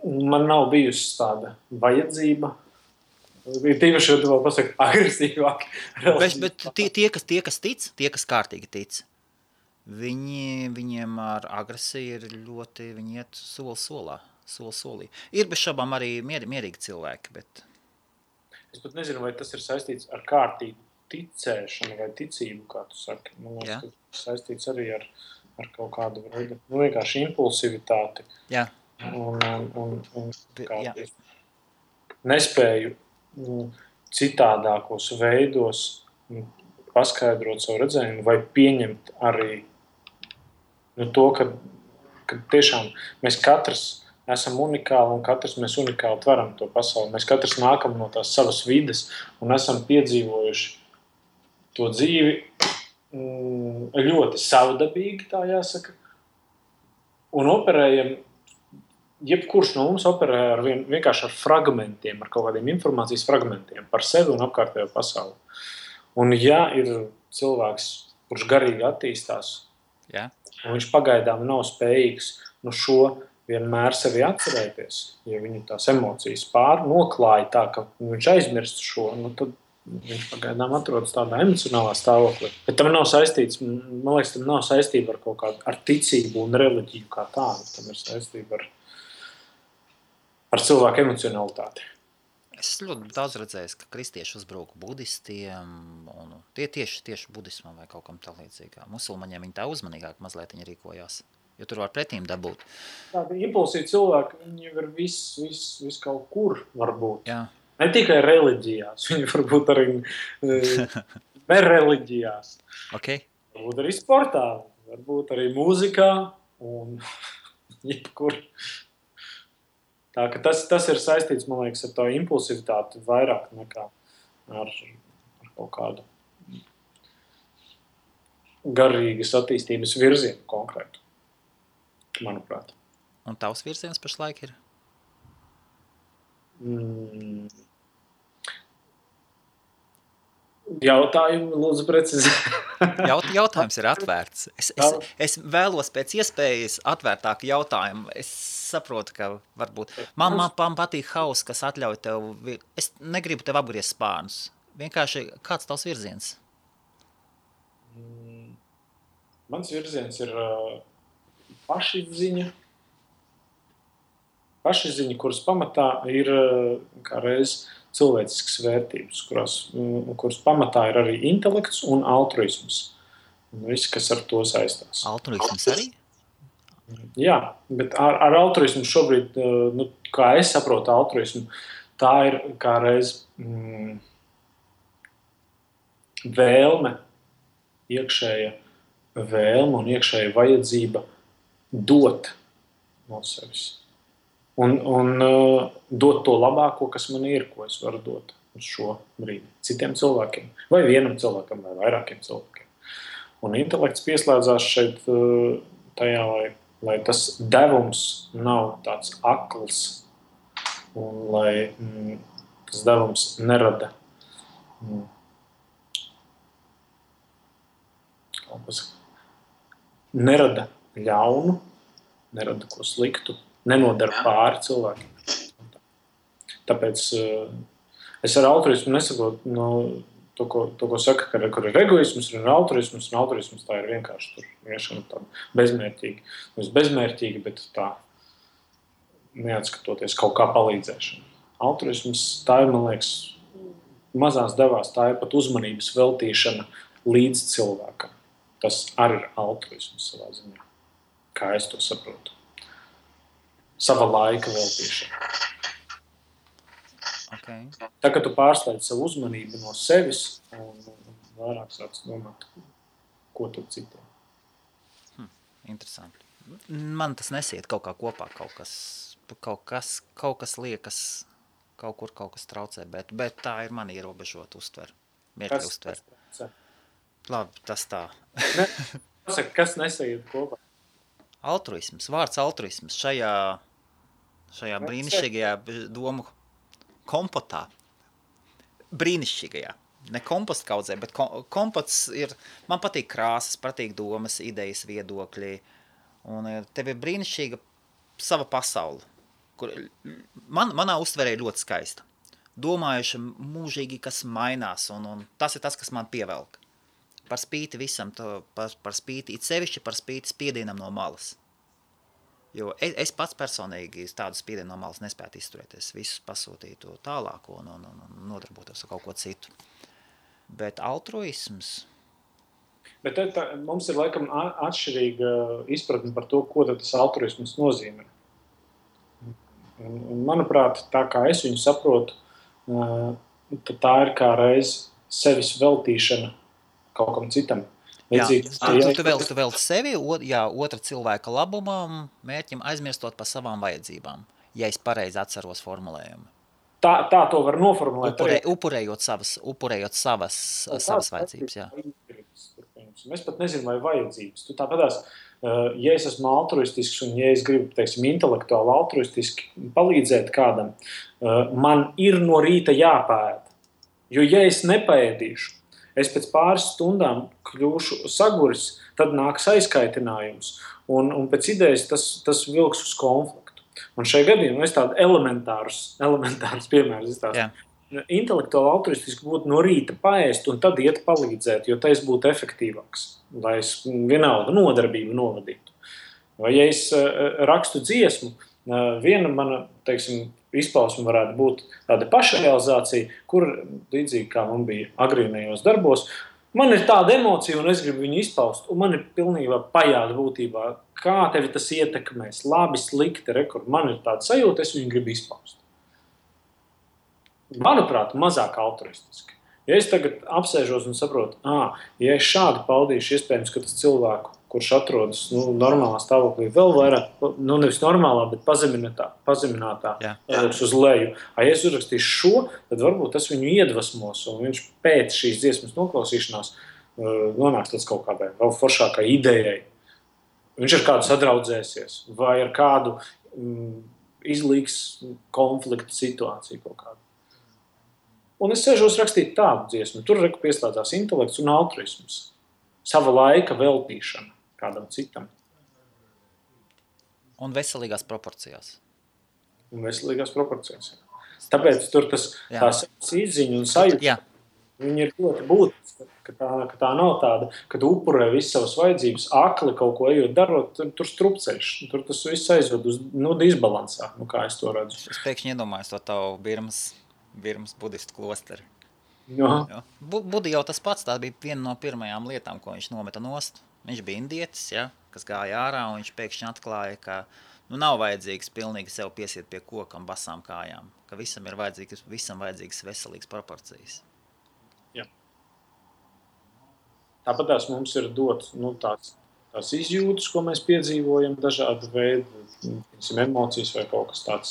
Man nav bijusi tāda vajadzība. Ir tīpaši, ja tu vēl pasaki agresīvāk. Bet tie, kas tic, tie, kas kārtīgi tic, viņiem ar agresiju ir ļoti, viņi iet solī. Ir bez šabām arī mierīgi cilvēki, bet... Es pat nezinu, vai tas ir saistīts ar kārtīgu ticēšanu vai ticību, kā tu saki. Man liekas, ka tas ir saistīts arī ar kaut kādu veidu, vienkārši impulsivitāti. Jā. Un nespēju citādākos veidos paskaidrot savu redzējumu vai pieņemt arī to, ka tiešām mēs katrs esam unikāli un katrs mēs unikāli tveram to pasauli. Mēs katrs nākam no tās savas vides un esam piedzīvojuši to dzīvi ļoti savdabīgi, tā jāsaka. Un operējam, jebkurš no mums operē vienkārši ar fragmentiem, ar kaut kādiem informācijas fragmentiem par sevi un apkārtējo pasauli. Un ja ir cilvēks, kurš garīgi attīstās, un viņš pagaidām nav spējīgs šo vienmēr sevi atcerēties, ja viņu tās emocijas noklāja tā, ka viņš aizmirst šo, tad viņš pagaidām atrodas tādā emocionālā stāvoklī. Bet tam nav saistīts, man liekas, tam nav saistība ar kaut kādu ar ticību un reliģiju kā tādu. Tam ir saistība ar cilvēku emocionalitāti. Es ļoti daudz redzējis, ka kristieši uzbrauka budistiem, un tie tieši budismam vai kaut kam tā līdzīgā. Musulmaņiem viņi tā uzmanīgāk mazliet viņi rīkojās. Jo tur var pretīm dabūt. Tādi impulsīvi cilvēki, viņi ir viss kaut kur varbūt. Jā. Ne tikai reliģijās, viņi varbūt arī nereliģijās. Okay. Varbūt arī sportā, varbūt arī mūzikā un jebkur. Tā ka tas ir saistīts, man liekas, ar to impulsivitāti vairāk nekā ar kaut kādu garīgas attīstības virzienu konkrētu. Manuprāt. Un tavs virziens pašlaik ir? Jautājumu, lūdzu, precizē. Jautājums ir atvērts. Es vēlos pēc iespējas atvērtāku jautājumu. Es saprotu, ka varbūt... Man patīk hauss, kas atļauj tev... Es negribu tev apgriezt spārnus. Vienkārši, kāds tavs virziens? Mans virziens ir... pašizziņa, kuras pamatā ir kā reiz cilvēciskas vērtības, kuras pamatā ir arī intelekts un altruisms. Viss, kas ar to saistās. Altruisms arī? Jā, bet ar altruismu šobrīd, kā es saprotu altruismu, tā ir kā reiz vēlme, iekšēja vēlme un iekšēja vajadzība dot no sevis. Un dot to labāko, kas man ir, ko es varu dot uz šo brīdi citiem cilvēkiem. Vai vienam cilvēkam, vai vairākiem cilvēkiem. Un intelekts pieslēdzās šeit tajā, lai tas devums nav tāds akls un lai tas devums nerada ļaunu, nerada ko sliktu, nenodara pāri cilvēkiem. Tāpēc es ar altruismu nesaprotu to, ko saka, kur ir egoisms, ir altruisms, un altruisms tā ir vienkārši tur viešana tāda bezmērķīga. Nevis bezmērķīga, bet tā neatskatoties kaut kā palīdzēšana. Altruisms tā ir, man liekas, mazās devās, tā ir pat uzmanības veltīšana līdz cilvēkam. Tas arī ir altruisms savā ziņā, kā es to saprotu. Sava laika veltīšana. Okay. Tā, ka tu pārslēdz savu uzmanību no sevis un vairāk sāc domāt, ko tad citiem. Interesanti. Man tas nesiet kaut kā kopā, kaut kas liekas, kaut kas traucē, bet tā ir man ierobežota uztver. Labi, tas tā. Kas nesaiet kopā? Altruisms, vārds altruisms šajā brīnišķīgajā domu kompotā. Brīnišķīgajā. Ne kompostkaudzē, bet kompots ir, man patīk krāsas, patīk domas, idejas, viedokļi. Un tev ir brīnišķīga sava pasaule, kur manā uztverē ļoti skaista. Domājuši mūžīgi, kas mainās, un tas ir tas, kas man pievelk. Par spīti visam, par spīti, it sevišķi par spīti spiedienam no malas. Jo es pats personīgi tādu spiedienu no malas nespētu izturēties, visus pasūtītu tālāko un nodarbotos ar kaut ko citu. Bet altruisms... Bet mums ir laikam atšķirīga izpratne par to, ko tas altruisms nozīmē. Un, manuprāt, tā kā es viņu saprotu, tad tā ir kā reiz sevis veltīšana kaut kam citam. Tu velti sevi, otra cilvēka labumam, mērķim aizmirstot par savām vajadzībām, ja es pareizi atceros formulējumu. Tā to var noformulēt. Upurējot savas vajadzības, jā. Es pat nezinu, vai vajadzības. Tu tāpatās, ja es esmu altruistisks un ja es gribu, teiksim, intelektuāli altruistiski palīdzēt kādam, man ir no rīta jāpēd. Jo ja es nepēdīšu, es pēc pāris stundām kļūšu saguris, tad nāks aizkaitinājums. Un pēc idejas tas vilks uz konfliktu. Un šajā gadījumā es tādu elementārus piemērus izstāstu. Intelektuāli altruistiski būtu no rīta paēst un tad iet palīdzēt, jo tas būtu efektīvāks, lai es vienalga nodarbību novadītu. Vai ja es rakstu dziesmu, viena mana, teiksim, izpausme varētu būt tāda pašrealizācija, kur līdzīgi kā man bija agrīnajos darbos, man ir tāda emocija un es gribu viņu izpaust, un man ir pilnībā pajāda būtībā, kā tevi tas ietekmēs, labi, slikti, man ir tāda sajūta, es viņu gribu izpaust. Manuprāt, mazāk altruistiski. Ja es tagad apsēžos un saprotu, ja es šādi paudīšu, iespējams, ka tas cilvēku, kurš atrodas normālā stāvoklī, vēl vairāk, nevis normālā, bet pazeminātā uz leju. Ja es uzrakstīšu šo, tad varbūt tas viņu iedvesmos, un viņš pēc šīs dziesmas noklausīšanās nonāks līdz kaut kādai vēl foršākai idejai. Viņš ar kādu sadraudzēsies, vai ar kādu izlīgs konflikta situāciju kaut kādu. Un es sēžos rakstīt tādu dziesmu. Tur pieslēdzās intelekts un altruisms. Sava laika veltīšana kādam citam. Un veselīgās proporcijās. Tāpēc tur tās izziņa un sajūta. Viņi ir ļoti būtiski, ka tā nav tāda, ka tu upurē visas savas vajadzības, akli kaut ko ejot darot, tur strupceļš. Tur tas viss aizved uz disbalansā, kā es to redzu. Es pēkšņi iedomājos to tavu Birmas budistu klosteri. Jā. Budi jau tas pats, tā bija viena no pirmajām lietām, ko viņš nometa nost. Viņš bija indietis, kas gāja ārā, un viņš pēkšņi atklāja, ka nav vajadzīgs pilnīgi sev piesiet pie kokam basām kājām, ka visam ir vajadzīgas veselīgas proporcijas. Jā. Tāpat mums ir dots tās izjūtas, ko mēs piedzīvojam, dažādi veidi, emocijas vai kaut kas tāds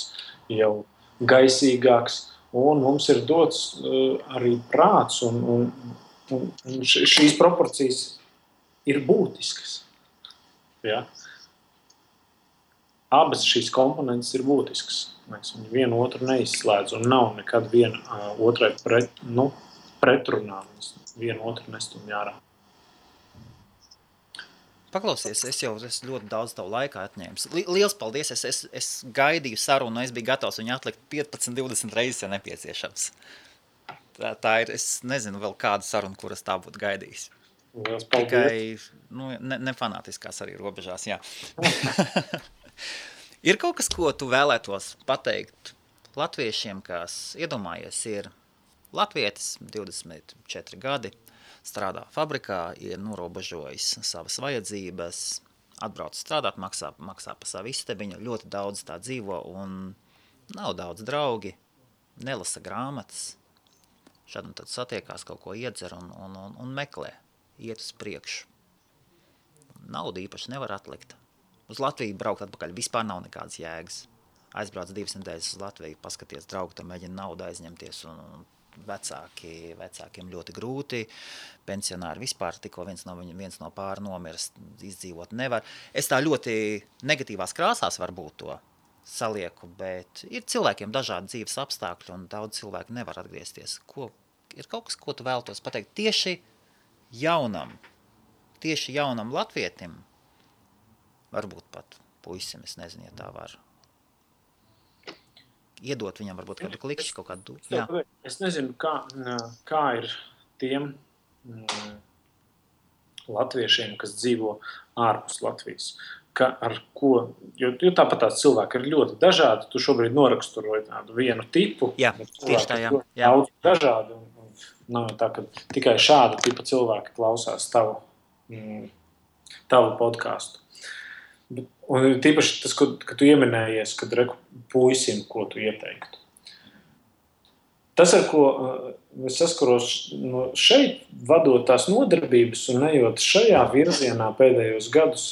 jau gaisīgāks, un mums ir dots arī prāts, un šīs proporcijas ir būtiskas. Ja? Abas šīs komponentes ir būtiskas. Viņi vienu otru neizslēdz un nav nekad viena otrai pretrunā. Vienu otru nestumj ārā. Paklausies, es ļoti daudz tavu laiku atņēmu. Liels paldies, es gaidīju sarunu, es biju gatavs viņu atlikt 15-20 reizes, ja nepieciešams. Tā ir, es nezinu vēl kādu sarunu, kuras tā būtu gaidījis. Tikai nefanātiskās arī robežās, jā. Ir kaut kas, ko tu vēlētos pateikt latviešiem, kas iedomājies ir latvietis, 24 gadi, strādā fabrikā, ir norobežojis savas vajadzības, atbrauc strādāt, maksā pa savu istabiņu, ļoti daudz tā dzīvo un nav daudz draugi, nelasa grāmatas, šad un tad satiekās, kaut ko iedzer un meklē. Iet uz priekšu. Naudu īpaši nevar atlikt. Uz Latviju braukt atpakaļ vispār nav nekādas jēgas. Aizbrauc 2 nedēļas uz Latviju, paskaties draugu, tam mēģina naudu aizņemties, un vecākiem ļoti grūti. Pensionāri vispār tikko viens no pāri nomirst, izdzīvot nevar. Es tā ļoti negatīvās krāsās varbūt to salieku, bet ir cilvēkiem dažādi dzīves apstākļi, un daudz cilvēku nevar atgriezties. Ir kaut kas, ko tu vēltos pateikt tieši jaunam latvietim, varbūt pat puisim, es nezinu, ja tā var iedot viņam varbūt kādu klikšķi, kaut kādu. Jā. Es nezinu, kā ir tiem latviešiem, kas dzīvo ārpus Latvijas. Jo tāpat tās cilvēki ir ļoti dažādi. Tu šobrīd noraksturoji tādu vienu tipu. Jā, tieši tā, jā. Daudz dažādi. Nav tā, ka tikai šāda tipa cilvēki klausās tavu podcastu. Un tīpaši tas, ka tu ieminējies, kad puisim, ko tu ieteiktu. Tas, ar ko es saskaros šeit, vadot tās nodarbības un ejot šajā virzienā pēdējos gadus,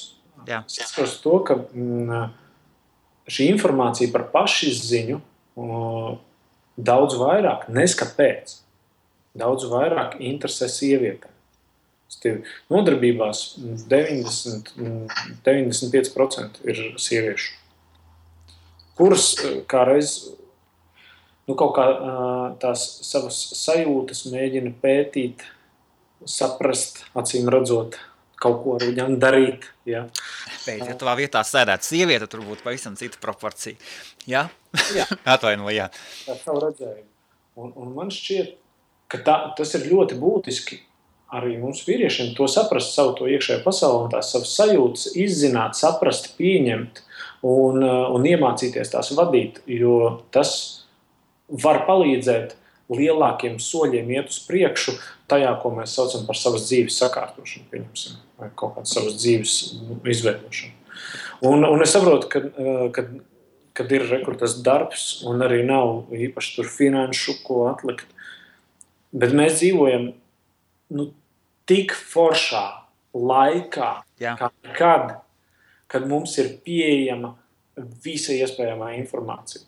saskaros to, ka šī informācija par pašizziņu daudz vairāk, neskapēc. Daudz vairāk interesē sievietēm. Nodarbībās 95% ir sieviešu, kuras kādreiz kaut kā tās savas sajūtas mēģina pētīt, saprast, acīm redzot, kaut ko ar viņām darīt. Ja? Bet, ja tavā vietā sēdētu sieviete, tur būtu pavisam cita proporcija. Jā? Atvaino, jā. Tā savu redzējumu. Un man šķiet, ka tas ir ļoti būtiski arī mums vīriešiem to saprast, savu to iekšējo pasauli un tās savas sajūtas izzināt, saprast, pieņemt un iemācīties tās vadīt, jo tas var palīdzēt lielākiem soļiem iet uz priekšu tajā, ko mēs saucam par savas dzīves sakārtošanu, pieņemsim, vai kaut kādu savas dzīves izveidošanu. Un es saprotu, kad ir tas darbs un arī nav īpaši tur finanšu, ko atlikt. Bet mēs dzīvojam tik foršā laikā, kad mums ir pieejama visa iespējamā informācija.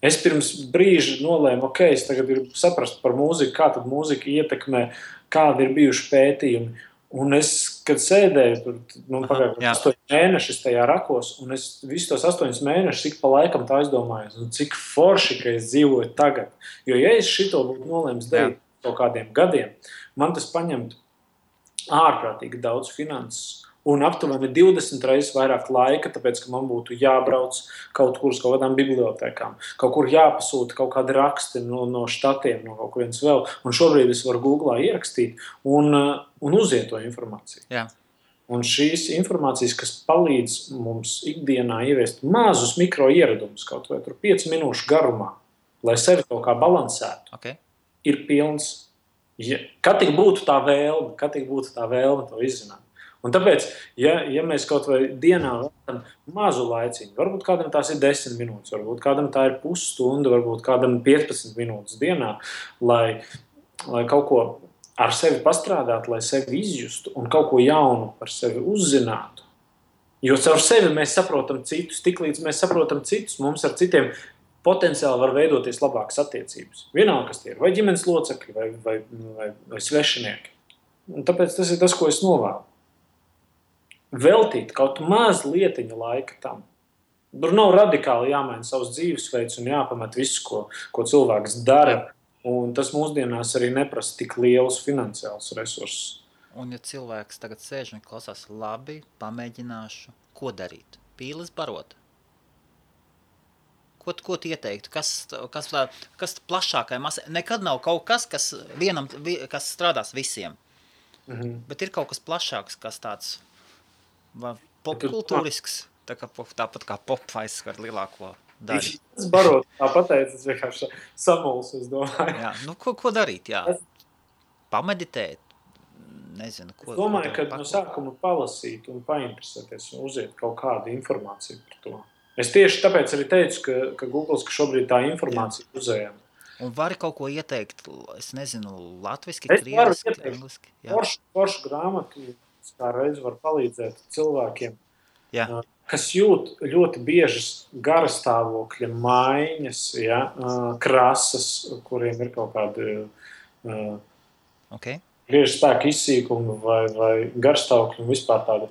Es pirms brīža nolēmu, es tagad gribu saprast par mūziku, kā tad mūzika ietekmē, kādi ir bijuši pētījumi. Un es, kad sēdēju, pagājuši 8 mēnešus tajā rakos, un es visus tos 8 mēnešus ik pa laikam tā aizdomājos, cik forši, ka es dzīvoju tagad. Jo, ja es šito būtu nolēmis darīt kaut kādiem gadiem, man tas paņemtu ārprātīgi daudz finanses un aptuveni 20 reizes vairāk laika, tāpēc, ka man būtu jābrauc kaut kur uz kaut kādām bibliotēkām, kaut kur jāpasūta kaut kādi raksti no štatiem, no kaut kurienes vēl. Un šobrīd es varu Googlā ierakstīt un uziet to informāciju. Jā. Un šīs informācijas, kas palīdz mums ikdienā ieviest mazus mikro ieradumus, kaut vai 5 minūšu garumā, lai sevi kaut kā balansētu, ir pilns. Kad tik būtu tā vēlme to izzināt. Un tāpēc, ja mēs kaut vai dienā veltam mazu laiciņu, varbūt kādam tās ir 10 minūtes, varbūt kādam tā ir pusstunda, varbūt kādam 15 minūtes dienā, lai kaut ko ar sevi pastrādātu, lai sevi izjustu un kaut ko jaunu par sevi uzzinātu. Jo caur sevi mēs saprotam citus, tiklīdz mēs saprotam citus, mums ar citiem potenciāli var veidoties labākas attiecības. Vienalga, kas tie ir, vai ģimenes locekļi, vai svešinieki. Un tāpēc tas ir tas, ko es novēlu. Veltīt kaut maz lietiņa laika tam. Tur nav radikāli jāmaina savs dzīvesveids un jāpamet visu, ko cilvēks dara. Un tas mūsdienās arī neprasa tik lielus finansiālus resursus. Un ja cilvēks tagad sēž un klausās, labi, pamēģināšu, ko darīt? Pīles barot? Ko tu ieteiktu? Kas plašākai masai? Nekad nav kaut kas, kas strādās visiem. Bet ir kaut kas plašāks, kas tāds popkultūrisks, tāpat kā popvaiss ar lielāko daļu. Es barot, tā pateicu, es vienkārši samuls, es domāju. Jā, ko darīt, jā? Pameditēt, nezinu, ko. Es domāju, ka no sākuma palasīt un painteresēties un uziet kaut kādu informāciju par to. Es tieši tāpēc arī teicu, ka Googles, ka šobrīd tā informācija uzējama. Un vari kaut ko ieteikt, es nezinu, latviski, krieviski, angliski? Foršu grāmatu kā reiz var palīdzēt cilvēkiem, kas jūt ļoti biežas garastāvokļa maiņas, krasas, kuriem ir kaut kādi griežu spēku izsīkumi vai garastāvokļi un vispār tāda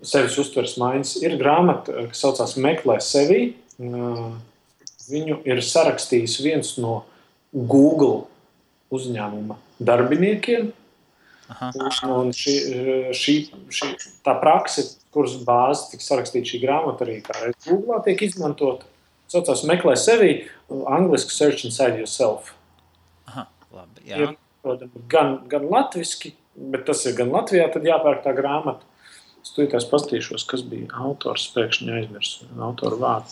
sevis uztveres maiņas. Ir grāmata, kas saucās Meklē sevi. Viņu ir sarakstījis viens no Google uzņēmuma darbiniekiem. Un tā prakse, kuras bāze tika sarakstīta šī grāmata arī kā Googlā tiek izmantota, saucās Meklē sevi, angliski Search Inside Yourself. Labi, jā. Ir gan latviski, bet tas ir gan Latvijā, tad jāpērk tā grāmata. Es tūlītās pastīšos, kas bija autors, pēkšņi aizmirsu autoru vārdu.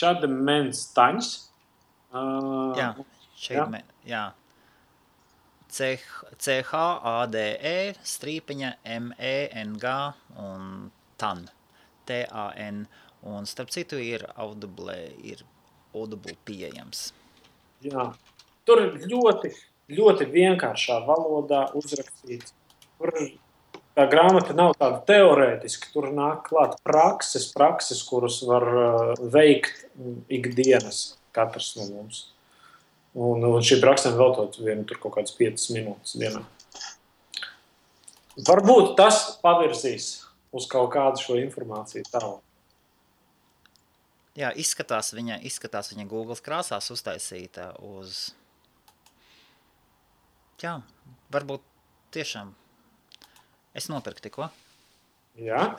Čademens Taņs. Jā. CHADE_MENG un TAN. TAN. Un starp citu ir Audible pieejams. Jā. Tur ir ļoti vienkāršā valodā uzrakstīts. Tur tā grāmata nav tāda teorētiska. Tur nāk klāt prakses, kuras var veikt ikdienas katrs no mums. Un šī praksēm veltot vienu tur kaut kādas 5 minūtes dienā. Varbūt tas pavirzīs uz kaut kādu šo informāciju tālu. Jā, izskatās viņa Googles krāsās uztaisīta uz... Jā, varbūt tiešām. Es nopirku tikko. Jā?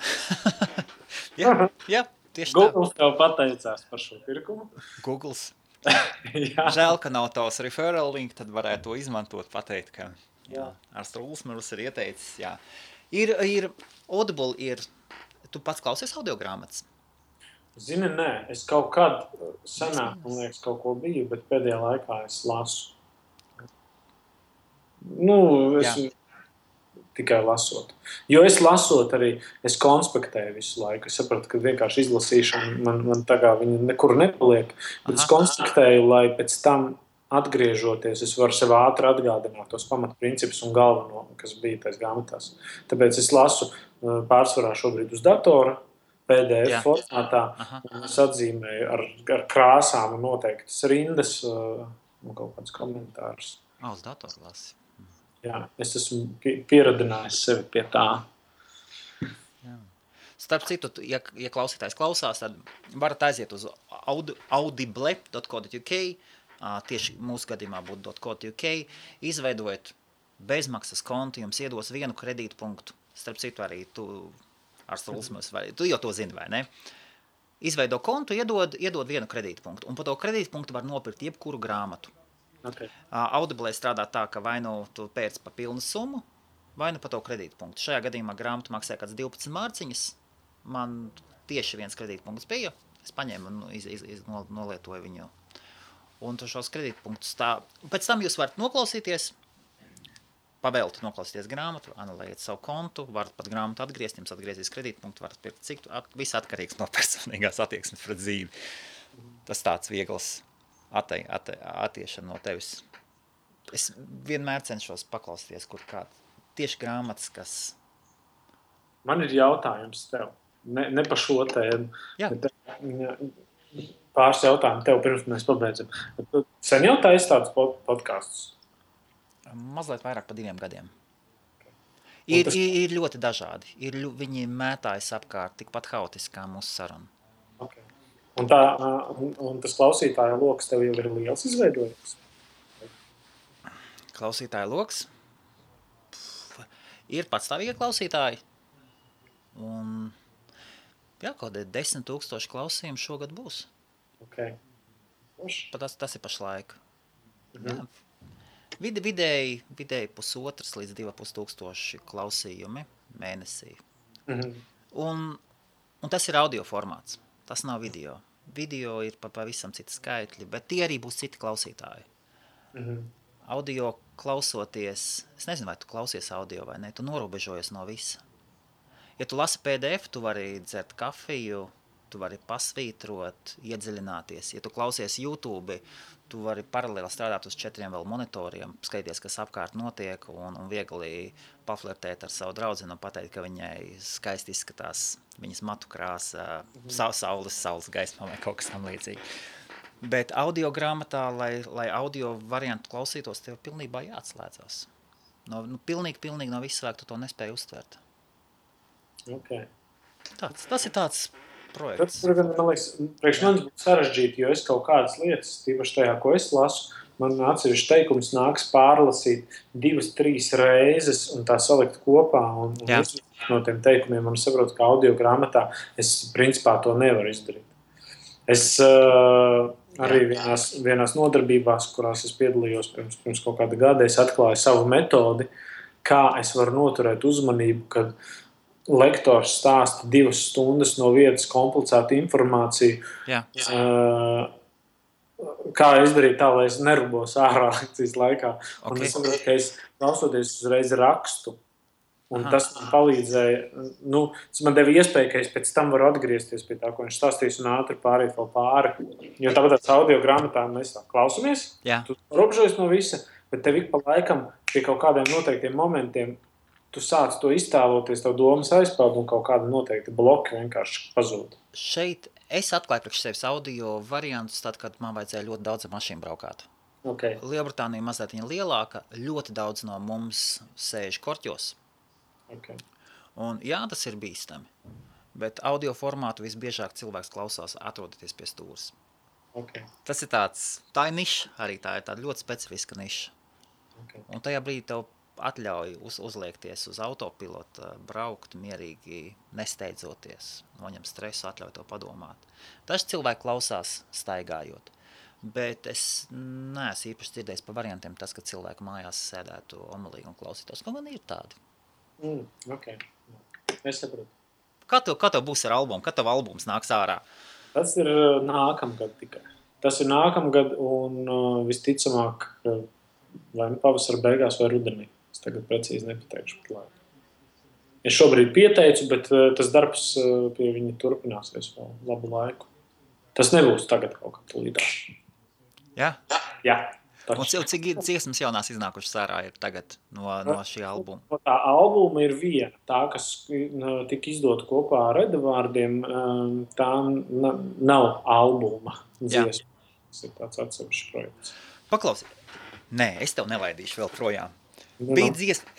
Jā, tieši tā. Googles tev pateicās par šo pirkumu. Googles. Žēl, ka nav tavs referral link, tad varētu to izmantot, pateikt, ka Ārsts Ulsmers ir ieteicis. Jā. Ir Audible, tu pats klausies audiogrāmatas? Zini, nē, es kaut kad senāk, man liekas, kaut ko biju, bet pēdējā laikā es lasu. Tikai lasot. Jo es lasot arī, es konspektēju visu laiku. Es sapratu, ka vienkārši izlasīšana man tagad viņa nekur nepaliek. Bet es konspektēju, lai pēc tam atgriežoties, es varu sev ātri atgādināt tos pamatprincipus un galveno, kas bija tais grāmatās. Tāpēc es lasu pārsvarā šobrīd uz datora, PDF formātā, un es atzīmēju ar krāsām un noteiktas rindas un kaut kādus komentārus. Uz datoru lasi. Jā, es esmu pieradinājis sevi pie tā. Jā. Starp citu, ja klausītājs klausās, tad varat aiziet uz audible.co.uk, tieši mūsu gadījumā būtu .co.uk, izveidojot bezmaksas kontu jums iedos vienu kredītpunktu. Starp citu arī tu ar Stulsmus, vai tu jau to zini, vai ne? Izveido kontu, iedod vienu kredītpunktu. Un pa to kredītpunktu var nopirkt jebkuru grāmatu. Okay. Audible strādā tā, ka vai nu tu pērc pa pilnu summu, vai nu pa to kredītpunktu. Šajā gadījumā grāmatu maksāja kāds 12 mārciņas. Man tieši viens kredītpunkts bija. Es paņēmu un nolietoju viņu. Un tu šos kredītpunktus tā. Pēc tam jūs varat noklausīties, pavēlti noklausīties grāmatu, anulējiet savu kontu, varat pat grāmatu atgriezt, jums atgriezīs kredītpunktu, varat pirkt cik, viss atkarīgs no personīgās attieksmes pret dzīvi. Tas tāds viegls attiešana no tevis. Es vienmēr cenšos paklausīties, kur kāds tieši grāmatas, kas... Man ir jautājums tev. Ne par šo tēmu. Jā. Pāris jautājumu tev, pirms mēs pabeidzam. Tu sen jau taisi tādus podkastus? Mazliet vairāk par 2 gadiem. Ir ļoti dažādi. Viņi mētājas apkārt tikpat haotiski kā mūsu saruna. Okay. Un tas klausītāja loks tev jau ir liels izveidojies? Klausītāja loks? Ir patstāvīgi klausītāji. Un kaut 10 000 klausījumu šogad būs. Okay. Tas ir pašlaik. Jā. Vidēji 1,5 līdz 2,5 tūkstoši klausījumi mēnesī. Un tas ir audio formāts. Tas nav video. Video ir pavisam citi skaitļi, bet tie arī būs citi klausītāji. Audio klausoties, es nezinu, vai tu klausies audio vai ne, tu norobežojies no visa. Ja tu lasi PDF, tu vari dzert kafiju, tu vari pasvītrot, iedziļināties. Ja tu klausies YouTube, tu vari paralēli strādāt uz 4 vēl monitoriem, skaties, kas apkārt notiek un viegli paflirtēt ar savu draudzeni un pateikt, ka viņai skaisti izskatās viņas matu krāsa, saules gaismā vai kaut kas tam līdzīgi. Bet audio grāmatā, lai audio variantu klausītos, tev pilnībā jāatslēdzās. Pilnīgi no visu svēku tu to nespēji uztvert. Okay. Tas ir tāds projekts. Tas, man liekas, priekš manis būtu sarežģīti, jo es kaut kādas lietas, tīpaši tajā, ko es lasu, man atsevišķi teikums nāks pārlasīt 2-3 reizes un tā salikt kopā. Un no tiem teikumiem man saprot, ka audio grāmatā es principā to nevaru izdarīt. Es arī vienās nodarbībās, kurās es piedalījos pirms kaut kāda gada, es atklāju savu metodi, kā es varu noturēt uzmanību, kad lektors stāsta 2 stundas no vietas komplicētu informāciju. Kā izdarīt tā, lai es nerubos ārā lekcijas laikā. Okay. Un es saprotu, ka es klausoties uzreiz rakstu. Un tas man palīdzēja, tas man deva iespēju, ka es pēc tam varu atgriezties pie tā, ko viņš stāstīs un ātri pāriet vēl pāri. Jo tāpat tās audio grāmatā mēs tā klausamies, tu robežojies no visa, bet tev ik pa laikam pie kaut kādiem noteiktiem momentiem tu sāc to iztēloties, tev domas aizpeld un kaut kāda noteikti bloki vienkārši pazūd. Šeit es atklāju priekš sevis audio variantus tad, kad man vajadzēja ļoti daudz ar mašīnu braukāt. Okay. Lielbritānija mazliet viņa lielāka, ļoti daudz no mums sēž korķos. Okay. Un tas ir bīstami. Bet audio formātu visbiežāk cilvēks klausās atrodoties pie stūres. Okay. Tas ir tā ir niša arī, tā ir tāda ļoti specifiska niša. Okay. Un tajā brīdī tev atļauj uzliekties uz autopilota, braukt mierīgi, nesteidzoties, noņem stresu, atļauj to padomāt. Daži cilvēki klausās staigājot, bet es neesmu īpaši dzirdējis par variantiem tas, ka cilvēki mājās sēdētu omulīgi un klausītos. Ko man ir tādi? Okay. Es saprotu. Kā tev būs ar albumu? Kad tev albums nāks ārā? Tas ir nākamgad tikai. Tas ir nākamgad un visticamāk vai pavasara beigās vai rudenī. Es tagad precīzi nepateikšu pat laiku. Es šobrīd pieteicu, bet tas darbs pie viņa turpināsies vēl labu laiku. Tas nebūs tagad kaut kā tulītā. Jā? Jā. Un cik dziesmas jaunās iznākušas ārā ir tagad no šī albuma? Tā albuma ir viena. Tā, kas tika izdota kopā ar Edvārdiem, tā nav albuma dziesma. Tas ir tāds atsevišķs projekts. Paklausi. Nē, es tev nelaidīšu vēl projām. Bija dziesma,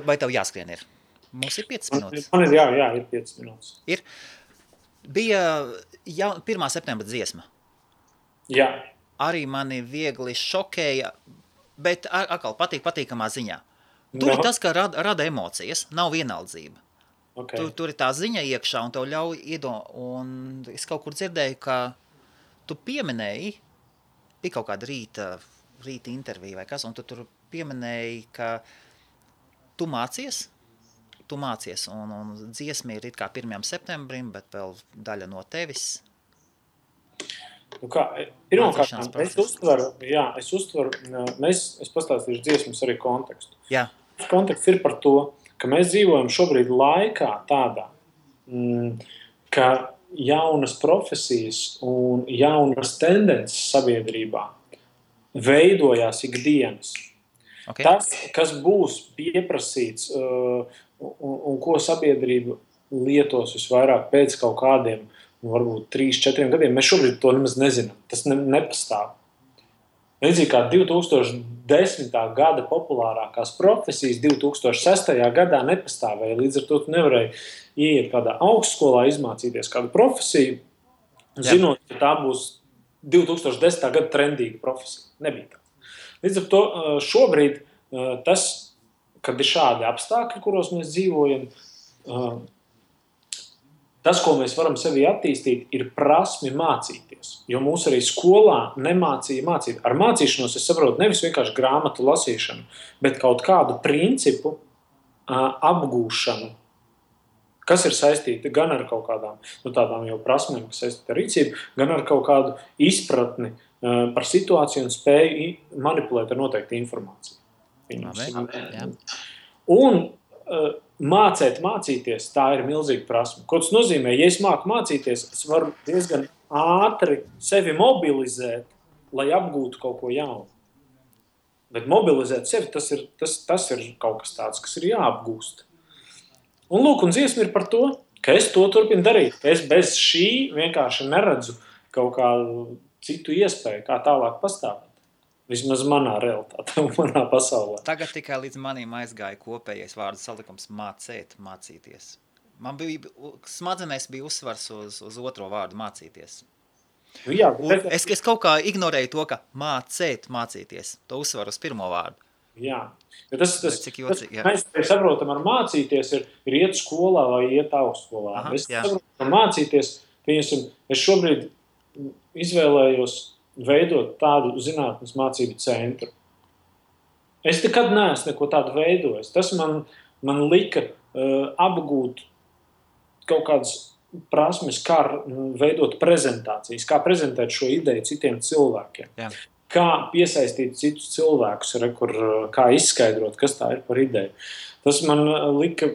vai tev jāskrien ir? Mums ir 5 minūtes. Man ir, jā, ir 5 minūtes. Ir. Bija 1. septembra dziesma. Jā. Arī mani viegli šokēja, bet atkal patīkamā ziņā. Tur ir tas, ka rada emocijas, nav vienaldzība. Okay. Tur ir tā ziņa iekšā, un tev ļauj un es kaut kur dzirdēju, ka tu pieminēji, bija kaut kāda rīta intervija vai kas, un tu tur pieminēji, ka tu mācies, un dziesma ir it kā 1. septembrim, bet vēl daļa no tevis. Pirmkārt, es uztveru, es pastāstīšu dziesmas arī kontekstu. Jā. Konteksts ir par to, ka mēs dzīvojam šobrīd laikā tādā, ka jaunas profesijas un jaunas tendences sabiedrībā veidojās ikdienas. Okay. Tas, kas būs pieprasīts un ko sabiedrība lietos visvairāk pēc kaut kādiem, varbūt 3-4 gadiem, mēs šobrīd to nemaz nezinām. Tas nepastāv. Līdzīgi kā 2010. gada populārākās profesijas 2006. gadā nepastāvēja. Līdz ar to tu nevarēji ieiet kādā augstskolā, izmācīties kādu profesiju, zinot, ka tā būs 2010. gada trendīga profesija. Nebija tā. Līdz ar to šobrīd tas, kad ir šādi apstākļi, kuros mēs dzīvojam, tas, ko mēs varam sevi attīstīt, ir prasmi mācīties. Jo mūs arī skolā nemācīja mācīt. Ar mācīšanos es saprotu nevis vienkārši grāmatu lasīšanu, bet kaut kādu principu apgūšanu, kas ir saistīta gan ar kaut kādām tādām jau prasmēm, kas saistīta ar rīcību, gan ar kaut kādu izpratni par situāciju un spēju manipulēt ar noteiktu informāciju. Un mācīties, tā ir milzīga prasme. Ko tas nozīmē? Ja es māku mācīties, es varu diezgan ātri sevi mobilizēt, lai apgūtu kaut ko jaunu. Bet mobilizēt sevi, tas ir kaut kas tāds, kas ir jāapgūst. Un lūk, un dziesma ir par to, ka es to turpinu darīt. Es bez šī vienkārši neredzu kaut kādu citu iespēju, kā tālāk pastāvēt. Vismaz manā realitātē, manā pasaulē. Tagad tikai līdz manim aizgāja kopējais vārdu salikums mācīties. Man smadzenēs bija uzsvars uz otro vārdu mācīties. Jā, es kaut kā ignorēju to, ka mācīties. To uzsvaru uz pirmo vārdu. Jā. Mēs saprotam ar mācīties ir iet skolā vai iet augstskolā. Es saprotu, ka mācīties, es šobrīd izvēlējos veidot tādu zinātnes mācību centru. Es nekad neesmu neko tādu veidojis. Tas man lika apgūt kaut kādas prasmes, kā veidot prezentācijas, kā prezentēt šo ideju citiem cilvēkiem. Jā. Kā piesaistīt citus cilvēkus, kā izskaidrot, kas tā ir par ideju. Tas man lika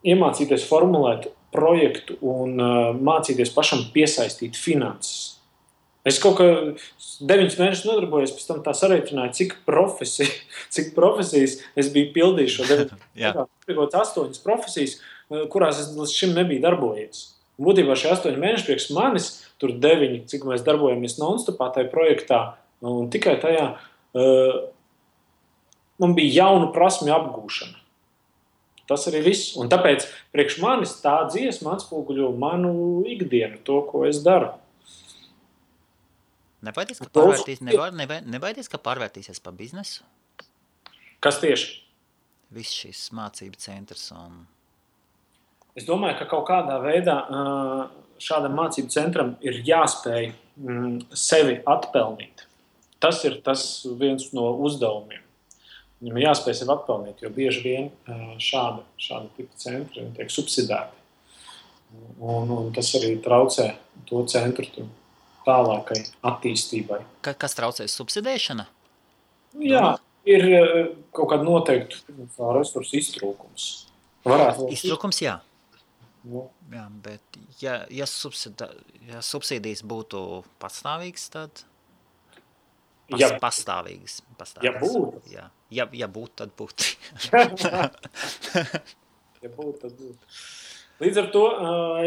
iemācīties formulēt projektu un mācīties pašam piesaistīt finanses. Es kaut kā 9 mēnešus nodarbojos, pēc tam tā sareiķināju, cik profesijas es biju pildījis šo 9 mēnešus. 8 profesijas, kurās es līdz šim nebiju darbojies. Un būtībā šie 8 mēneši priekš manis, tur 9, cik mēs darbojamies non-stopā tajā projektā, un tikai tajā man bija jaunu prasmju apgūšana. Tas arī viss. Un tāpēc priekš manis tā dziesma atspoguļo manu ikdienu, to, ko es daru. Nebaidies, ka pārvērtīsies par biznesu? Kas tieši? Viss šis mācību centrs un... Es domāju, ka kaut kādā veidā šādam mācību centram ir jāspēj sevi atpelnīt. Tas ir viens no uzdevumiem. Viņam jāspēj sevi atpelnīt, jo bieži vien šāda tipa centri tiek subsidēti. Un tas arī traucē to centru tālākai attīstībai. Kas traucēs subsidēšana? Jā, ir kaut kāda noteikta resursu iztrūkums. Iztrūkums, jā. Nu. Jā, bet ja subsīdijas būtu pastāvīgas, tad... Pastāvīgas. Ja būtu. Ja būtu, tad būtu. Ja būtu, tad būtu. Līdz ar to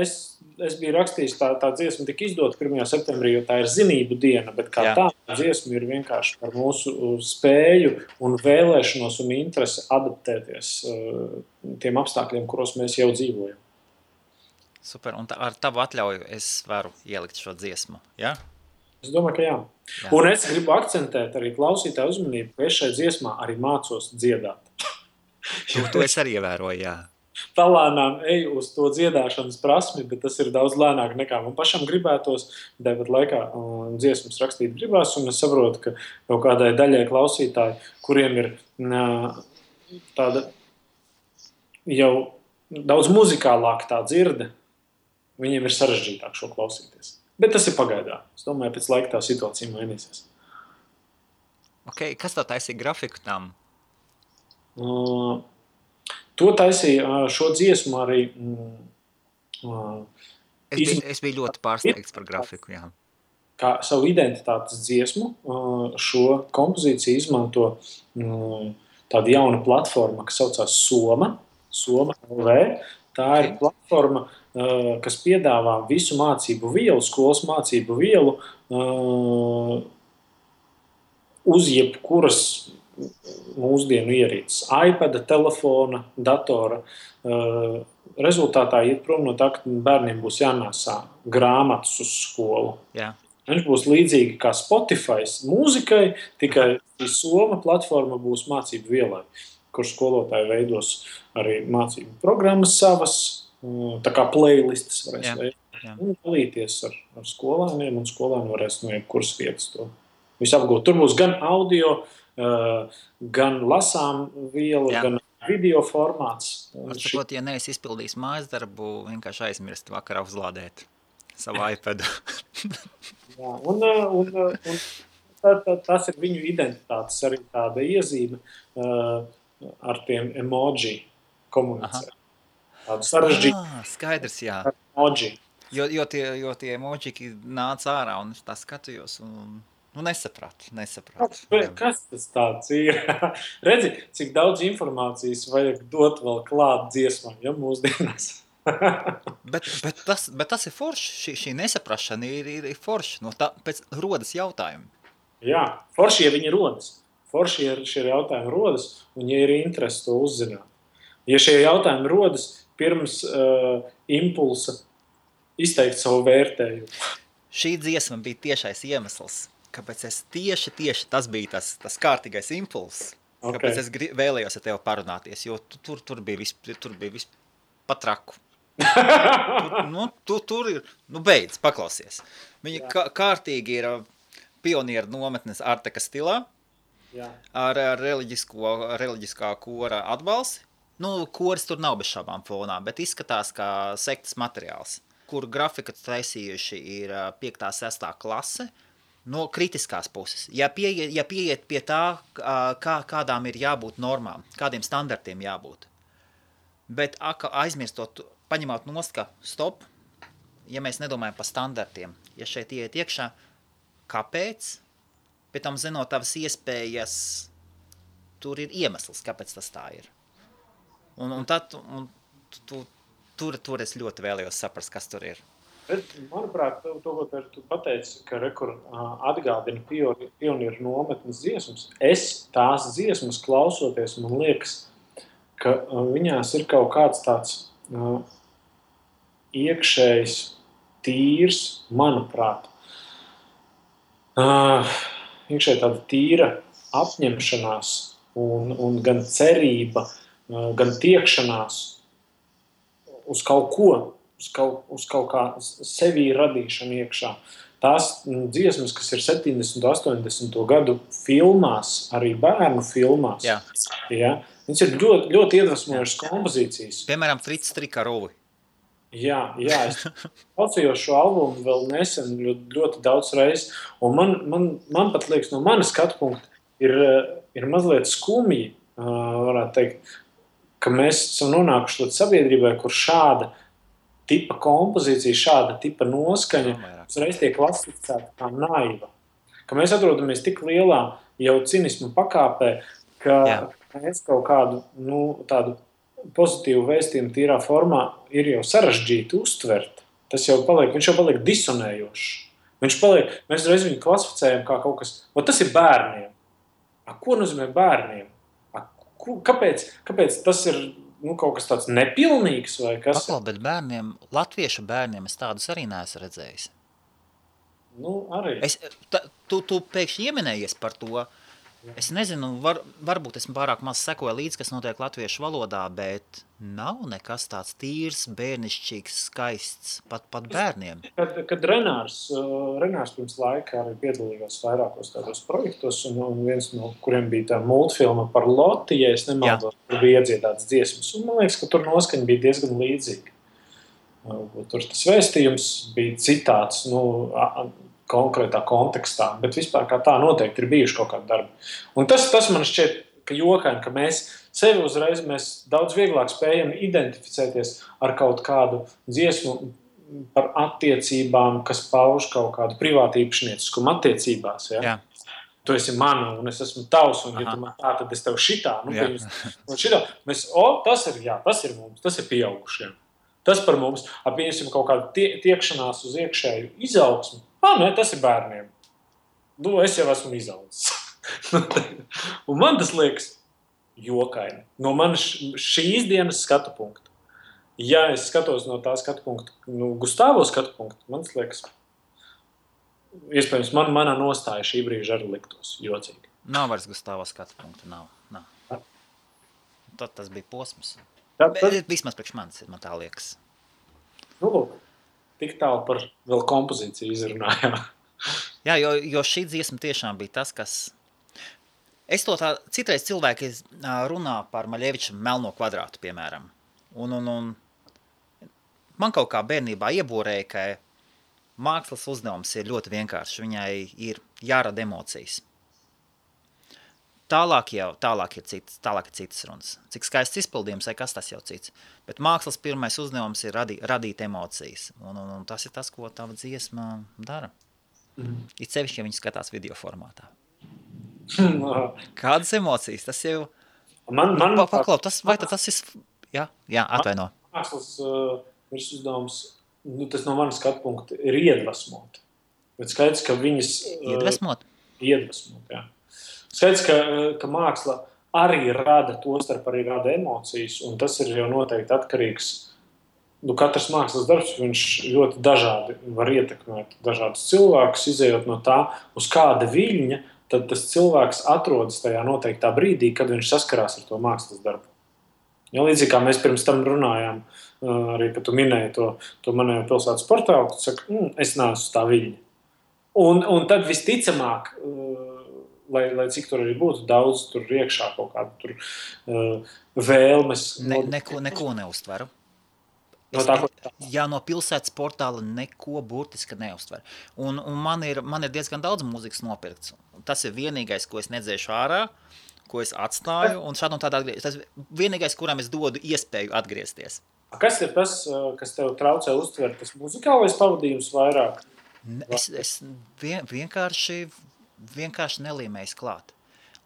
es biju rakstījis, tā dziesma tika izdota 1. septembrī, jo tā ir zinību diena, bet kā tā dziesma ir vienkārši par mūsu spēju un vēlēšanos un interesi adaptēties tiem apstākļiem, kuros mēs jau dzīvojam. Super, un ar tavu atļauju es varu ielikt šo dziesmu, ja? Es domāju, ka jā. Jā. Un es gribu akcentēt arī klausītāju uzmanību, ka es šai dziesmā arī mācos dziedāt. To es arī ievēroju, jā. Palānām eju uz to dziedāšanas prasmi, bet tas ir daudz lēnāk nekā man pašam gribētos. Tāpat laikā dziesmas rakstīt gribās, un es saprotu, ka kaut kādai daļai klausītāji, kuriem ir tāda jau daudz muzikālāka tā dzirde, viņiem ir sarežģītāk šo klausīties. Bet tas ir pagaidā. Es domāju, pēc laika tā situācija mainīsies. Okay, kas tā taisīja grafiku tam? To taisīja šo dziesmu arī. Es biju ļoti pārsteigts par grafiku, jā. Kā savu identitātes dziesmu, šo kompozīciju izmanto tāda jauna platforma, kas saucās Soma LV. Tā ir platforma, kas piedāvā visu mācību vielu, skolas mācību vielu uz jebkuras mūsdienu ierīces, iPada, telefona, datora. Rezultātā iet prom no tā, ka bērniem būs jānēsā grāmatas uz skolu. Jā. Viņš būs līdzīgi kā Spotify mūzikai, tikai Soma platforma būs mācību vielai, kur skolotāji veidos arī mācību programmas savas, tā kā playlistas varēs veidot. Un dalīties ar skolēniem, un skolēni varēs no jebkuras vietas to visu apgūt. Tur būs gan audio, gan lasām vielu, gan video formāts. Atsakot, ja neesi izpildījis mājas darbu, vienkārši aizmirst vakarā uzlādēt savu iPadu. Jā, un tas ir viņu identitātes arī tāda iezīme ar tiem emoji komunicēt. Tādu sarežģītu. Skaidrs, jā. Emoji. Jo tie emoji nāca ārā un es tā skatījos un nesapratu. Kas tas tāds ir? Redzi, cik daudz informācijas vajag dot vēl klāt dziesmām, ja mūsdienās. bet tas ir forši, šī nesaprašana ir forši, no tā pēc rodas jautājumi. Jā, forši, ja viņi rodas. Forši, ja šie jautājumi rodas, un ja ir interesi to uzzināt. Ja šie jautājumi rodas pirms impulsa izteikt savu vērtējumu. Šī dziesma bija tiešais iemesls, kāpēc es tieši tas bija tas kārtīgais impulss, kāpēc es vēlējos ar tevi parunāties, jo tur bija viss patraku. Tur ir, beidz, paklausies. Viņa kārtīgi ir pionieru nometnes Arteka stilā, ar reliģiskā kora atbalsi. Koris tur nav bez šābām fonā, bet izskatās kā sektas materiāls, kur grafika taisījuši ir 5. 6. klase no kritiskās puses. Ja pieiet pie tā, kādām ir jābūt normām, kādiem standartiem jābūt. Bet aizmirstot, paņemot nost, ka stop, ja mēs nedomājam par standartiem, ja šeit iet iekšā, kāpēc? Pēc tam zinot tavas iespējas, tur ir iemesls, kāpēc tas tā ir. Un tur es ļoti vēlējos saprast, kas tur ir. Bet, manuprāt, ko tu pateici, ka atgādina pionieru nometnes dziesmas. Es tās dziesmas klausoties, man liekas, ka viņās ir kaut kāds tāds iekšējs, tīrs, manuprāt, iekšēji tāda tīra apņemšanās un gan cerība, gan tiekšanās uz kaut ko, uz kaut kā sevī radīšanu iekšā. Tās dziesmas, kas ir 70. 80. gadu filmās, arī bērnu filmās, viņas ir ļoti, ļoti iedvesmojušas kompozīcijas. Piemēram, Frits Trikarovi. Jā, es klausījos šo albumu vēl nesen ļoti daudz reizes, un man pat liekas, no manas skatu punkta ir mazliet skumji, varētu teikt, ka mēs esam nonākuši līdz sabiedrībai, kur šāda tipa kompozīcija, šāda tipa noskaņa uzreiz tiek klasificēta kā naiva. Ka mēs atrodamies tik lielā jau cinismu pakāpē, ka mēs kaut kādu tādu pozitīvu vēstījumu tīrā formā ir jau sarežģīti uztvert. Viņš jau paliek disonējošs. Mēs reiz viņu klasificējam kā kaut kas, tas ir bērniem. Ko nozīmē bērniem? Kāpēc tas ir kaut kas tāds nepilnīgs vai kas? Bet bērniem, latviešu bērniem es tādus arī neesmu redzējis. Nu, arī. Tu pēkšņi ieminējies par to. Es nezinu, varbūt esmu pārāk maz sekoju līdz, kas notiek latviešu valodā, bet nav nekas tāds tīrs, bērnišķīgs, skaists, pat bērniem. Kad Renārs pirms laika arī piedalījās vairākos tādos projektos, un viens no kuriem bija tā multfilma par Loti, ja es nemaldos, tur bija iedziedāts dziesmas, un man liekas, ka tur noskaņa bija diezgan līdzīga. Tur tas vēstījums bija citāts, konkrētā kontekstā, bet vispār kā tā noteikti ir bijuši kaut kādi darbi. Un tas man šķiet, ka jokaini, ka mēs sevi uzreiz daudz vieglāk spējam identificēties ar kaut kādu dziesmu par attiecībām, kas pauž kaut kādu privātu īpašnieciskumu attiecībās. Ja? Jā. Tu esi mana un es esmu tavs, un ja tu man tā, tad es tev šitā. Šitā. Tas ir mums, tas ir pieaugušiem. Tas par mums, pieņemsim kaut kādu tiekšanās uz iekšēju izaugsmu. Nē, tas ir bērniem. Es jau esmu izaudzis. Un man tas liekas jokaini. No manas šīs dienas skatu punkta. Ja es skatos no tā skatu punkta, Gustavo skatu punkta, man tas liekas, iespējams, manā nostāja šī brīža arī liktos jocīgi. Nav vairs Gustavo skatu punkta, nav. Tad tas bija posms. Vismaz priekš manis, man tā liekas. Tik tālu par vēl kompozīciju izrunājām. Jā, jo šī dziesma tiešām bija tas, kas... Es to tā, citreiz cilvēki runā par Maļeviča Melno kvadrātu, piemēram. Un man kaut kā bērnībā ieborēja, ka mākslas uzdevums ir ļoti vienkāršs. Viņai ir jārada emocijas. Tālāk ir citas runas. Cik skaists izpildījums, vai kas tas jau cits. Bet mākslas pirmais uzdevums ir radīt emocijas. Un tas ir tas, ko tava dziesma dara. It sevišķi, ja viņi skatās video formātā. Kādas emocijas? Tas jau... Paklau, tas ir... Jā, atvaino. Mākslas uzdevums, tas no manas skatu punkta, ir iedvesmot. Bet skaidrs, ka viņas... Iedvesmot? Iedvesmot, jā. Skaidrs, ka māksla arī rada emocijas, un tas ir jau noteikti atkarīgs. Katrs mākslas darbs, viņš ļoti dažādi var ietekmēt dažādus cilvēkus, izējot no tā, uz kāda viļņa, tad tas cilvēks atrodas tajā noteiktā brīdī, kad viņš saskarās ar to mākslas darbu. Ja, līdzīgi kā mēs pirms tam runājām, arī, kad tu minēji to manējo pilsētas portālu, tu saki, es neesmu tā viļņa. Un tad visticamāk, lai cik tur arī būtu daudz tur iekšā kaut kādu tur vēlmes. Neko neuztveru. No pilsētas portāla neko burtiski neuztveru. Un man ir diezgan daudz mūzikas nopirkts. Tas ir vienīgais, ko es nedzēšu ārā, ko es atstāju, un šādi un tādā atgriezties. Tas ir vienīgais, kuram es dodu iespēju atgriezties. Kas ir tas, kas tev traucē uztvert, tas muzikālais pavadījums vairāk? Es vienkārši nelīmējis klāt.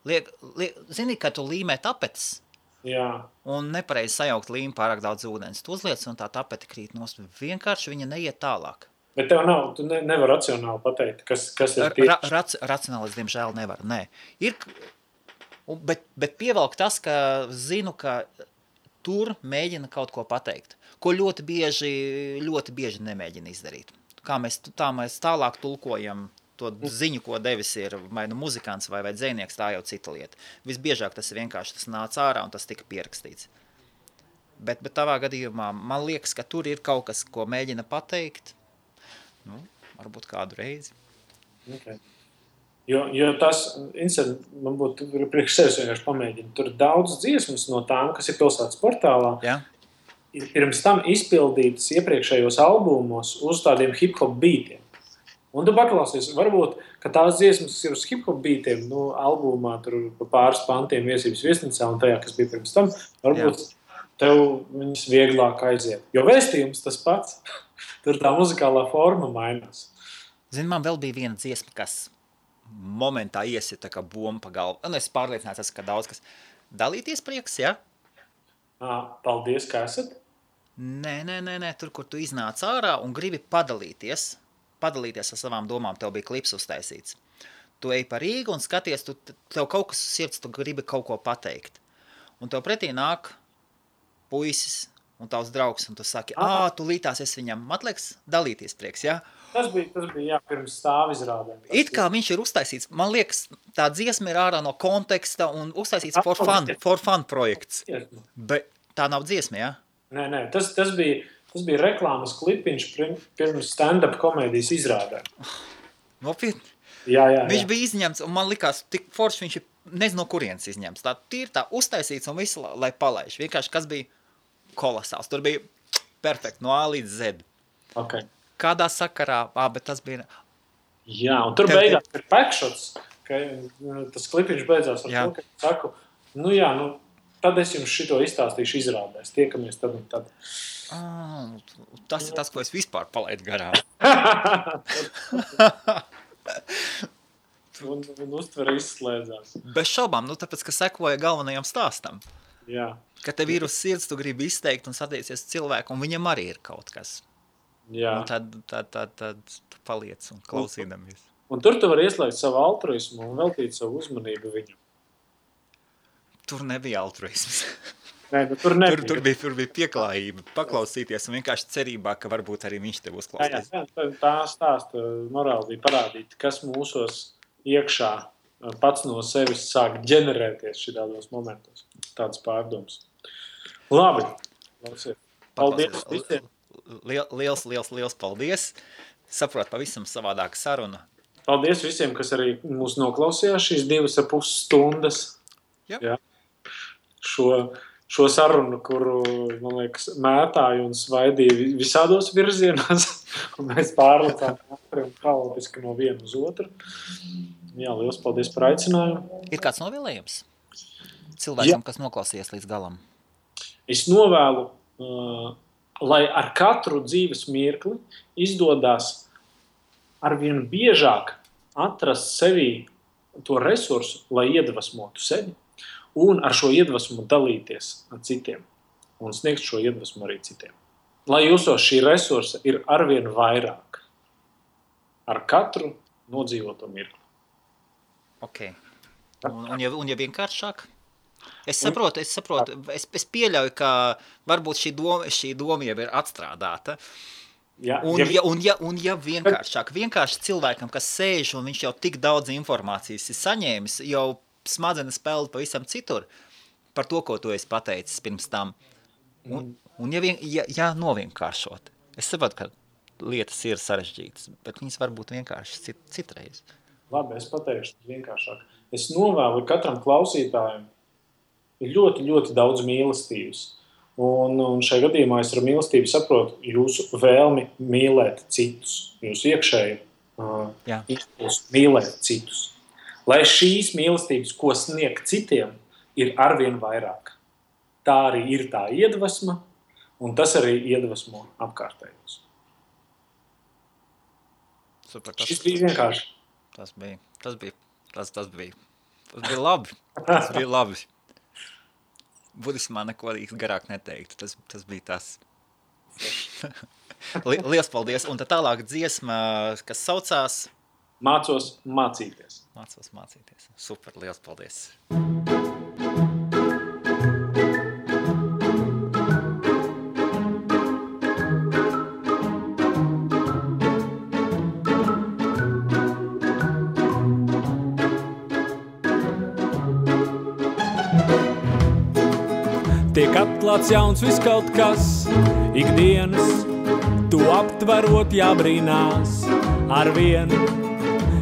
Zini, ka tu līmē tapetes, un nepareizi sajaukt līmi pārāk daudz ūdens. Tu uzliec, un tā tapete krīt nost. Vienkārši viņa neiet tālāk. Bet tev tu nevar racionāli pateikt, kas ir tieši? Racionāli es, diemžēl, nevaru, nē. Bet pievelk tas, ka zinu, ka tur mēģina kaut ko pateikt, ko ļoti bieži nemēģina izdarīt. Tā mēs tālāk tulkojam to ziņu, ko devis ir vai muzikants vai dzejnieks, tā jau cita lieta. Visbiežāk tas vienkārši tas nāca ārā un tas tika pierakstīts. Bet tavā gadījumā man liekas, ka tur ir kaut kas, ko mēģina pateikt, varbūt kādu reizi. Okay. Jo tas, man būtu priekš sevis vienkārši pamēģina. Tur ir daudz dziesmas no tām, kas ir pilsētas portālā. Jā. Ir pirms tam izpildītas iepriekšējos albumos uz tādiem hip-hop beatiem. Un tu paklausies, varbūt, ka tās dziesmas ir uz hip-hop beatiem, albumā tur pa pāris pantiem Viesības viesnīcā un tajā, kas bija pirms tam, varbūt tev viņas vieglāk aiziet. Jo vēstījums tas pats, tur tā muzikālā forma mainās. Zini, man vēl bija viena dziesma, kas momentā iesita kā bomba pa galvu. Es pārliecināts, ka daudz kas dalīties prieks, ja? Paldies, ka esat. Nē, tur, kur tu iznāc ārā un gribi padalīties ar savām domām, tev bija klips uztaisīts. Tu ej pa Rīgu un skaties, tev kaut kas uz sirds, tu gribi kaut ko pateikt. Un tev pretī nāk puisis un tavs draugs, un tu saki, tu lītās es viņam, man liekas, dalīties prieks, ja? Tas bija pirms stāvizrādēm. It kā viņš ir uztaisīts, man liekas, tā dziesma ir ārā no konteksta un uztaisīts for fun projekts. Bet tā nav dziesma, jā? Nē, tas bija reklāmas klipiņš pirms stand-up komēdijas izrādēm. Nopietni? Jā. Viņš bija izņemts, un man likās, tik forši viņš ir, nezinu, no kurienes izņemts. Tā uztaisīts un visu, lai palaiž. Vienkārši, kas bija kolosāls. Tur bija perfekti, no A līdz Z. Okay. Kādā sakarā, bet tas bija... Jā, un tur beigās ir backshots, ka tas klipiņš beidzās ar to, ka saku, tad es jums šito izstāstīšu izrādēs. Tiekamies tad un tad. Tas ir tas, ko es vispār palaidu garām. un uztvere izslēdzās. Bez šaubām, tāpēc, ka sekoja galvenajam stāstam. Jā. Ka tev ir uz sirds, tu gribi izteikt un satiecies cilvēku, un viņam arī ir kaut kas. Jā. Un tad tu paliec un klausīdamies. Un tur tu vari ieslēgt savu altruismu un veltīt savu uzmanību viņam. Tur nebija altruisms. Nē, tur nebija. Tur bija pieklājība, paklausīties un vienkārši cerībā, ka varbūt arī viņš tev uzklausīs. Jā, tā stāsta morāli bija parādīt, kas mūsos iekšā pats no sevis sāk ģenerēties šitādos momentos. Tāds pārdoms. Labi. Paldies visiem. Liels paldies. Saprot, pavisam savādāka saruna. Paldies visiem, kas arī mūs noklausījās šīs 2,5 stundas. Jā. Šo sarunu, kuru, man liekas, mētāju un svaidīju visādos virzienos, un mēs pārlecām un haotiski no viena uz otru. Jā, liels paldies par aicinājumu. Ir kāds novēlējums cilvēkam, kas noklausījās līdz galam? Es novēlu, lai ar katru dzīves mirkli izdodās arvien biežāk atrast sevī to resursu, lai iedvesmotu sevi un ar šo iedvesmu dalīties ar citiem un sniegt šo iedvesmu arī citiem. Lai jūsos šī resursa ir arvien vairāk ar katru nodzīvoto mirkli. Ok. Un ja vienkāršāk? Es saprotu, es pieļauju, ka varbūt šī doma jau ir atstrādāta. Jā, un ja vienkārši cilvēkam, kas sēž un viņš jau tik daudz informācijas ir saņēmis, jau smadzenes peld pavisam citur par to, ko tu esi pateicis pirms tam. Un ja novienkāršot. Es saprotu, ka lietas ir sarežģītas, bet viņas var būt vienkārši citreiz. Labi, es pateikšu vienkāršāk. Es novēlu katram klausītājam ļoti, ļoti daudz mīlestības. Un šajā gadījumā es ar mīlestību saprotu jūsu vēlmi mīlēt citus, jūsu iekšēju impulsu mīlēt citus. Lai šīs mīlestības, ko sniegt citiem, ir arvien vairāk. Tā arī ir tā iedvesma, un tas arī iedvesmo apkārtējos. Super, šis bija vienkārši. Tas bija labi. Tas bija labi. Budismā neko garāk neteiktu. Tas bija tas. Liels paldies. Un tad tālāk dziesma, kas saucās Mācos mācīties. Super, liels paldies. Tiek atklāts jauns viss kaut kas, ikdienas, tu aptverot jābrīnās ar vienu,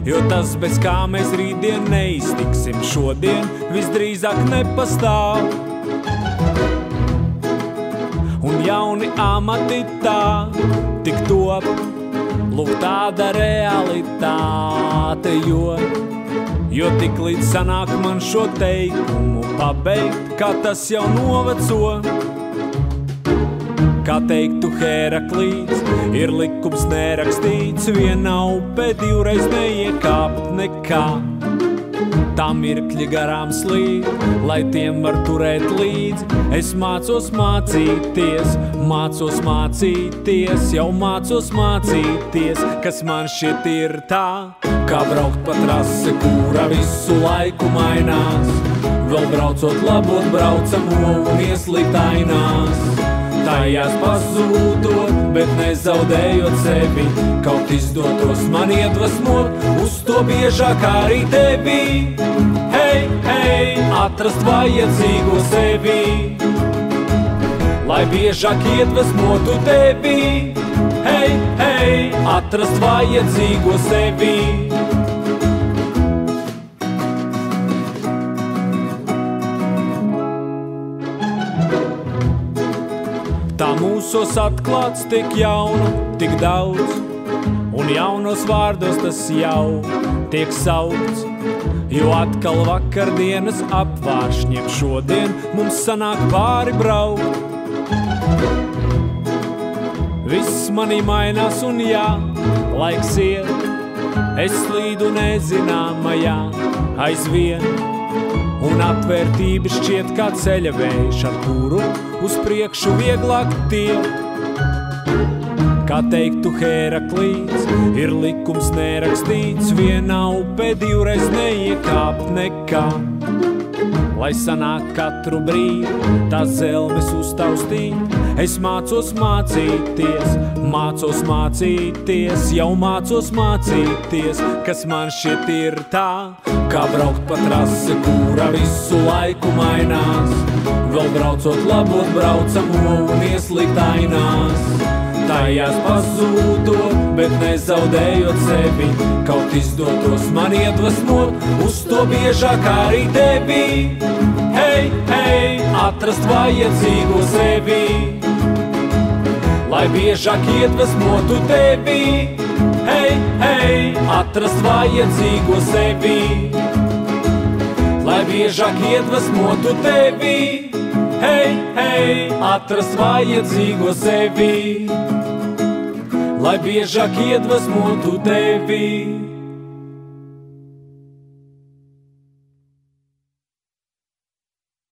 jo tas, bez kā mēs rītdien neiztiksim, šodien visdrīzāk nepastāv. Un jauni amati tā tik top, lūk tāda realitāte, jo tik līdz sanāk man šo teikumu pabeigt, kā tas jau noveco. Kā teiktu Heraklīts, ir likums nerakstīts, viena upe divreiz neiekāpt nekā. Tā mirkļi garām slīd, lai tiem var turēt līdzi. Es mācos mācīties, jau mācos mācīties, kas man šķiet ir tā, kā braukt pa trasi, kura visu laiku mainās. Vēl braucot labot braucamo un ieslīgt ainās. Tajās pazūdot, bet bet nezaudējot sevi. Kaut izdotos man iedvesmot, uz to biežāk arī tevi. Hei, hei, atrast vajadzīgo sevi, lai biežāk iedvesmotu tevi. Hei, hei, atrast vajadzīgo sevi. Tā mūsos atklāts tik jauna, tik daudz, un jaunos vārdos tas jau tiek saukts, jo atkal vakardienas apvāršņiem šodien mums sanāk pāri braukt. Viss manī mainās un jā, laiks iet, es slīdu nezināmajā aizvien, un atvērtība šķiet kā ceļa vējš, ar kuru uz priekšu vieglāk tiek. Kā teiktu Hēraklīts, ir likums nerakstīts, viena upē divreiz neiekāpt nekā. Lai sanāk katru brīdi, tās zelmes uztaustīt, es mācos mācīties, jau mācos mācīties, kas man šķiet ir tā, kā braukt pa trasi, kura visu laiku mainās, vēl braucot labot braucamo un ieslīgt ainās. Tajās pazūdot, bet nezaudējot sevi, kaut izdotos man iedvesmot, uz to biežāk arī tevi. Hei, hei, atrast vajadzīgo sevi, lai biežāk iedvesmotu tevi. Hei, hei, atrast vajadzīgo sevi, lai biežāk iedvesmotu tevi. Hei, hei, atrast vajadzīgo sevi, lai biežāk iedvesmotu tevi.